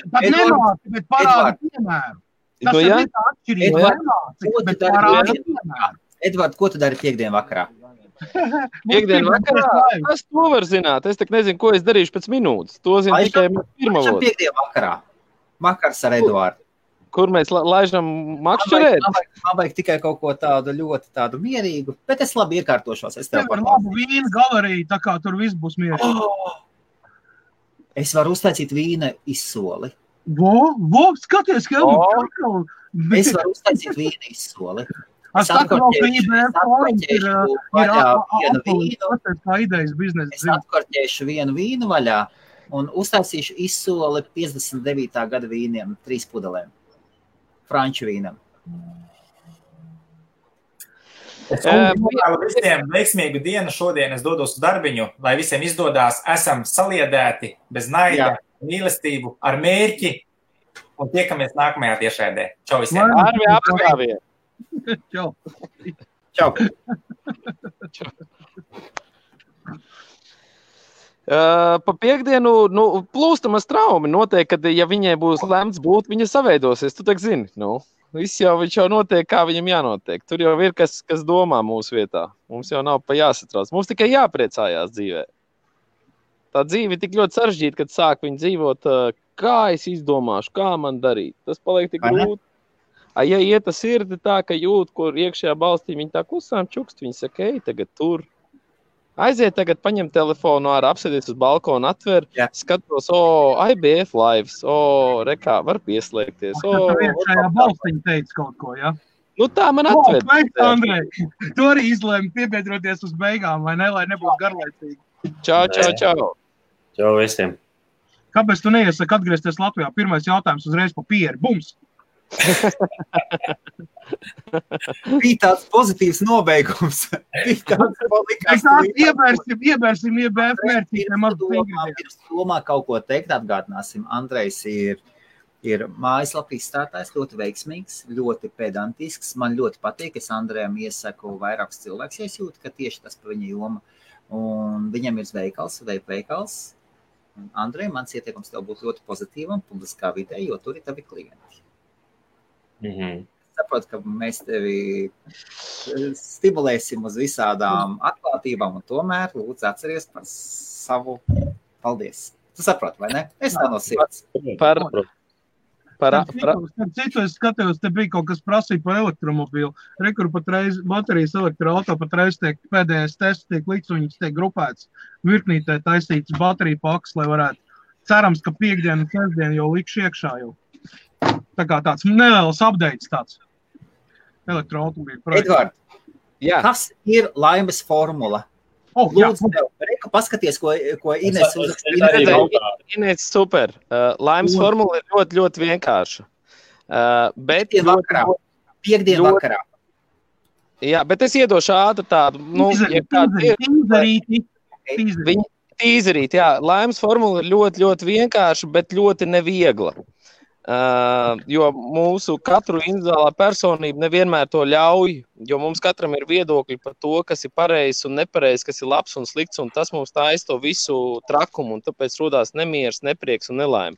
bet parādi piemēru. Tas ir tā atšķirība. Nemāci, bet parādi piemēru. Edvard, ko tu dari piekdien vakarā? Piekdien vakarā? Es to var zināt. Es tak nezinu, ko es darīšu pēc minūtes. To zinu tikai pirmavot. Piekdien vakarā. Vakars ar Eduardu. Kur mēs laižam makšķerēt? Man vajag tikai kaut ko tādu ļoti tādu mierīgu, bet es labi iekārtošos. Es tev par labu vīnu galeriju, tā kā tur viss būs mierīgi. Es varu uztaisīt vīna izsoli. Skaties, ka Es varu uztaisīt vīna izsoli. Es atkorķēšu vienu vīnu vaļā un uztaisīšu izsoli 59. gada vīniem, 3 pudelēm. Franču vīnam. Es novēlu visiem veiksmīgu dienu šodien. Es dodos uz darbiņu, lai visiem izdodās. Esam saliedēti, bez naida, mīlestību, ar mērķi. Un tiekamies nākamajā tiešraidē. Čau visiem. Arvi apskāvie. Čau. Čau. Pa piekdienu, plūstamas traumi notiek, kad, ja viņai būs lemts būt, viņa saveidosies, tu tak zini, viņš jau notiek, kā viņam jānotiek. Tur jau ir, kas domā mūsu vietā. Mums jau nav pa jāsatrauc. Mums tikai jāpriecājās dzīvē. Tā dzīve ir tik ļoti sarežģīta, kad sāk viņu dzīvot, kā es izdomāšu, kā man darīt. Tas paliek tik grūti. Ja iet tas sirdi tā, ka jūt, kur iekšējā balstī viņi tā klusām čukst, viņi saka, tagad tur. Aiziet tagad, paņem telefonu ārā, apsēdies uz balkonu, atver, skatos, IBF lives, rekā, var pieslēgties. Iekšējā balstiņa teica kaut ko, ja? Tā man atved. Andrej, tu arī izlēmi piebiedroties uz beigām, vai ne, lai nebūtu garlaicīgi. Čau. Čau visiem. Kāpēc tu neiesaki atgriezties Latvijā? Pirmais jautājums uzreiz pa pieri. Bums! Bija tāds pozitīvs nobeigums. Iebērsim IBF mērķītēm. Pirms domā kaut ko teikt, atgādināsim. Andrejs ir mājaslapā izstrādājis, ļoti veiksmīgs, ļoti pedantisks. Man ļoti patīk, es Andrejam iesaku vairākus cilvēkus, ja es jūtu, ka tieši tas pa viņa joma. Un viņam ir veikals. Andrej, mans ieteikums tev būtu ļoti pozitīvam publiskā vidē, jo tur ir tavi klienti. Saprotu, ka mēs tevi stimulēsim uz visādām atklātībām un tomēr lūdzu atceries par savu paldies. Tu saproti, vai ne? Es tā no sirds. Citu es skatījos, te bija kaut kas prasīja par elektromobīlu. Rekur patreiz baterijas elektroauto patreiz tiek pēdējais tests, tiek likts, viņas tiek grupēts. Virknītē taisīts bateriju paks, lai varētu. Cerams, ka piekdienu un sestdienu jau likšu iekšā jau. Tā kā tāds neliels updates tāds. Elektroautomobīļu projekts. Edvard, kas ir laimes formula? Lūdzu, tev, paskaties, ko Ines uzrakstīja. Ines, super. Laimes formula ir ļoti, ļoti vienkārša. Bet Piekdien vakarā. Jā, bet es iedošu ātri tādu, tīzerīt, jā. Laimes formula ir ļoti, ļoti vienkārša, bet ļoti neviegla. Jo mūsu katru individuālā personība nevienmēr to ļauj, jo mums katram ir viedokļi par to, kas ir pareizs un nepareizs, kas ir labs un slikts, un tas mums taisa to visu trakumu, un tāpēc rodās nemieris, neprieks un nelaime.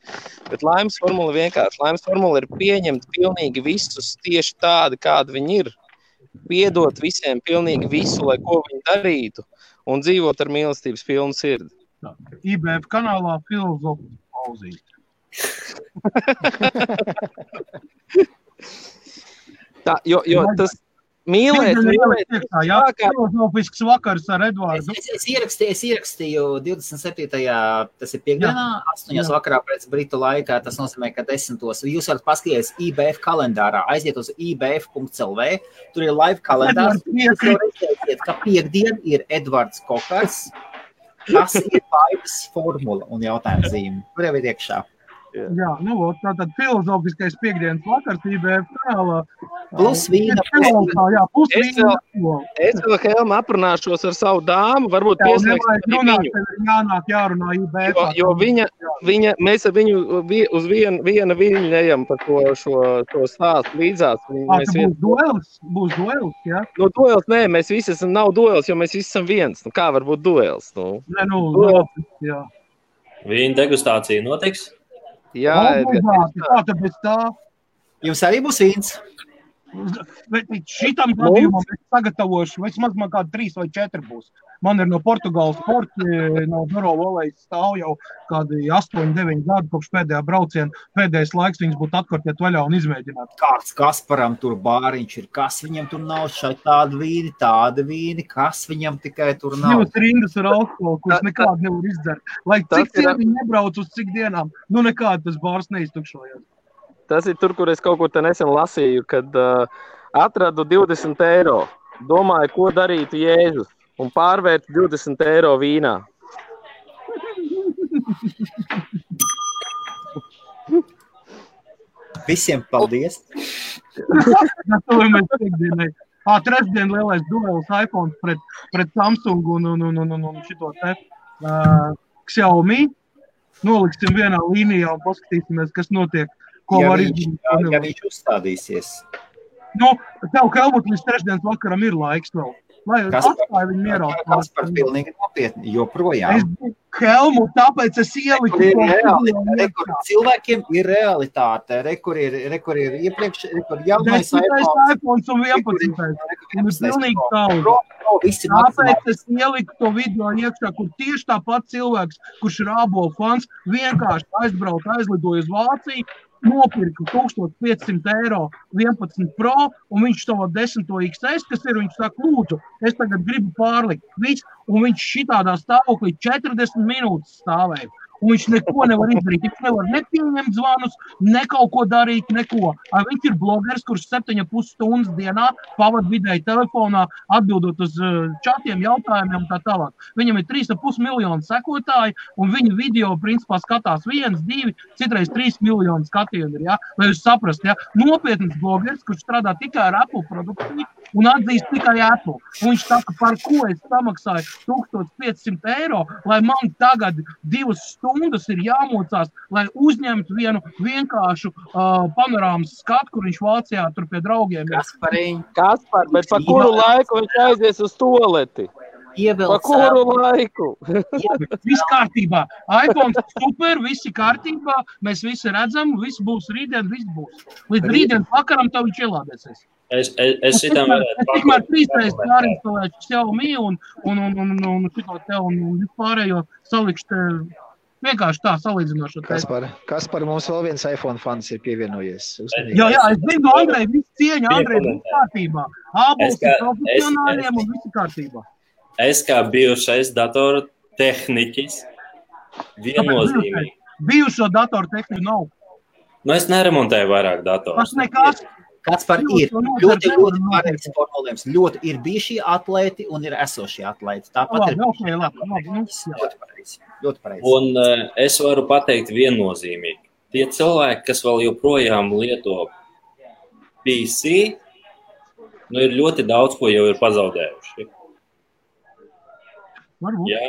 Bet laimes formula vienkārši. Laimes formula ir pieņemt pilnīgi visus tieši tādi, kādi viņi ir, piedot visiem pilnīgi visu, lai ko viņi darītu, un dzīvot ar mīlestības pilnu sirdi. IBF kanālā filozofijas pauzīt. Tā, jo tas mīlēt. Filozofisks vakars ar Edvardu. Es ierakstīju 27. Tas ir piekdienā, 8. vakarā pēc britu laikā. Tas nozīmē, ka 10. Jūs varat paskatīties IBF kalendārā, aiziet uz ibf.lv. Tur ir live kalendārs. Jūs redzēsiet, ka piekdien ir Edvards Kokars. Tas ir laivas formula un jautājums zīme. Tur jau ir iekšā. Jā, tātad filozofiskais piekdienas vakars IBF kanālā. Plus vīna. Es vēl Helma aprunāšos ar savu dāmu, varbūt pieslēgsim viņu. Jārunā IBF. Jo mēs ar viņu uz viena viļņu ejam par šo stāstu līdzās. Būs duels, jā? No duels, nē, mēs visi esam, nav duels, jo mēs visi esam viens. Kā var būt duels? Jā. Vīna degustācija notiks? Jā, tāpēc tā. Jums arī būs vīns? Bet šitam gadījumam es sagatavošu, vismaz man kādi 3 vai 4 būs. Man ir no Portugāles sporti, no Doro Volejas stāv jau kādi 8-9 gadi kopš pēdējā brauciena. Pēdējais laiks viņas būtu atkartiet vaļā un izmēģināt. Kāds Kasparam tur bāriņš ir, kas viņam tur nav šai tāda vīni, kas viņam tikai tur nav. Jūs rindas ar alkoholu, kurš nekādu nevar izdzert. Lai cik viņi nebrauc uz cik dienām, nekādu tas bārs neiztukšojās. Tas ir tur, kur es kaut kur te nesen lasīju, kad atradu 20 eiro. Domāju, ko darītu Jēzus un pārvērtu 20 eiro vīnā. Visiem paldies! Trešdien lielais duels iPhone pret Samsung un šito te Xiaomi. Noliksim vienā līnijā un paskatīsimies, kas notiek. Ja viņš uzstādīsies. Tev, Helmut, līdz trešdienas vakaram ir laiks vēl. Lai atstāja viņu mierā. Kaspar pilnīgi nopietni, joprojām. Helmut, tāpēc es ieliku. Cilvēkiem ir realitāte. Rekur ir iepriekš, jaunais iPhone un 11. Pilnīgi taudi. Tāpēc es ieliku to video iekšā, kur tieši tāpat cilvēks, kurš ir ābolu fans, vienkārši aizlidoja uz Vāciju, nopirka 1500 eiro 11 Pro, un viņš to 10 XS, kas ir, viņš saka, lūdzu, es tagad gribu pārlikt. Un viņš šitādā stāvoklī 40 minūtes stāvēja. Un viņš neko nevar izdarīt. Viņš nevar nepieņemt zvanus, ne kaut ko darīt, neko. Viņš ir blogeris, kurš 7,5 stundas dienā pavad vidēji telefonā, atbildot uz čatiem, jautājumiem un tā tālāk. Viņam ir 3,5 miljonu sekotāji, un viņa video, principā, skatās 1, 2, citreiz 3 miljonu skatienu ir, ja? Lai jūs saprast, ja? Nopietns blogeris, kurš strādā tikai ar Apple produkciju un atzīst tikai Apple. Un viņš saka, par ko es samaksāju 1500 eiro, lai man tagad 2 stundas ir jāmocās, lai uzņemtu vienu vienkāršu panorāmas skatu, kur viņš Vācijā tur pie draugiem ir. Kaspar, bet pa kuru laiku viņš aizies uz toleti? Pa kuru laiku? Viss kārtībā. iPhone super, visi kārtībā, mēs visi redzam, viss būs rītdien, viss būs. Līdz rītdien vakaram tev viņš ielādēsies. Es šitam varētu pakot. Tikmēr 3 reizes jārinstalēšu Xiaomi un šito te un vispārējo salikšu te vienkārši tā salīdzinošo. Kaspar, mums vēl viens iPhone fans ir pievienojies. Jā, es zinu, Andrej, viss cieņa, Andrej, viss kārtībā. Ābols ir profesionāļiem un viss kārtībā. Es kā bijušais datoru tehniķis viennozīmīgi. Bijušo datoru tehniku nav. Es neremontēju vairāk datoru. Tas nekas. Kaspar, ir ļoti pareizs formulējums. Ļoti ir bijušie atlēti un ir esošie atlēti. Tāpat ir ļoti pareizi. Un es varu pateikt viennozīmīgi. Tie cilvēki, kas vēl joprojām lieto PC, ir ļoti daudz, ko jau ir pazaudējuši. Ja?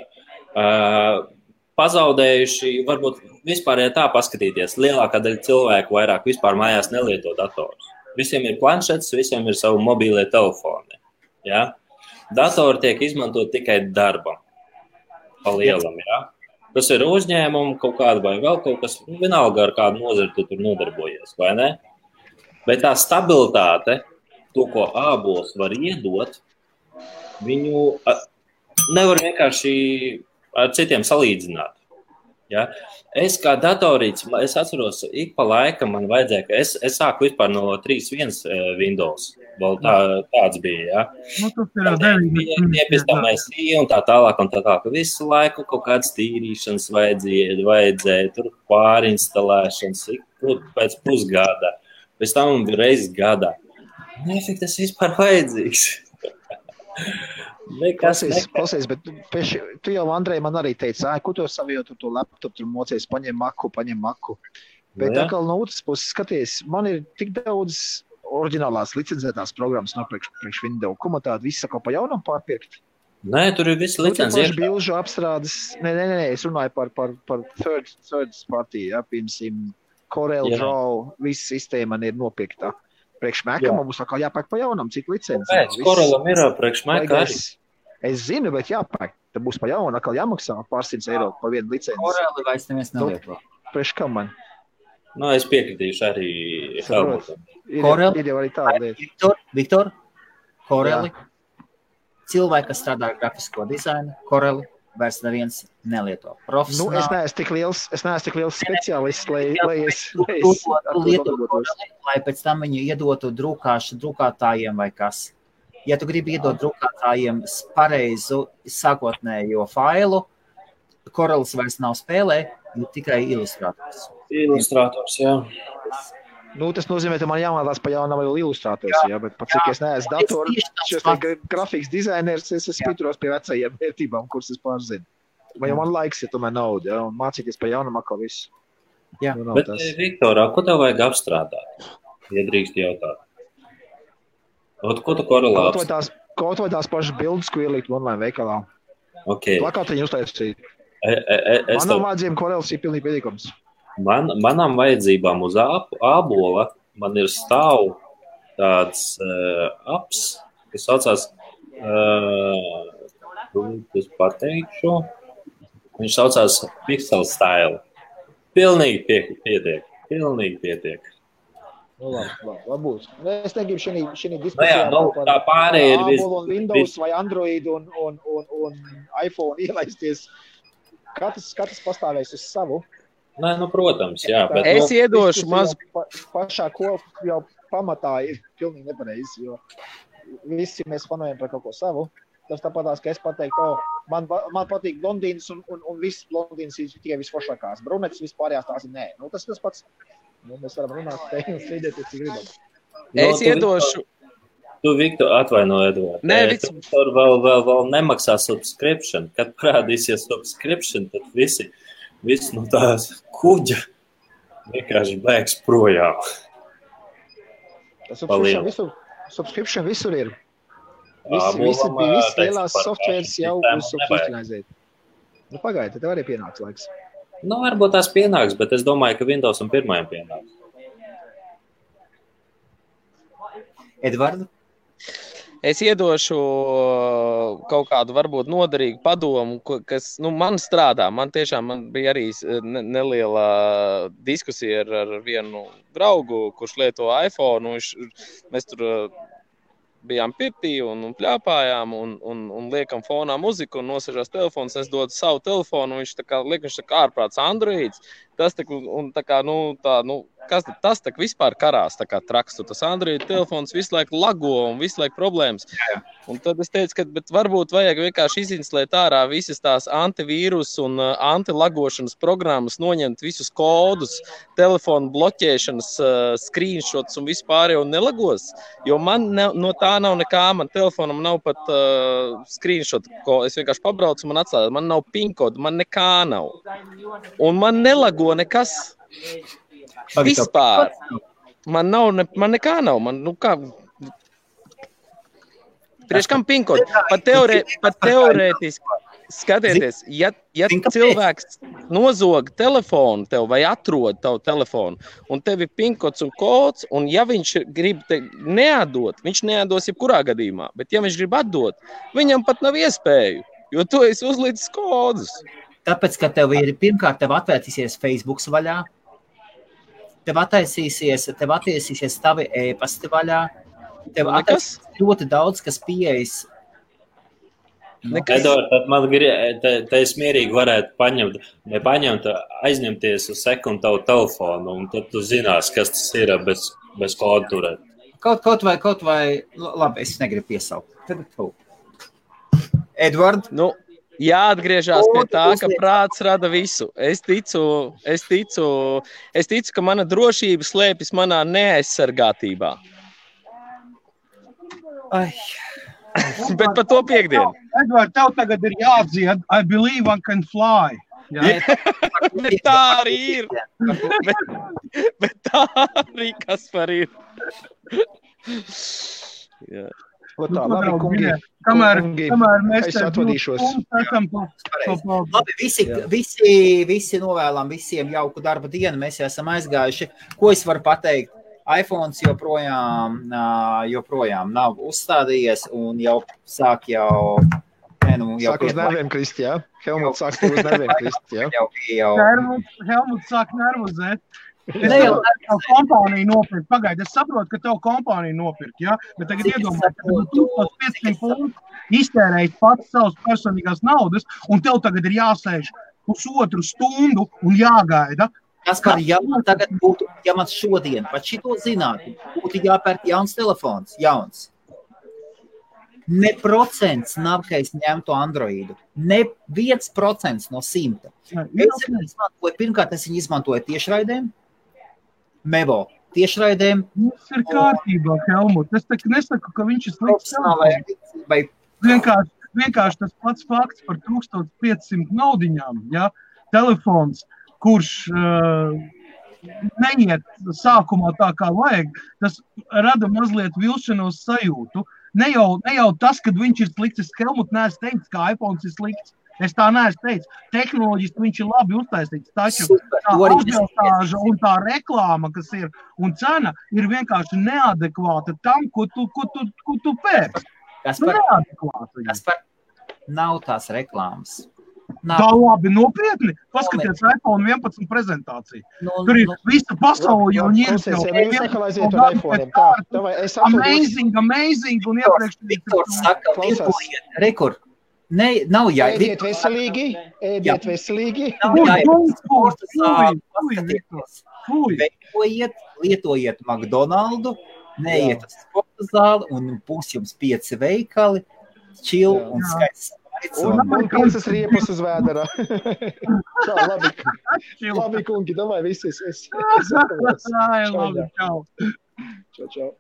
Pazaudējuši, varbūt vispār tā paskatīties. Lielākā daļa cilvēku vairāk vispār mājās nelieto datorus. Visiem ir planšets, visiem ir savu mobīlie telefoni. Ja? Datori tiek izmantot tikai darbam. Pa lielam, ja? Tas ir uzņēmumu kaut kāda vai vēl kaut kas, vienalga ar kādu nozari tu tur nodarbojies, vai ne? Bet tā stabilitāte, to, ko ābols var iedot, viņu nevar vienkārši ar citiem salīdzināt. Ja? Es kā datorīts, es atceros, ik pa laikam man vajadzēja, ka es sāku vispār no 3.1 Windows. Vēl tāds bija, ja? Pēc un tā tālāk. Visu laiku kaut kādas tīrīšanas vajadzēja tur pārinstalēšanas, pēc pusgada. Pēc tam reizes gadā. Nefik tas vispār vajadzīgs. Klausies, bet tu jau, Andrej, man arī teici, ko tu savietu to laptopu, tur mocies, paņem maku. Bet atkal no otras puses skaties, man ir tik daudz oriģinālās licencētās programmas no priekš Windows. Ko man tādu visu pa jaunam pārpirkt? Nē, tur ir visi licencēti. Bilžu apstrādes. Nē, es runāju par third party, ja, piemēram, Corel Draw, visa sistēma man ir nopirktā. Priekš Maca man būs atkal jāpērk pa jaunam, cik licenci. Pēc Corelam ir priekš Maca arī. Es zinu, bet jāpērk. Tad būs pa jaunu, atkal jāmaksā pār 100 eiro pa vienu licenci. Koreli vairs neviens nelieto. Priekš kam man? Nu, es piekritīšu arī Helmutam. Ir jau arī tāda lieta. Viktor, Coreli, cilvēki, kas strādā ar grafisko dizainu, Coreli vairs neviens nelieto. Profesionāli. Es neesmu tik liels speciālists, lai es lai pēc tam viņu iedotu drukātājiem vai kas. Ja tu gribi iedot drukātājiem pareizu sākotnējo failu, Corelis vairs nav spēlē, tikai ilustrators. Ilustrators, jā. Tas nozīmē, ka man jāmācās pa jaunam vēl ilustrators, jā, bet pat cik es neesmu datoru, šis grafikas dizainers, es pieturos pie vecajiem vērtībām, kuras es pārzinu. Vai jau man laiks, ja tomēr nauda, jā, un mācīties pa jaunam atkal visu. Jā. Bet, Viktorā, ko tev vajag apstrādāt, ja drīkst jautāt? Ko tu Corelā apstrādāt? Kaut vai tās pašas bildes, ko ielikt online veikalā. Okay. Plakātiņu uztaisīt. Manam vajadzībām Corels ir pilnīgi pietiekams. Manām vajadzībām uz ābola man ir stāv tāds apps, kas saucās, es pateikšu, viņš saucās Pixel Style. Pilnīgi pietiek. Labi būs. Es negribu šī diskusijā tā pārējie ir ābolu un Windows vai Android un iPhone ielaisties. Katrs pastāvēs uz savu. Nē, protams, jā. Bet, es iedošu mazu. Pašā jau pamatā ir pilnīgi nepareizi, jo visi mēs fanojam par kaut ko savu. Tas tāpatās, ka es pateiktu, man patīk blondīnas un viss blondīnas ir tikai visforšākās. Brunetes vispārējās tās ir nē. Tas pats. Mēs varam runāt te un strīdēties, cik gribam. Es iedošu. Tu, Viktor, atvaino, Edvard. Nē, Viktor vēl nemaksā subscription. Kad parādīsies subscription, tad visi no tās kuģa vienkārši bēgs projām. Subscription visur ir. Visi lielās softwares jau subscriptionizēt. Pagaidi, tev arī pienāks laiks. Varbūt tās pienāks, bet es domāju, ka Windows un pirmajam pienāks. Edvardu? Es iedošu kaut kādu varbūt noderīgu padomu, kas man strādā. Man bija arī neliela diskusija ar vienu draugu, kurš lieto iPhone. Mēs tur bijām pirtī un pļāpājām un liekam fonā muziku un nosažās telefons. Es dodu savu telefonu, viņš tā kā ārprāts Androids. Tas kas tas tak vispār karās tā kā traks, tas Android telefons visu laiku lago un visu laiku problēmas. Un tad es teicu, ka bet varbūt vajag vienkārši izinstalēt ārā visas tās antivīrus un antilagošanas programmas, noņemt visus kodus, telefonu bloķēšanas, screenshots un vispār jau nelagos, jo man no tā nav nekā, man telefonam nav pat screenshot, ko es vienkārši pabraucu, man atslēdz, man nav PIN kodu, man nekā nav. Un man nelago nekas. Vispār. Man nekā nav. Priekš kam PIN kodu? Pat teorētiski skatieties, ja cilvēks nozog telefonu tev vai atrod tavu telefonu un tev ir PIN kods un kods, un ja viņš grib neatdot, viņš neatdos jebkurā gadījumā, bet ja viņš grib atdot, viņam pat nav iespēju, jo tu esi uzlicis kodus. Tāpēc, ka tev ir pirmkārt tev atvērtīsies Facebooks vaļā, tev attiesīsies tavi e-pasti vaļā, tev attiesīsies ļoti daudz, kas pieejas. Edvard, tad man te es mierīgi varētu aizņemties uz sekundu tavu telefonu, un tad tu zinās, kas tas ir bez kodu turēt. Kaut vai, labi, es negribu piesaukt. Tad tu. Edvard? Jāatgriežās pie tā, ka prāts rada visu. Es ticu, ka mana drošība slēpjas manā neaizsargātībā. Bet par to piekdienu. Edvard, tev tagad ir jāatdzied I believe I can fly. Bet tā arī ir. Bet tā arī kas par ir. Jā. Tā, labi, kungi. Kamēr mēs es atvadīšos. Labi, visi novēlam visiem jauku darba dienu. Mēs jau esam aizgājuši. Ko es varu pateikt? iPhones joprojām nav uzstādījies un jau sāk Sāk uz nerviem krist, jā? Helmuts sāk uz nerviem krist, jā? Helmuts sāk nervozēt. Tev kompānija nopirkt. Pagaidi, es saprotu, ka tev kompānija nopirkt, jā? Bet tagad iedomājies, ka 1500 funtu iztērējis pats savas personīgās naudas, un tev tagad ir jāsēž pusotru stundu un jāgaida. Kaspar, ja man šodien pat šito zinātu, būtu jāpērk jauns telefons, jauns. Ne procents nav, ka es ņemtu Androidu. Ne 1% no 100. Pirmkārt, es viņu izmantoju tiešraidēm. Mevo tiešraidēm. Tas ir kārtībā, Helmut. Es nesaku, ka viņš ir slikts. Vienkārši tas pats fakts par 1500 naudiņām, ja? Telefons, kurš neiet sākumā tā kā vajag, tas rada mazliet vilšanos sajūtu. Ne jau tas, kad viņš ir slikts, es Helmut neesmu teicis, ka iPhones ir slikts. Es tā neesmu teicis. Tehnoloģiski viņš ir labi uztaisīts, taču tā atbilstāža un tā reklāma, kas ir, un cena ir vienkārši neadekvāta tam, ko tu pērci. Kaspar, nav tās reklāmas. Tā labi, nopietni. Paskaties iPhone 11 prezentāciju. Tur ir visa pasaule jau amazing, un iepriekš. Viktor saka, rekord. Nav Ēdiet veselīgi. Lietojiet McDonaldu, neiet uz sporta zāli un būs jums 5 veikali, chill un skaists. Un 5 riepas uz vēderā. Tā, labi. Labi, kungi, domāju, visi es. Labi, čau. Čau.